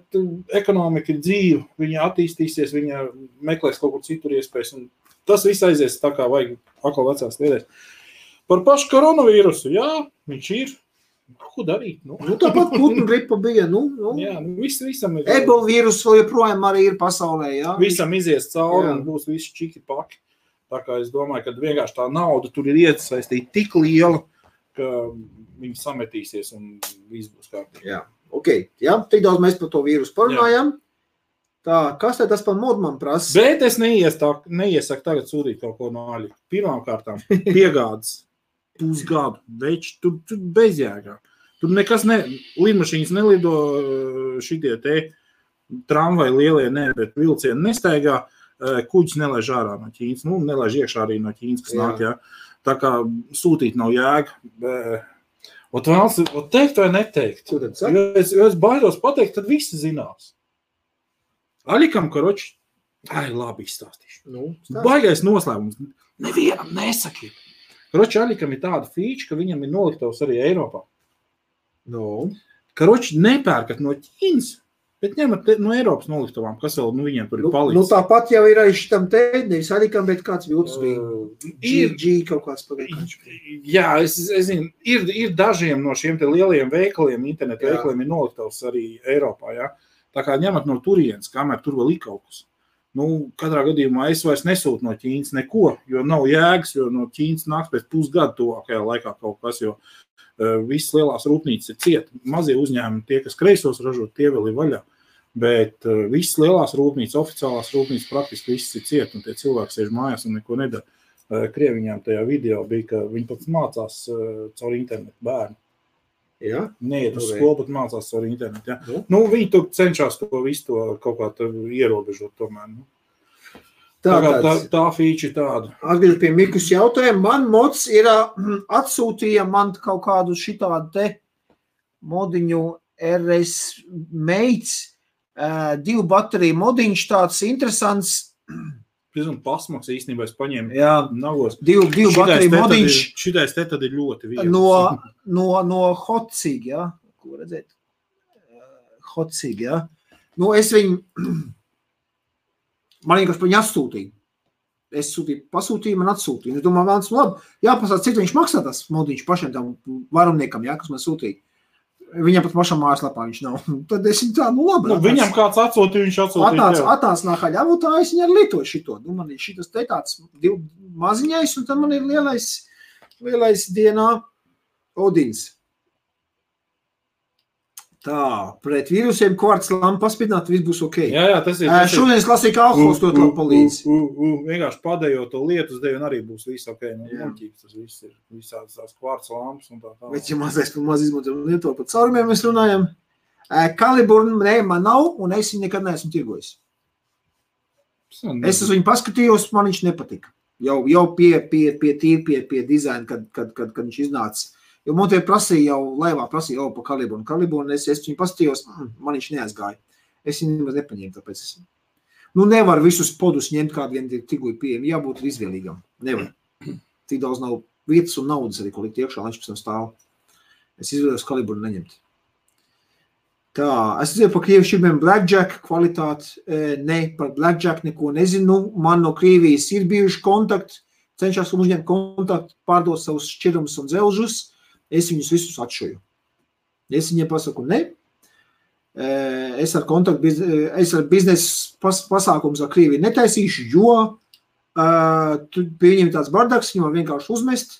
ekonomika ir dzīva, viņa attīstīsies, viņa meklēs kaut kur citur iespējas, un tas viss aizies tā kā vajag atkal vecās lietēs. Par pašu koronavīrusu, viņš ir. Ko darīt? Tāpat putnu gripa bija. Jā, visam ir. Ebola vīrus vēl joprojām arī ir pasaulē, jā. Visam izies cauri un būs visi čiki paki. Tā kā es domāju, ka vienkārši tā nauda tur ir iesaistīta tik liela, ka viņi sametīsies un viss būs kārtībā. Jā, tik daudz mēs par to vīrusu parunājam. Tā, kas tad tas par modu man prasa? Bet es neiesaku tagad sūtīt kaut ko no aļa. Pirmām kārtām piegādes. Pusgadu, veči, tur bezjēgā. Tur nekas lidmašīnas nelido šitie te tramvai lielie, bet vilcieni nestaigā, kuģis nelaiž ārā no Ķīnas, nelaiž iekšā arī no Ķīnas, kas nāk, jā. Tā kā sūtīt nav jēga. Teikt vai neteikt? Jo es baidos pateikt, tad visi zinās. Aļikam, karoči, labi izstāstīšu. Baigais noslēgums. Nevienam nesakiet. Karoči Aļikam ir tāda fīča, ka viņam ir noliktavs arī Eiropā. Karoči nepērkat no Ķīnas, bet ņemat no Eiropas noliktavām, kas vēl viņiem tur ir palicis. Tāpat jau ir arī šitam te, nevis Aļikam, bet kāds viltus bija. G kaut kāds pagaidiņš. Jā, es zinu, ir dažiem no šiem te lielajiem veikaliem, internetu veikaliem ir noliktavs arī Eiropā, jā. Tā kā ņemat no turienes, kamēr tur vēl ir kaut kas. Katrā gadījumā es vairs nesūtu no Ķīnas neko, jo nav jēgas, jo no Ķīnas nāks pēc pusgadu tuvākajā laikā kaut kas, jo visas lielās rūpnīcas ir ciet. Mazie uzņēmumi, tie, kas kreisos ražot, tie vēl ir vaļā. Bet visas lielās rūpnīcas, oficiālās rūpnīcas praktiski visas ir ciet, un tie cilvēki sēž mājās un neko nedara. Krieviņām tajā video bija, ka viņi pat mācās caur internetu bērnu. Jā? Neiet uz skolu, bet mācās caur internetu. Jā. Viņi tur cenšas to visu to kaut kā ierobežot tomēr. Tā fīča tāda. Atbild pie Mikus jautājumu. Man mods ir atsūtīja man kaut kādu šitādu te modiņu RS Mates, 2 bateriju modiņš tāds interesants. Un pasmaks īstenībā es paņēmu nagos. 2 bateriju modiņš. Šitais te tad ir ļoti viegli. No Hotsig, jā. Ko redzēt? Hotsig, jā. Es viņu, man vienkārši pa viņu atsūtīju. Es pasūtīju, man atsūtīju. Es domāju, vēlams, labi, jāpasāt, cik viņš maksā tas modiņš pašiem tam varumniekam, jā, kas man sūtīja. Viņam pat pašam mājaslapā viņš nav. Tad es viņu tā, labi. Viņam kāds atsūtīja, viņš atsūtīja. Atnāc nākā ļavotā, es viņu arī lietoju šito. Man ir šitas te tāds maziņais, un tad man ir lielais dienā Odins. Tā, pret vīrusiem kvarts lampu paspidināt, viss būs ok. Jā, tas ir. Šodien es lasīju, ka alkohols to palīdz. Vienkārši padējot to lietus deju, un arī būs viss ok. Tas viss ir visādas tās kvarts lampas un tā. Bet, ja maz izmantojam lieto par caurumiem, mēs runājam. Kaliburn, man nav, un es viņu nekad neesmu tirgojis. Es uz viņu paskatījos, man viņš nepatika. Jau pie dizaina, kad viņš iznāca. Jo Montie prasīja laivā prasīja pa kalibru, un es viņu pastījos, man viņš neaizgāja. Es viņu nemaz nepaņēmu, tāpēc es. Nevar visus podus ņemt, kādi vien tirgu ir pieejami, jābūt izvēlīgam. Nevar. Tik daudz nav vietas un naudas arī, ko likt iekšā, viņš pēc tam stāv. Es izvēlējos kalibru neņemt. Tā, es dzirdēju par Krievijas šķirmiem Blackjack kvalitāti. Ne, par Blackjack neko nezinu. Man no Krievijas ir bijuši kontakti, cenšas uzņemt kontaktu, pārdot savus šķirumus un dzelžus. Es viņus visus atšoju. Es viņiem pasaku, ne. Es ar biznesa pasākums ar Krieviju netaisīšu, jo pie viņiem tāds bardaks, viņam vienkārši uzmest.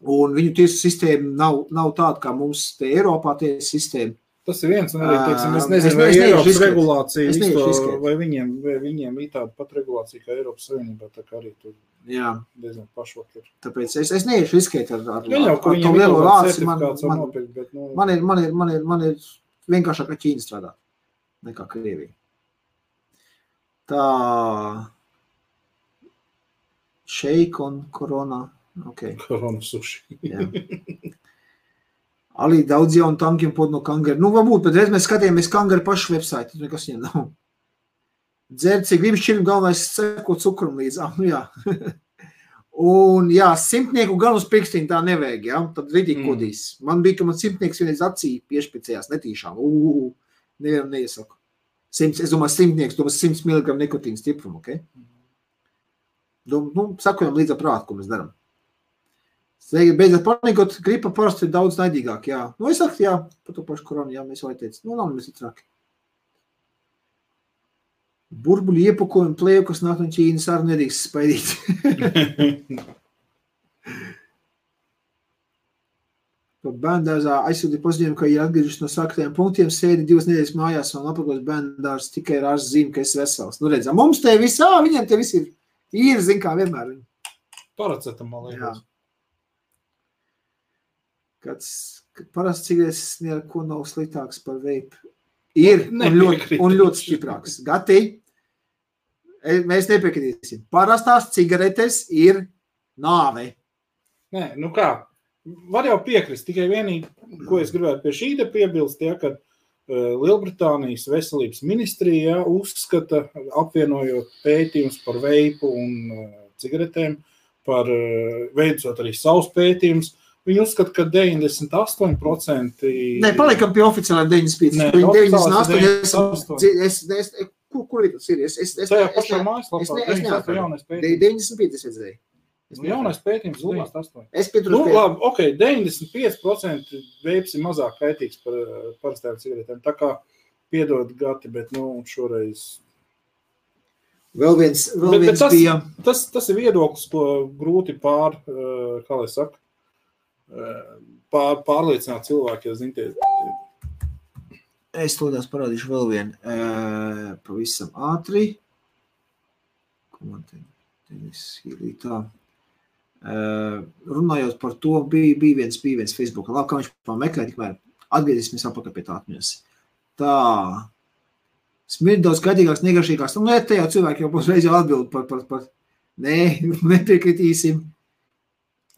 Un viņu tiesu sistēma nav tāda, kā mums te Eiropā tiesu sistēma. Tas ir viens, un arī, teiksim, es nezinu, vai Eiropas regulācija, vai viņiem ir tāda pat regulācija, kā Eiropas Savienībā, tā kā arī tur diezgan pašvak ir. Tāpēc es neiešu riskēt ar to lielo lāci. Man ir vienkāršāk ar Ķīnu strādāt nekā Krievija. Tā šeik un korona. Okay. Korona suši. Arī daudz jaunu tankiem pod no Kangara. Varbūt, bet reiz mēs skatījāmies Kangara pašu website, tur nekas viņam nav. Dzert, cik gribas šķirim galvenais seko cukrum līdz. Jā. Un, simtnieku gan uz pirkstiņu tā nevajag, tad ridīgi kodīs. Man bija, ka man simtnieks vienreiz acī piešpicējās netīšām. Nevienam neiesaku. Es domāju, simtnieks, 100 mg nikotīna stiprumu, ok? Sakojam līdz prātu, ko mēs darām. Beidzot panikot, gripa parasti ir daudz naidīgāk, es saku, par to pašu koronu, mēs jau teicu, nav mēs ir traki. Burbuļu iepakojumu plēju, kas nāk no Ķīnas, arī nedrīkst spaidīt. Bērndārzā aizsūtīja paziņojumu, ka ir atgriežas no sāktajiem punktiem, sēdi 2 nedēļas mājās un apakos bērndārs tikai ar ārsts zīmi, ka esi vesels. Redzam, mums te viss, viņiem te viss ir, zin kā vienmēr. Paracetamol, liekas. Parasti cigaretes neko nav sliktāks par veipu. Ir un ļoti stiprāks. Gati, mēs nepiekritīsim. Parastās cigaretes ir nāve. Nē, kā? Var jau piekrist, tikai vienīgi, ko es gribētu pie šī te piebilst, ka Lielbritānijas veselības ministrija uzskata, apvienojot pētījums par veipu un cigaretēm, par veicot arī savus pētījumus, viņi uzskata, ka 98%... Nē, palikam pie oficiālajiem 98%. Kur tas ir? Tajā pašā mājaslapā 95 es redzēju. Jaunais pētījums 98%. Es pieturos pie... Labi, ok, 95% veips ir mazāk kaitīgs par parastām cigaretēm. Tā kā piedod Gati, bet šoreiz... Vēl viens bija... Tas ir viedoklis, ko grūti pārliecināt cilvēki, ja zintie. Es tādās parādīšu vēl vienu pavisam ātri. Ko man te ir tā? Runājot par to, bija viens Facebookā. Labi, kā viņš pameklē, tikmēr atgriezīsimies apakaļ pie tā atmiņas. Tā. Smird daudz skaidīgāks, negašīgāks. Te jau cilvēki jau reiz jau atbild par. Nē, nepiekritīsim.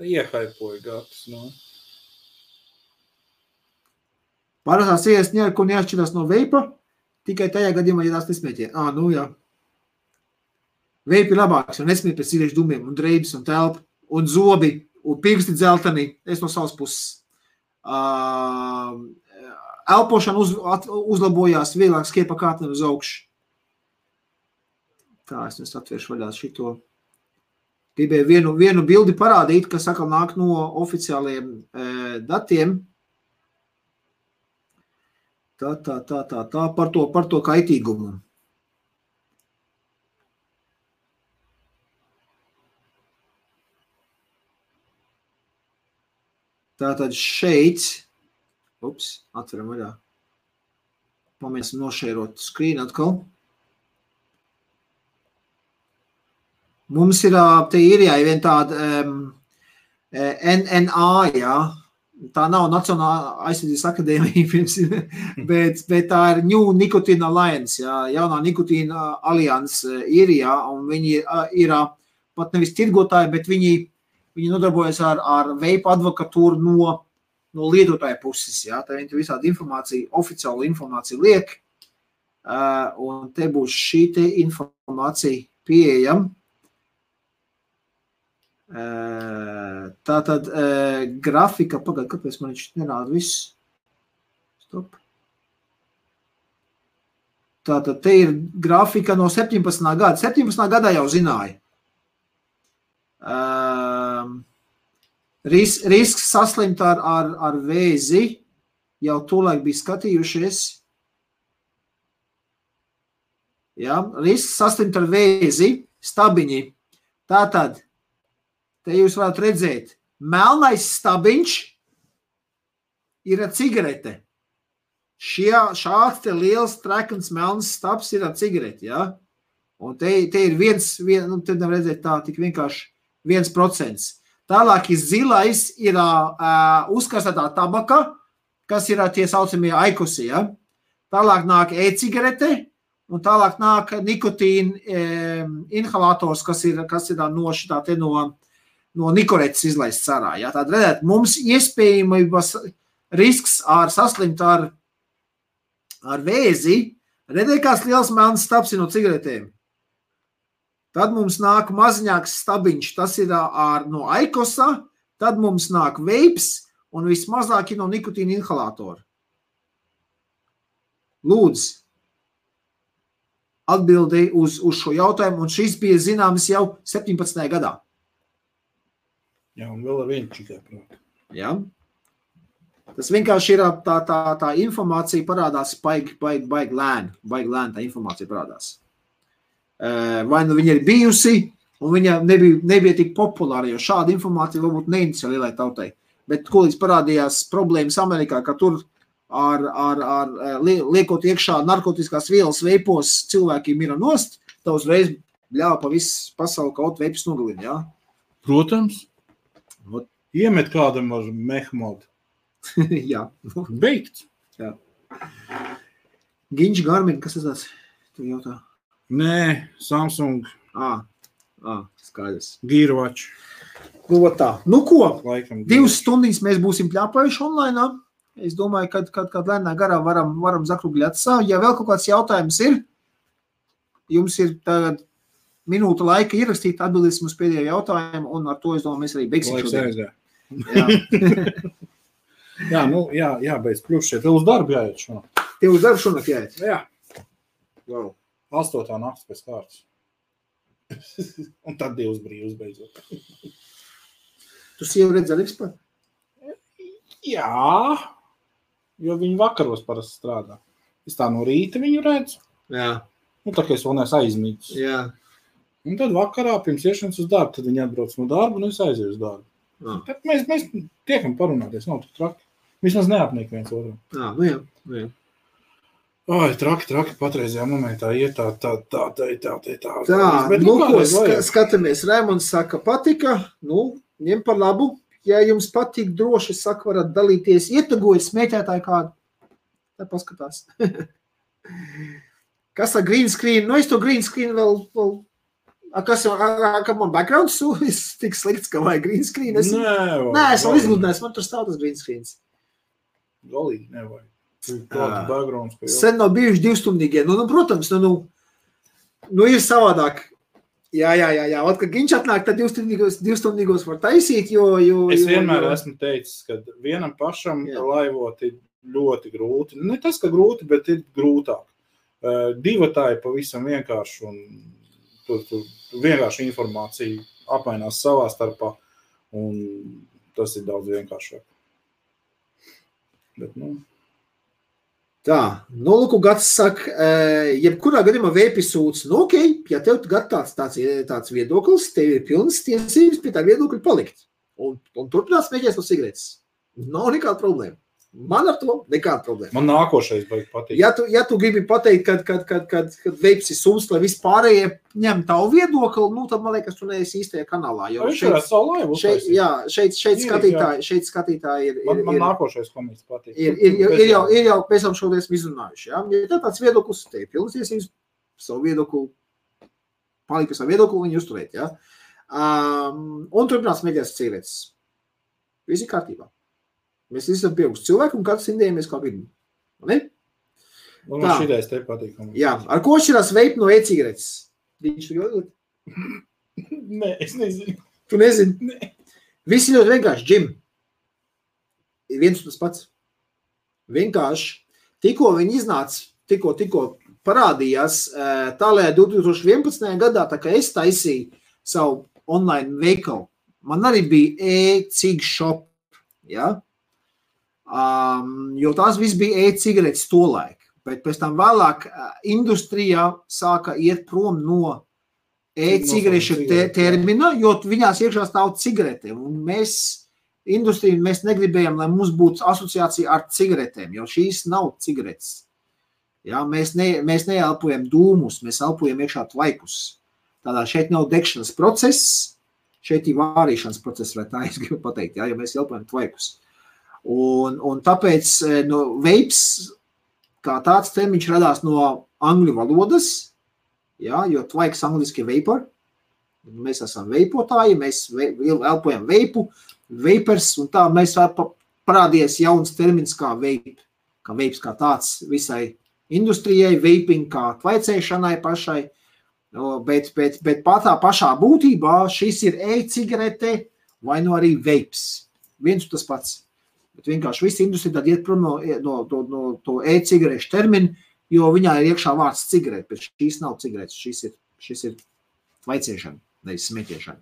Iehaipoja Gatis, Parastās cigaretes neko neatšķirās no veipa, tikai tajā gadījumā, ja tās nesmēķē. Veipi ir labāks, jo nesmēķ pēc cigarešu dumiem un dreibas un telpa un zobi un pirksti dzeltenī. Es no savas puses. Elpošana uzlabojās, vieglāk skiepa kārtne uz augšu. Tā, es atvēršu vaļā šito. Gribēju vienu bildi parādīt, kas atkal nāk no oficiāliem datiem. Tā par to kaitīgumu. Tātad šeit, atveram vaļā. Pamēģināsim nošērot screen atkal. Mums ir, te ir vien tāda NNA, tā nav Nacionālā aizsardzības akadēmija, bet tā ir New Nicotine Alliance, jaunā nikotīna alianse ir, un viņi ir pat nevis tirgotāji, bet viņi nodarbojas ar veipu advokatūru no lietotāja puses, tā viņi visādi informāciju, oficiālu informāciju liek, un te būs šī te informācija pieejama. Tātad grafika, kāpēc man viņš nerāda viss? Stop. Tātad te ir grafika no 17. gada. 17. gadā jau zināja. Risks saslimt ar vēzi jau tolaik bija skatījušies. Risks saslimt ar vēzi, stabiņi. Tātad te jūs varat redzēt, melnais stabiņš ir ar cigarete. šāds te liels trekans melns stabs ir ar cigareti, ja? Un te ir nu, te nevar redzēt tā, tik vienkārši 1%. Tālāk ir zilais, ir uzkastētā tabaka, kas ir tie saucamie aikosi, ja? Tālāk nāk e-cigarete, un tālāk nāk nikotīna inhalators, kas ir no šitā te no nikoretes izlaists sarā. Ja? Tātad, redzēt, mums iespējamības risks saslimt ar vēzi, redzēt, kāds liels melns stabs ir no cigaretēm. Tad mums nāk maziņāks stabiņš, tas ir no aikosa, tad mums nāk veips, un vismazāk ir no nikotīna inhalatora. Lūdzu, atbildēji uz šo jautājumu, un šis bija zināms jau 17. gadā. Jā, un vēl ar vienu tikai prāt. Jā. Tas vienkārši ir tā informācija parādās baigi lēni tā informācija parādās. Vai nu viņa ir bijusi, un viņa nebija tik populāra, jo šāda informācija varbūt neinteresē lielai tautai. Bet kolīdz parādījās problēmas Amerikā, ka tur liekot iekšā narkotiskās vielas veipos cilvēki mira nost, tā uzreiz ļāva pa visu pasauli kaut veipus nogalina, jā? Protams. Iemet kādam ar mehmodu. Jā. Beigts. Jā. Ginč Garmin, kas tas tāds? Tu jautā? Nē, Samsung. Skaidrs. Gearwatch. Nu, tā. Nu, ko? Laikam 2 stundīs mēs būsim pļāpājuši online. Es domāju, kad lēnā garā varam zakrugļāt savu. Ja vēl kaut kāds jautājums ir, jums ir tagad minūte laika ierakstīt, atbildēsim uz pēdējo jautājumu, un ar to, es domāju, mēs arī beigsim šodien. Jā, beidz kļūst šeit. Tev uz darbu jāiet šonakt. Tev uz darbu šonakt jāiet? Jā. Wow. 8. nakts pēc kārtas. Un tad 2 brīvs beidzot. Tu sievu redz arī vispār? Jā, jo viņi vakaros parasti strādā. Es tā no rīta viņu redzu. Jā. Nu, tā kā es vēl neesmu aizmītis. Jā. Un tad vakarā pirms iešanas uz darbu, tad viņi atbrauc no darba un es aizēju uz darbu. Jā. Tad mēs tiekam parunāties, nav tik traki. Vismaz neapniek viens otram. Jā. Ai, traki patreizajā momentā iet tā. Tā, nu ko, skatāmies. Raimonds saka, patika, ņem par labu. Ja jums patīk droši, saka, varat dalīties, ietagojiet smēķētāju kādu. Tā paskatās. Kas ar green screen? Es to green screen vēl kas man backgrounds tik slikts, ka vajag green screen? Es vēl izgludinājis, man tur stāv tas green screens. Galīgi nevajag. Backgrounds, sen nav bijuši 2-stundīgie. Protams, ir savādāk. Jā. Ot, kad Ginč atnāk, tad 2-stundīgos var taisīt, jo... Es vienmēr esmu teicis, ka vienam pašam laivot ir ļoti grūti. Ne tas, ka grūti, bet ir grūtāk. Divatāji pavisam vienkārši un tur vienkārši informācija apmainās savā starpā un tas ir daudz vienkāršāk. Bet, Tā, Lūku Gats saka, jebkurā gadījumā vēpisūds, ja tev tāds viedoklis, tev ir pilnas tiesības pie tā viedokļa palikt. Un turpinās mēģināt no cigaretes. Nav nekāda problēma. Man ar to nekāda problēma. Man nākošais baigi patīk. Ja tu gribi pateikt, kad veips ir sums, lai vispārējie ņem tavu viedokli, tad man liekas, tu neesi īstajā kanālā. Jo šeit skatītāji ir... Man nākošais komiks patīk. Ir jau pēc tam šodien izrunājuši. Ja tāds viedoklis, te ir pilnas tiesības savu viedokli, palikt pie savu viedokli, viņu uzturēt. Ja? Un turpinās mēģināt cigaretes. Visi kārtībā. Mēs esam pieauguši cilvēki un katrs indējamies kā vidu. Ne? Un man šitais te patīk. Jā, ar ko šķirās veip no e-cigaretes? Viņš tu jodot? Nē, es nezinu. Tu nezini? Nē. Visi ļoti vienkārši, Jim. Viens un tas pats. Vienkārši. Tikko viņi iznāca, tikko parādījās, tālējā 2011. gadā, tā kā es taisīju savu online veikalu, man arī bija e-cig shop, ja? Jo tās viss bija e-cigaretes tolaik, bet pēc tam vēlāk industrijā sāka iet prom no e-cigarešu termina, jo viņās iekšā stāv cigarete, un mēs industriju mēs negribējam, lai mums būtu asociācija ar cigaretēm, jo šīs nav cigaretes. Ja, mēs neelpojam dūmus, mēs elpojam iekšā tvaikus. Tādā šeit nav degšanas process, šeit ir vārīšanas process, vai tā es gribu pateikt, ja mēs elpojam tvaikus. Un tāpēc vapes, kā tāds termiņš radās no angļu valodas, ja, jo tvaiks angliski vapor, mēs esam veipotāji, mēs elpojam veipu, vapers, un tā mēs parādījies jauns termins kā vape, kā tāds visai industrijai, vaping kā tvaicēšanai pašai, bet tā pašā būtībā šis ir e-cigarete vai arī vapes. Viens tas pats. Bet vienkārši visa industrija tad iet prom no to e-cigarešu terminu, jo viņā ir iekšā vārds cigarete, bet šīs nav cigaretes, šis ir tvaicēšana, nevis smēķēšana.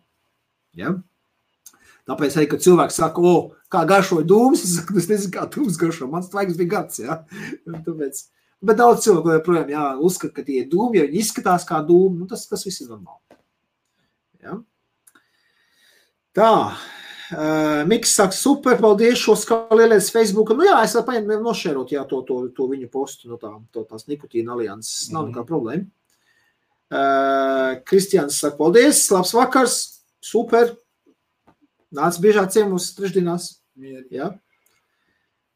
Ja? Tāpēc arī, kad cilvēks saka, kā garšoja dūmus, es saku, es nezinu, kā dūmus garšo, mans tvaiks bija gads, ja? Tāpēc, bet daudz cilvēku joprojām, uzskata, ka tie ir dūmi, ja viņi izskatās kā dūmi, tas viss ir normāli. Ja? Tā, Miks saka, super, paldies šo skalielēs Facebooka. Es varu nošērot, to viņu postu no tās nikotīna alianses, nav nekā problēma. Kristians saka, paldies, labs vakars, super. Nāc biežāk ciemos trešdienās. Ja?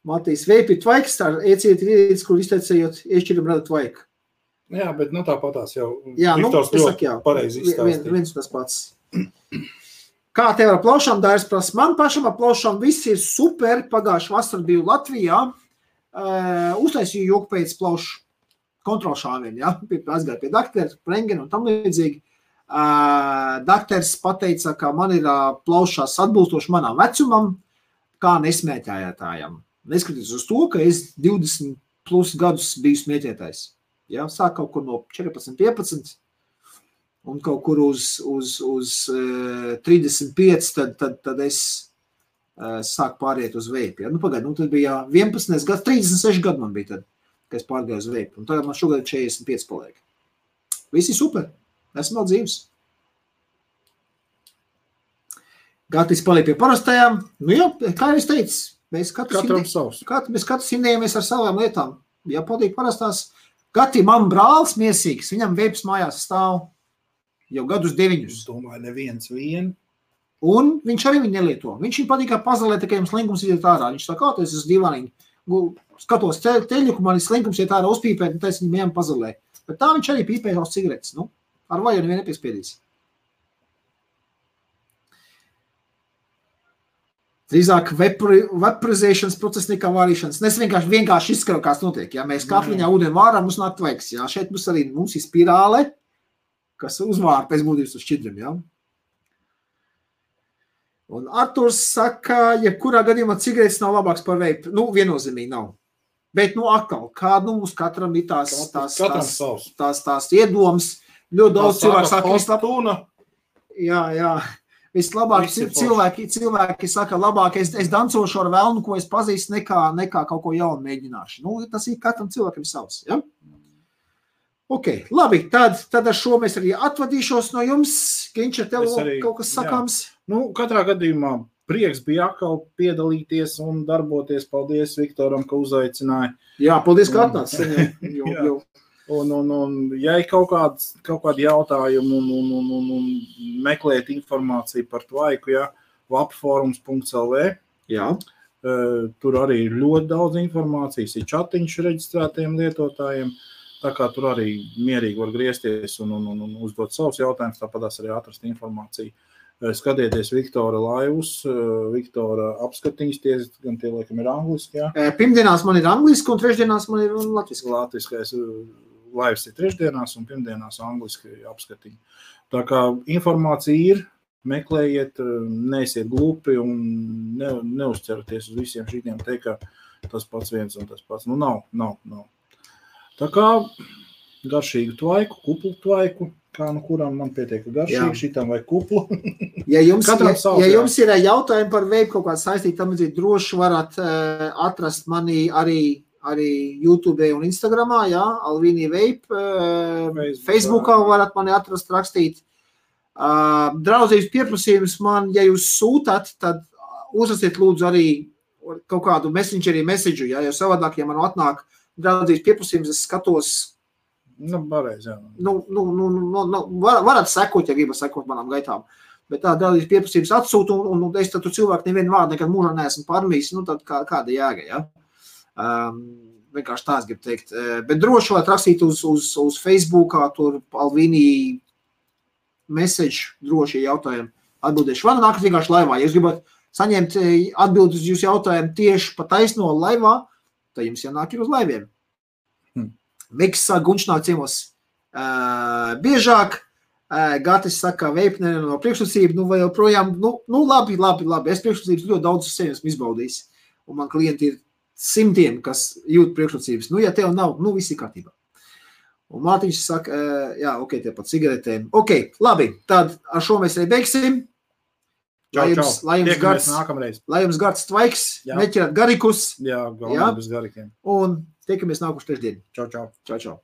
Matīs, veipi tvaiks, tā ieciet rīdītis, kur izteicējot, iešķiram rada tvaiku. Jā, bet tāpatās jau Viktors ļoti pareizi izstāstīja. Viens tas pats. Kā tev ar plaušām dārs prasa? Man pašam ar plaušām viss ir super. Pagājuši vasar biju Latvijā. Uztaisīju joku pēc plaušu kontrolšāvien. Ja? Aizgāju pie daktera, rengena un tam līdzīgi. Dakters pateica, ka man ir plaušās atbilstoši manām vecumam, kā nesmēķētājam. Neskatoties uz to, ka es 20 plus gadus biju smēķētājs. Ja, sāk kaut kur no 14, 15 un kaut kur uz 35, tad es sāku pāriet uz veipi. Ja? Tad bija 11 gads, 36 gadu man bija tad, kad es pārgāju uz veipi. Un tagad man šogad 45 paliek. Visi super. Esmu vēl dzīves. Gatis paliek pie parastajām. Kā jau es teicu, mēs katrs indējamies ar savām lietām. Ja patīk parastās, Gati man brālis miesīgs, viņam veips mājās stāv jau gadus 9. Es domāju, neviens vien. Un viņš arī viņu nelieto. Viņš viņu patīk pazalēt, ka jums slinkums iet ārā. Viņš tā kā, es esmu divāniņi. Skatos teļu, ka man slinkums iet ārā uzpīpēt, un tā es viņu mējām pazalē. Bet tā viņš arī pīpē uz cigaretes, ar vaju nevienu nepiespiedīs. Drīzāk vaporizēšanas process nekā vārīšanas. Es vienkārši izskaru, kāds notiek. Ja mēs katliņā ūdeni vārām, mums nāk tvaiks. Ja? Šeit mums ir spirāle, kas uzvāra pēc būtības uz šķidriem. Ja? Un Arturs saka, ja kurā gadījumā cigaretes nav labāks par veipu. Viennozīmīgi nav. Bet, atkal, kā mums katram ir tās iedomas. Ļoti daudz cilvēku saka, jā, vislabāk cilvēki saka, labāk es dancošu ar velnu, ko es pazīstu, nekā kaut ko jaunu mēģināšu. Tas ir katram cilvēkam savs, ja? Ok, labi, tad ar šo mēs arī atvadīšos no jums. Ginč, ar tev kaut kas sakāms? Katrā gadījumā prieks bija atkal piedalīties un darboties. Paldies Viktoram, ka uzaicināja. Jā, paldies, ka atnāc. Un ja ir kaut kādi jautājumi un meklēt informāciju par tvaiku, vapforums.lv, tur arī ir ļoti daudz informācijas, ir čatiņš reģistrētiem lietotājiem, tā kā tur arī mierīgi var griezties un uzdot savus jautājumus, tāpatās arī atrast informāciju. Skatieties Viktora laivus, Viktora apskatiņas, gan tie laikam ir angliski, jā? Pirmdienās man ir angliski un trešdienās man ir latviski. Latviskais laivs ir trešdienās un pirmdienās angliski apskatiņi. Tā kā informācija ir, meklējiet, neesiet glupi un neuzceraties uz visiem šitiem teikt, ka tas pats viens un tas pats. Nav. Tā kā garšīgu tvaiku, kuplu tvaiku, kā kuram man pietiek garšīgi, šitam vai kuplu. Ja jums ir jautājumi par veipu kaut kādu saistīt, tam droši varat atrast mani arī YouTube un Instagramā, Alvīnija Vape, Facebookā varat mani atrast, rakstīt. Draudzības pieprasījums man, ja jūs sūtat, tad uzrasiet lūdzu arī kaut kādu messengerī messageu, ja, jo savādāk, ja man atnāk draudzības pieprasījums, es skatos. Pareiz, jā. Varat sekot, ja gribat sekot manām gaitām. Bet tā draudzības pieprasījums atsūta, un es tad tu cilvēku nevienu vārdu nekad mūžā neesmu pārmījis, tad kāda jēga, ja? Vienkārši tās gribu teikt. Bet droši varat rakstīt uz Facebookā, tur Alvīnī message, droši jautājumi atbildēšu. Vai nākat vienkārši laivā, ja jūs gribat saņemt atbildes uz jūsu jautājumu tieši pa taisno laivā, tad jums jānāk ir uz laiviem. Miks saka, Gunčs nāk ciemos biežāk, Gatis saka, veipnē no priekšrocība, vai joprojām, labi, es priekšrocības ļoti daudz uz sevi esmu izbaudījis, un man klienti ir simtiem, kas jūt priekšrocības. Ja tev nav, viss ir kārtībā. Un Mārtiņš saka, jā, ok, tie pat cigaretēm. Ok, labi, tad ar šo mēs arī beigsim. Lai jums gards tvaiks, neķerat garikus. Jā, galvenais bez garikiem. Un tiekamies nākuši trešdien. Čau. Čau.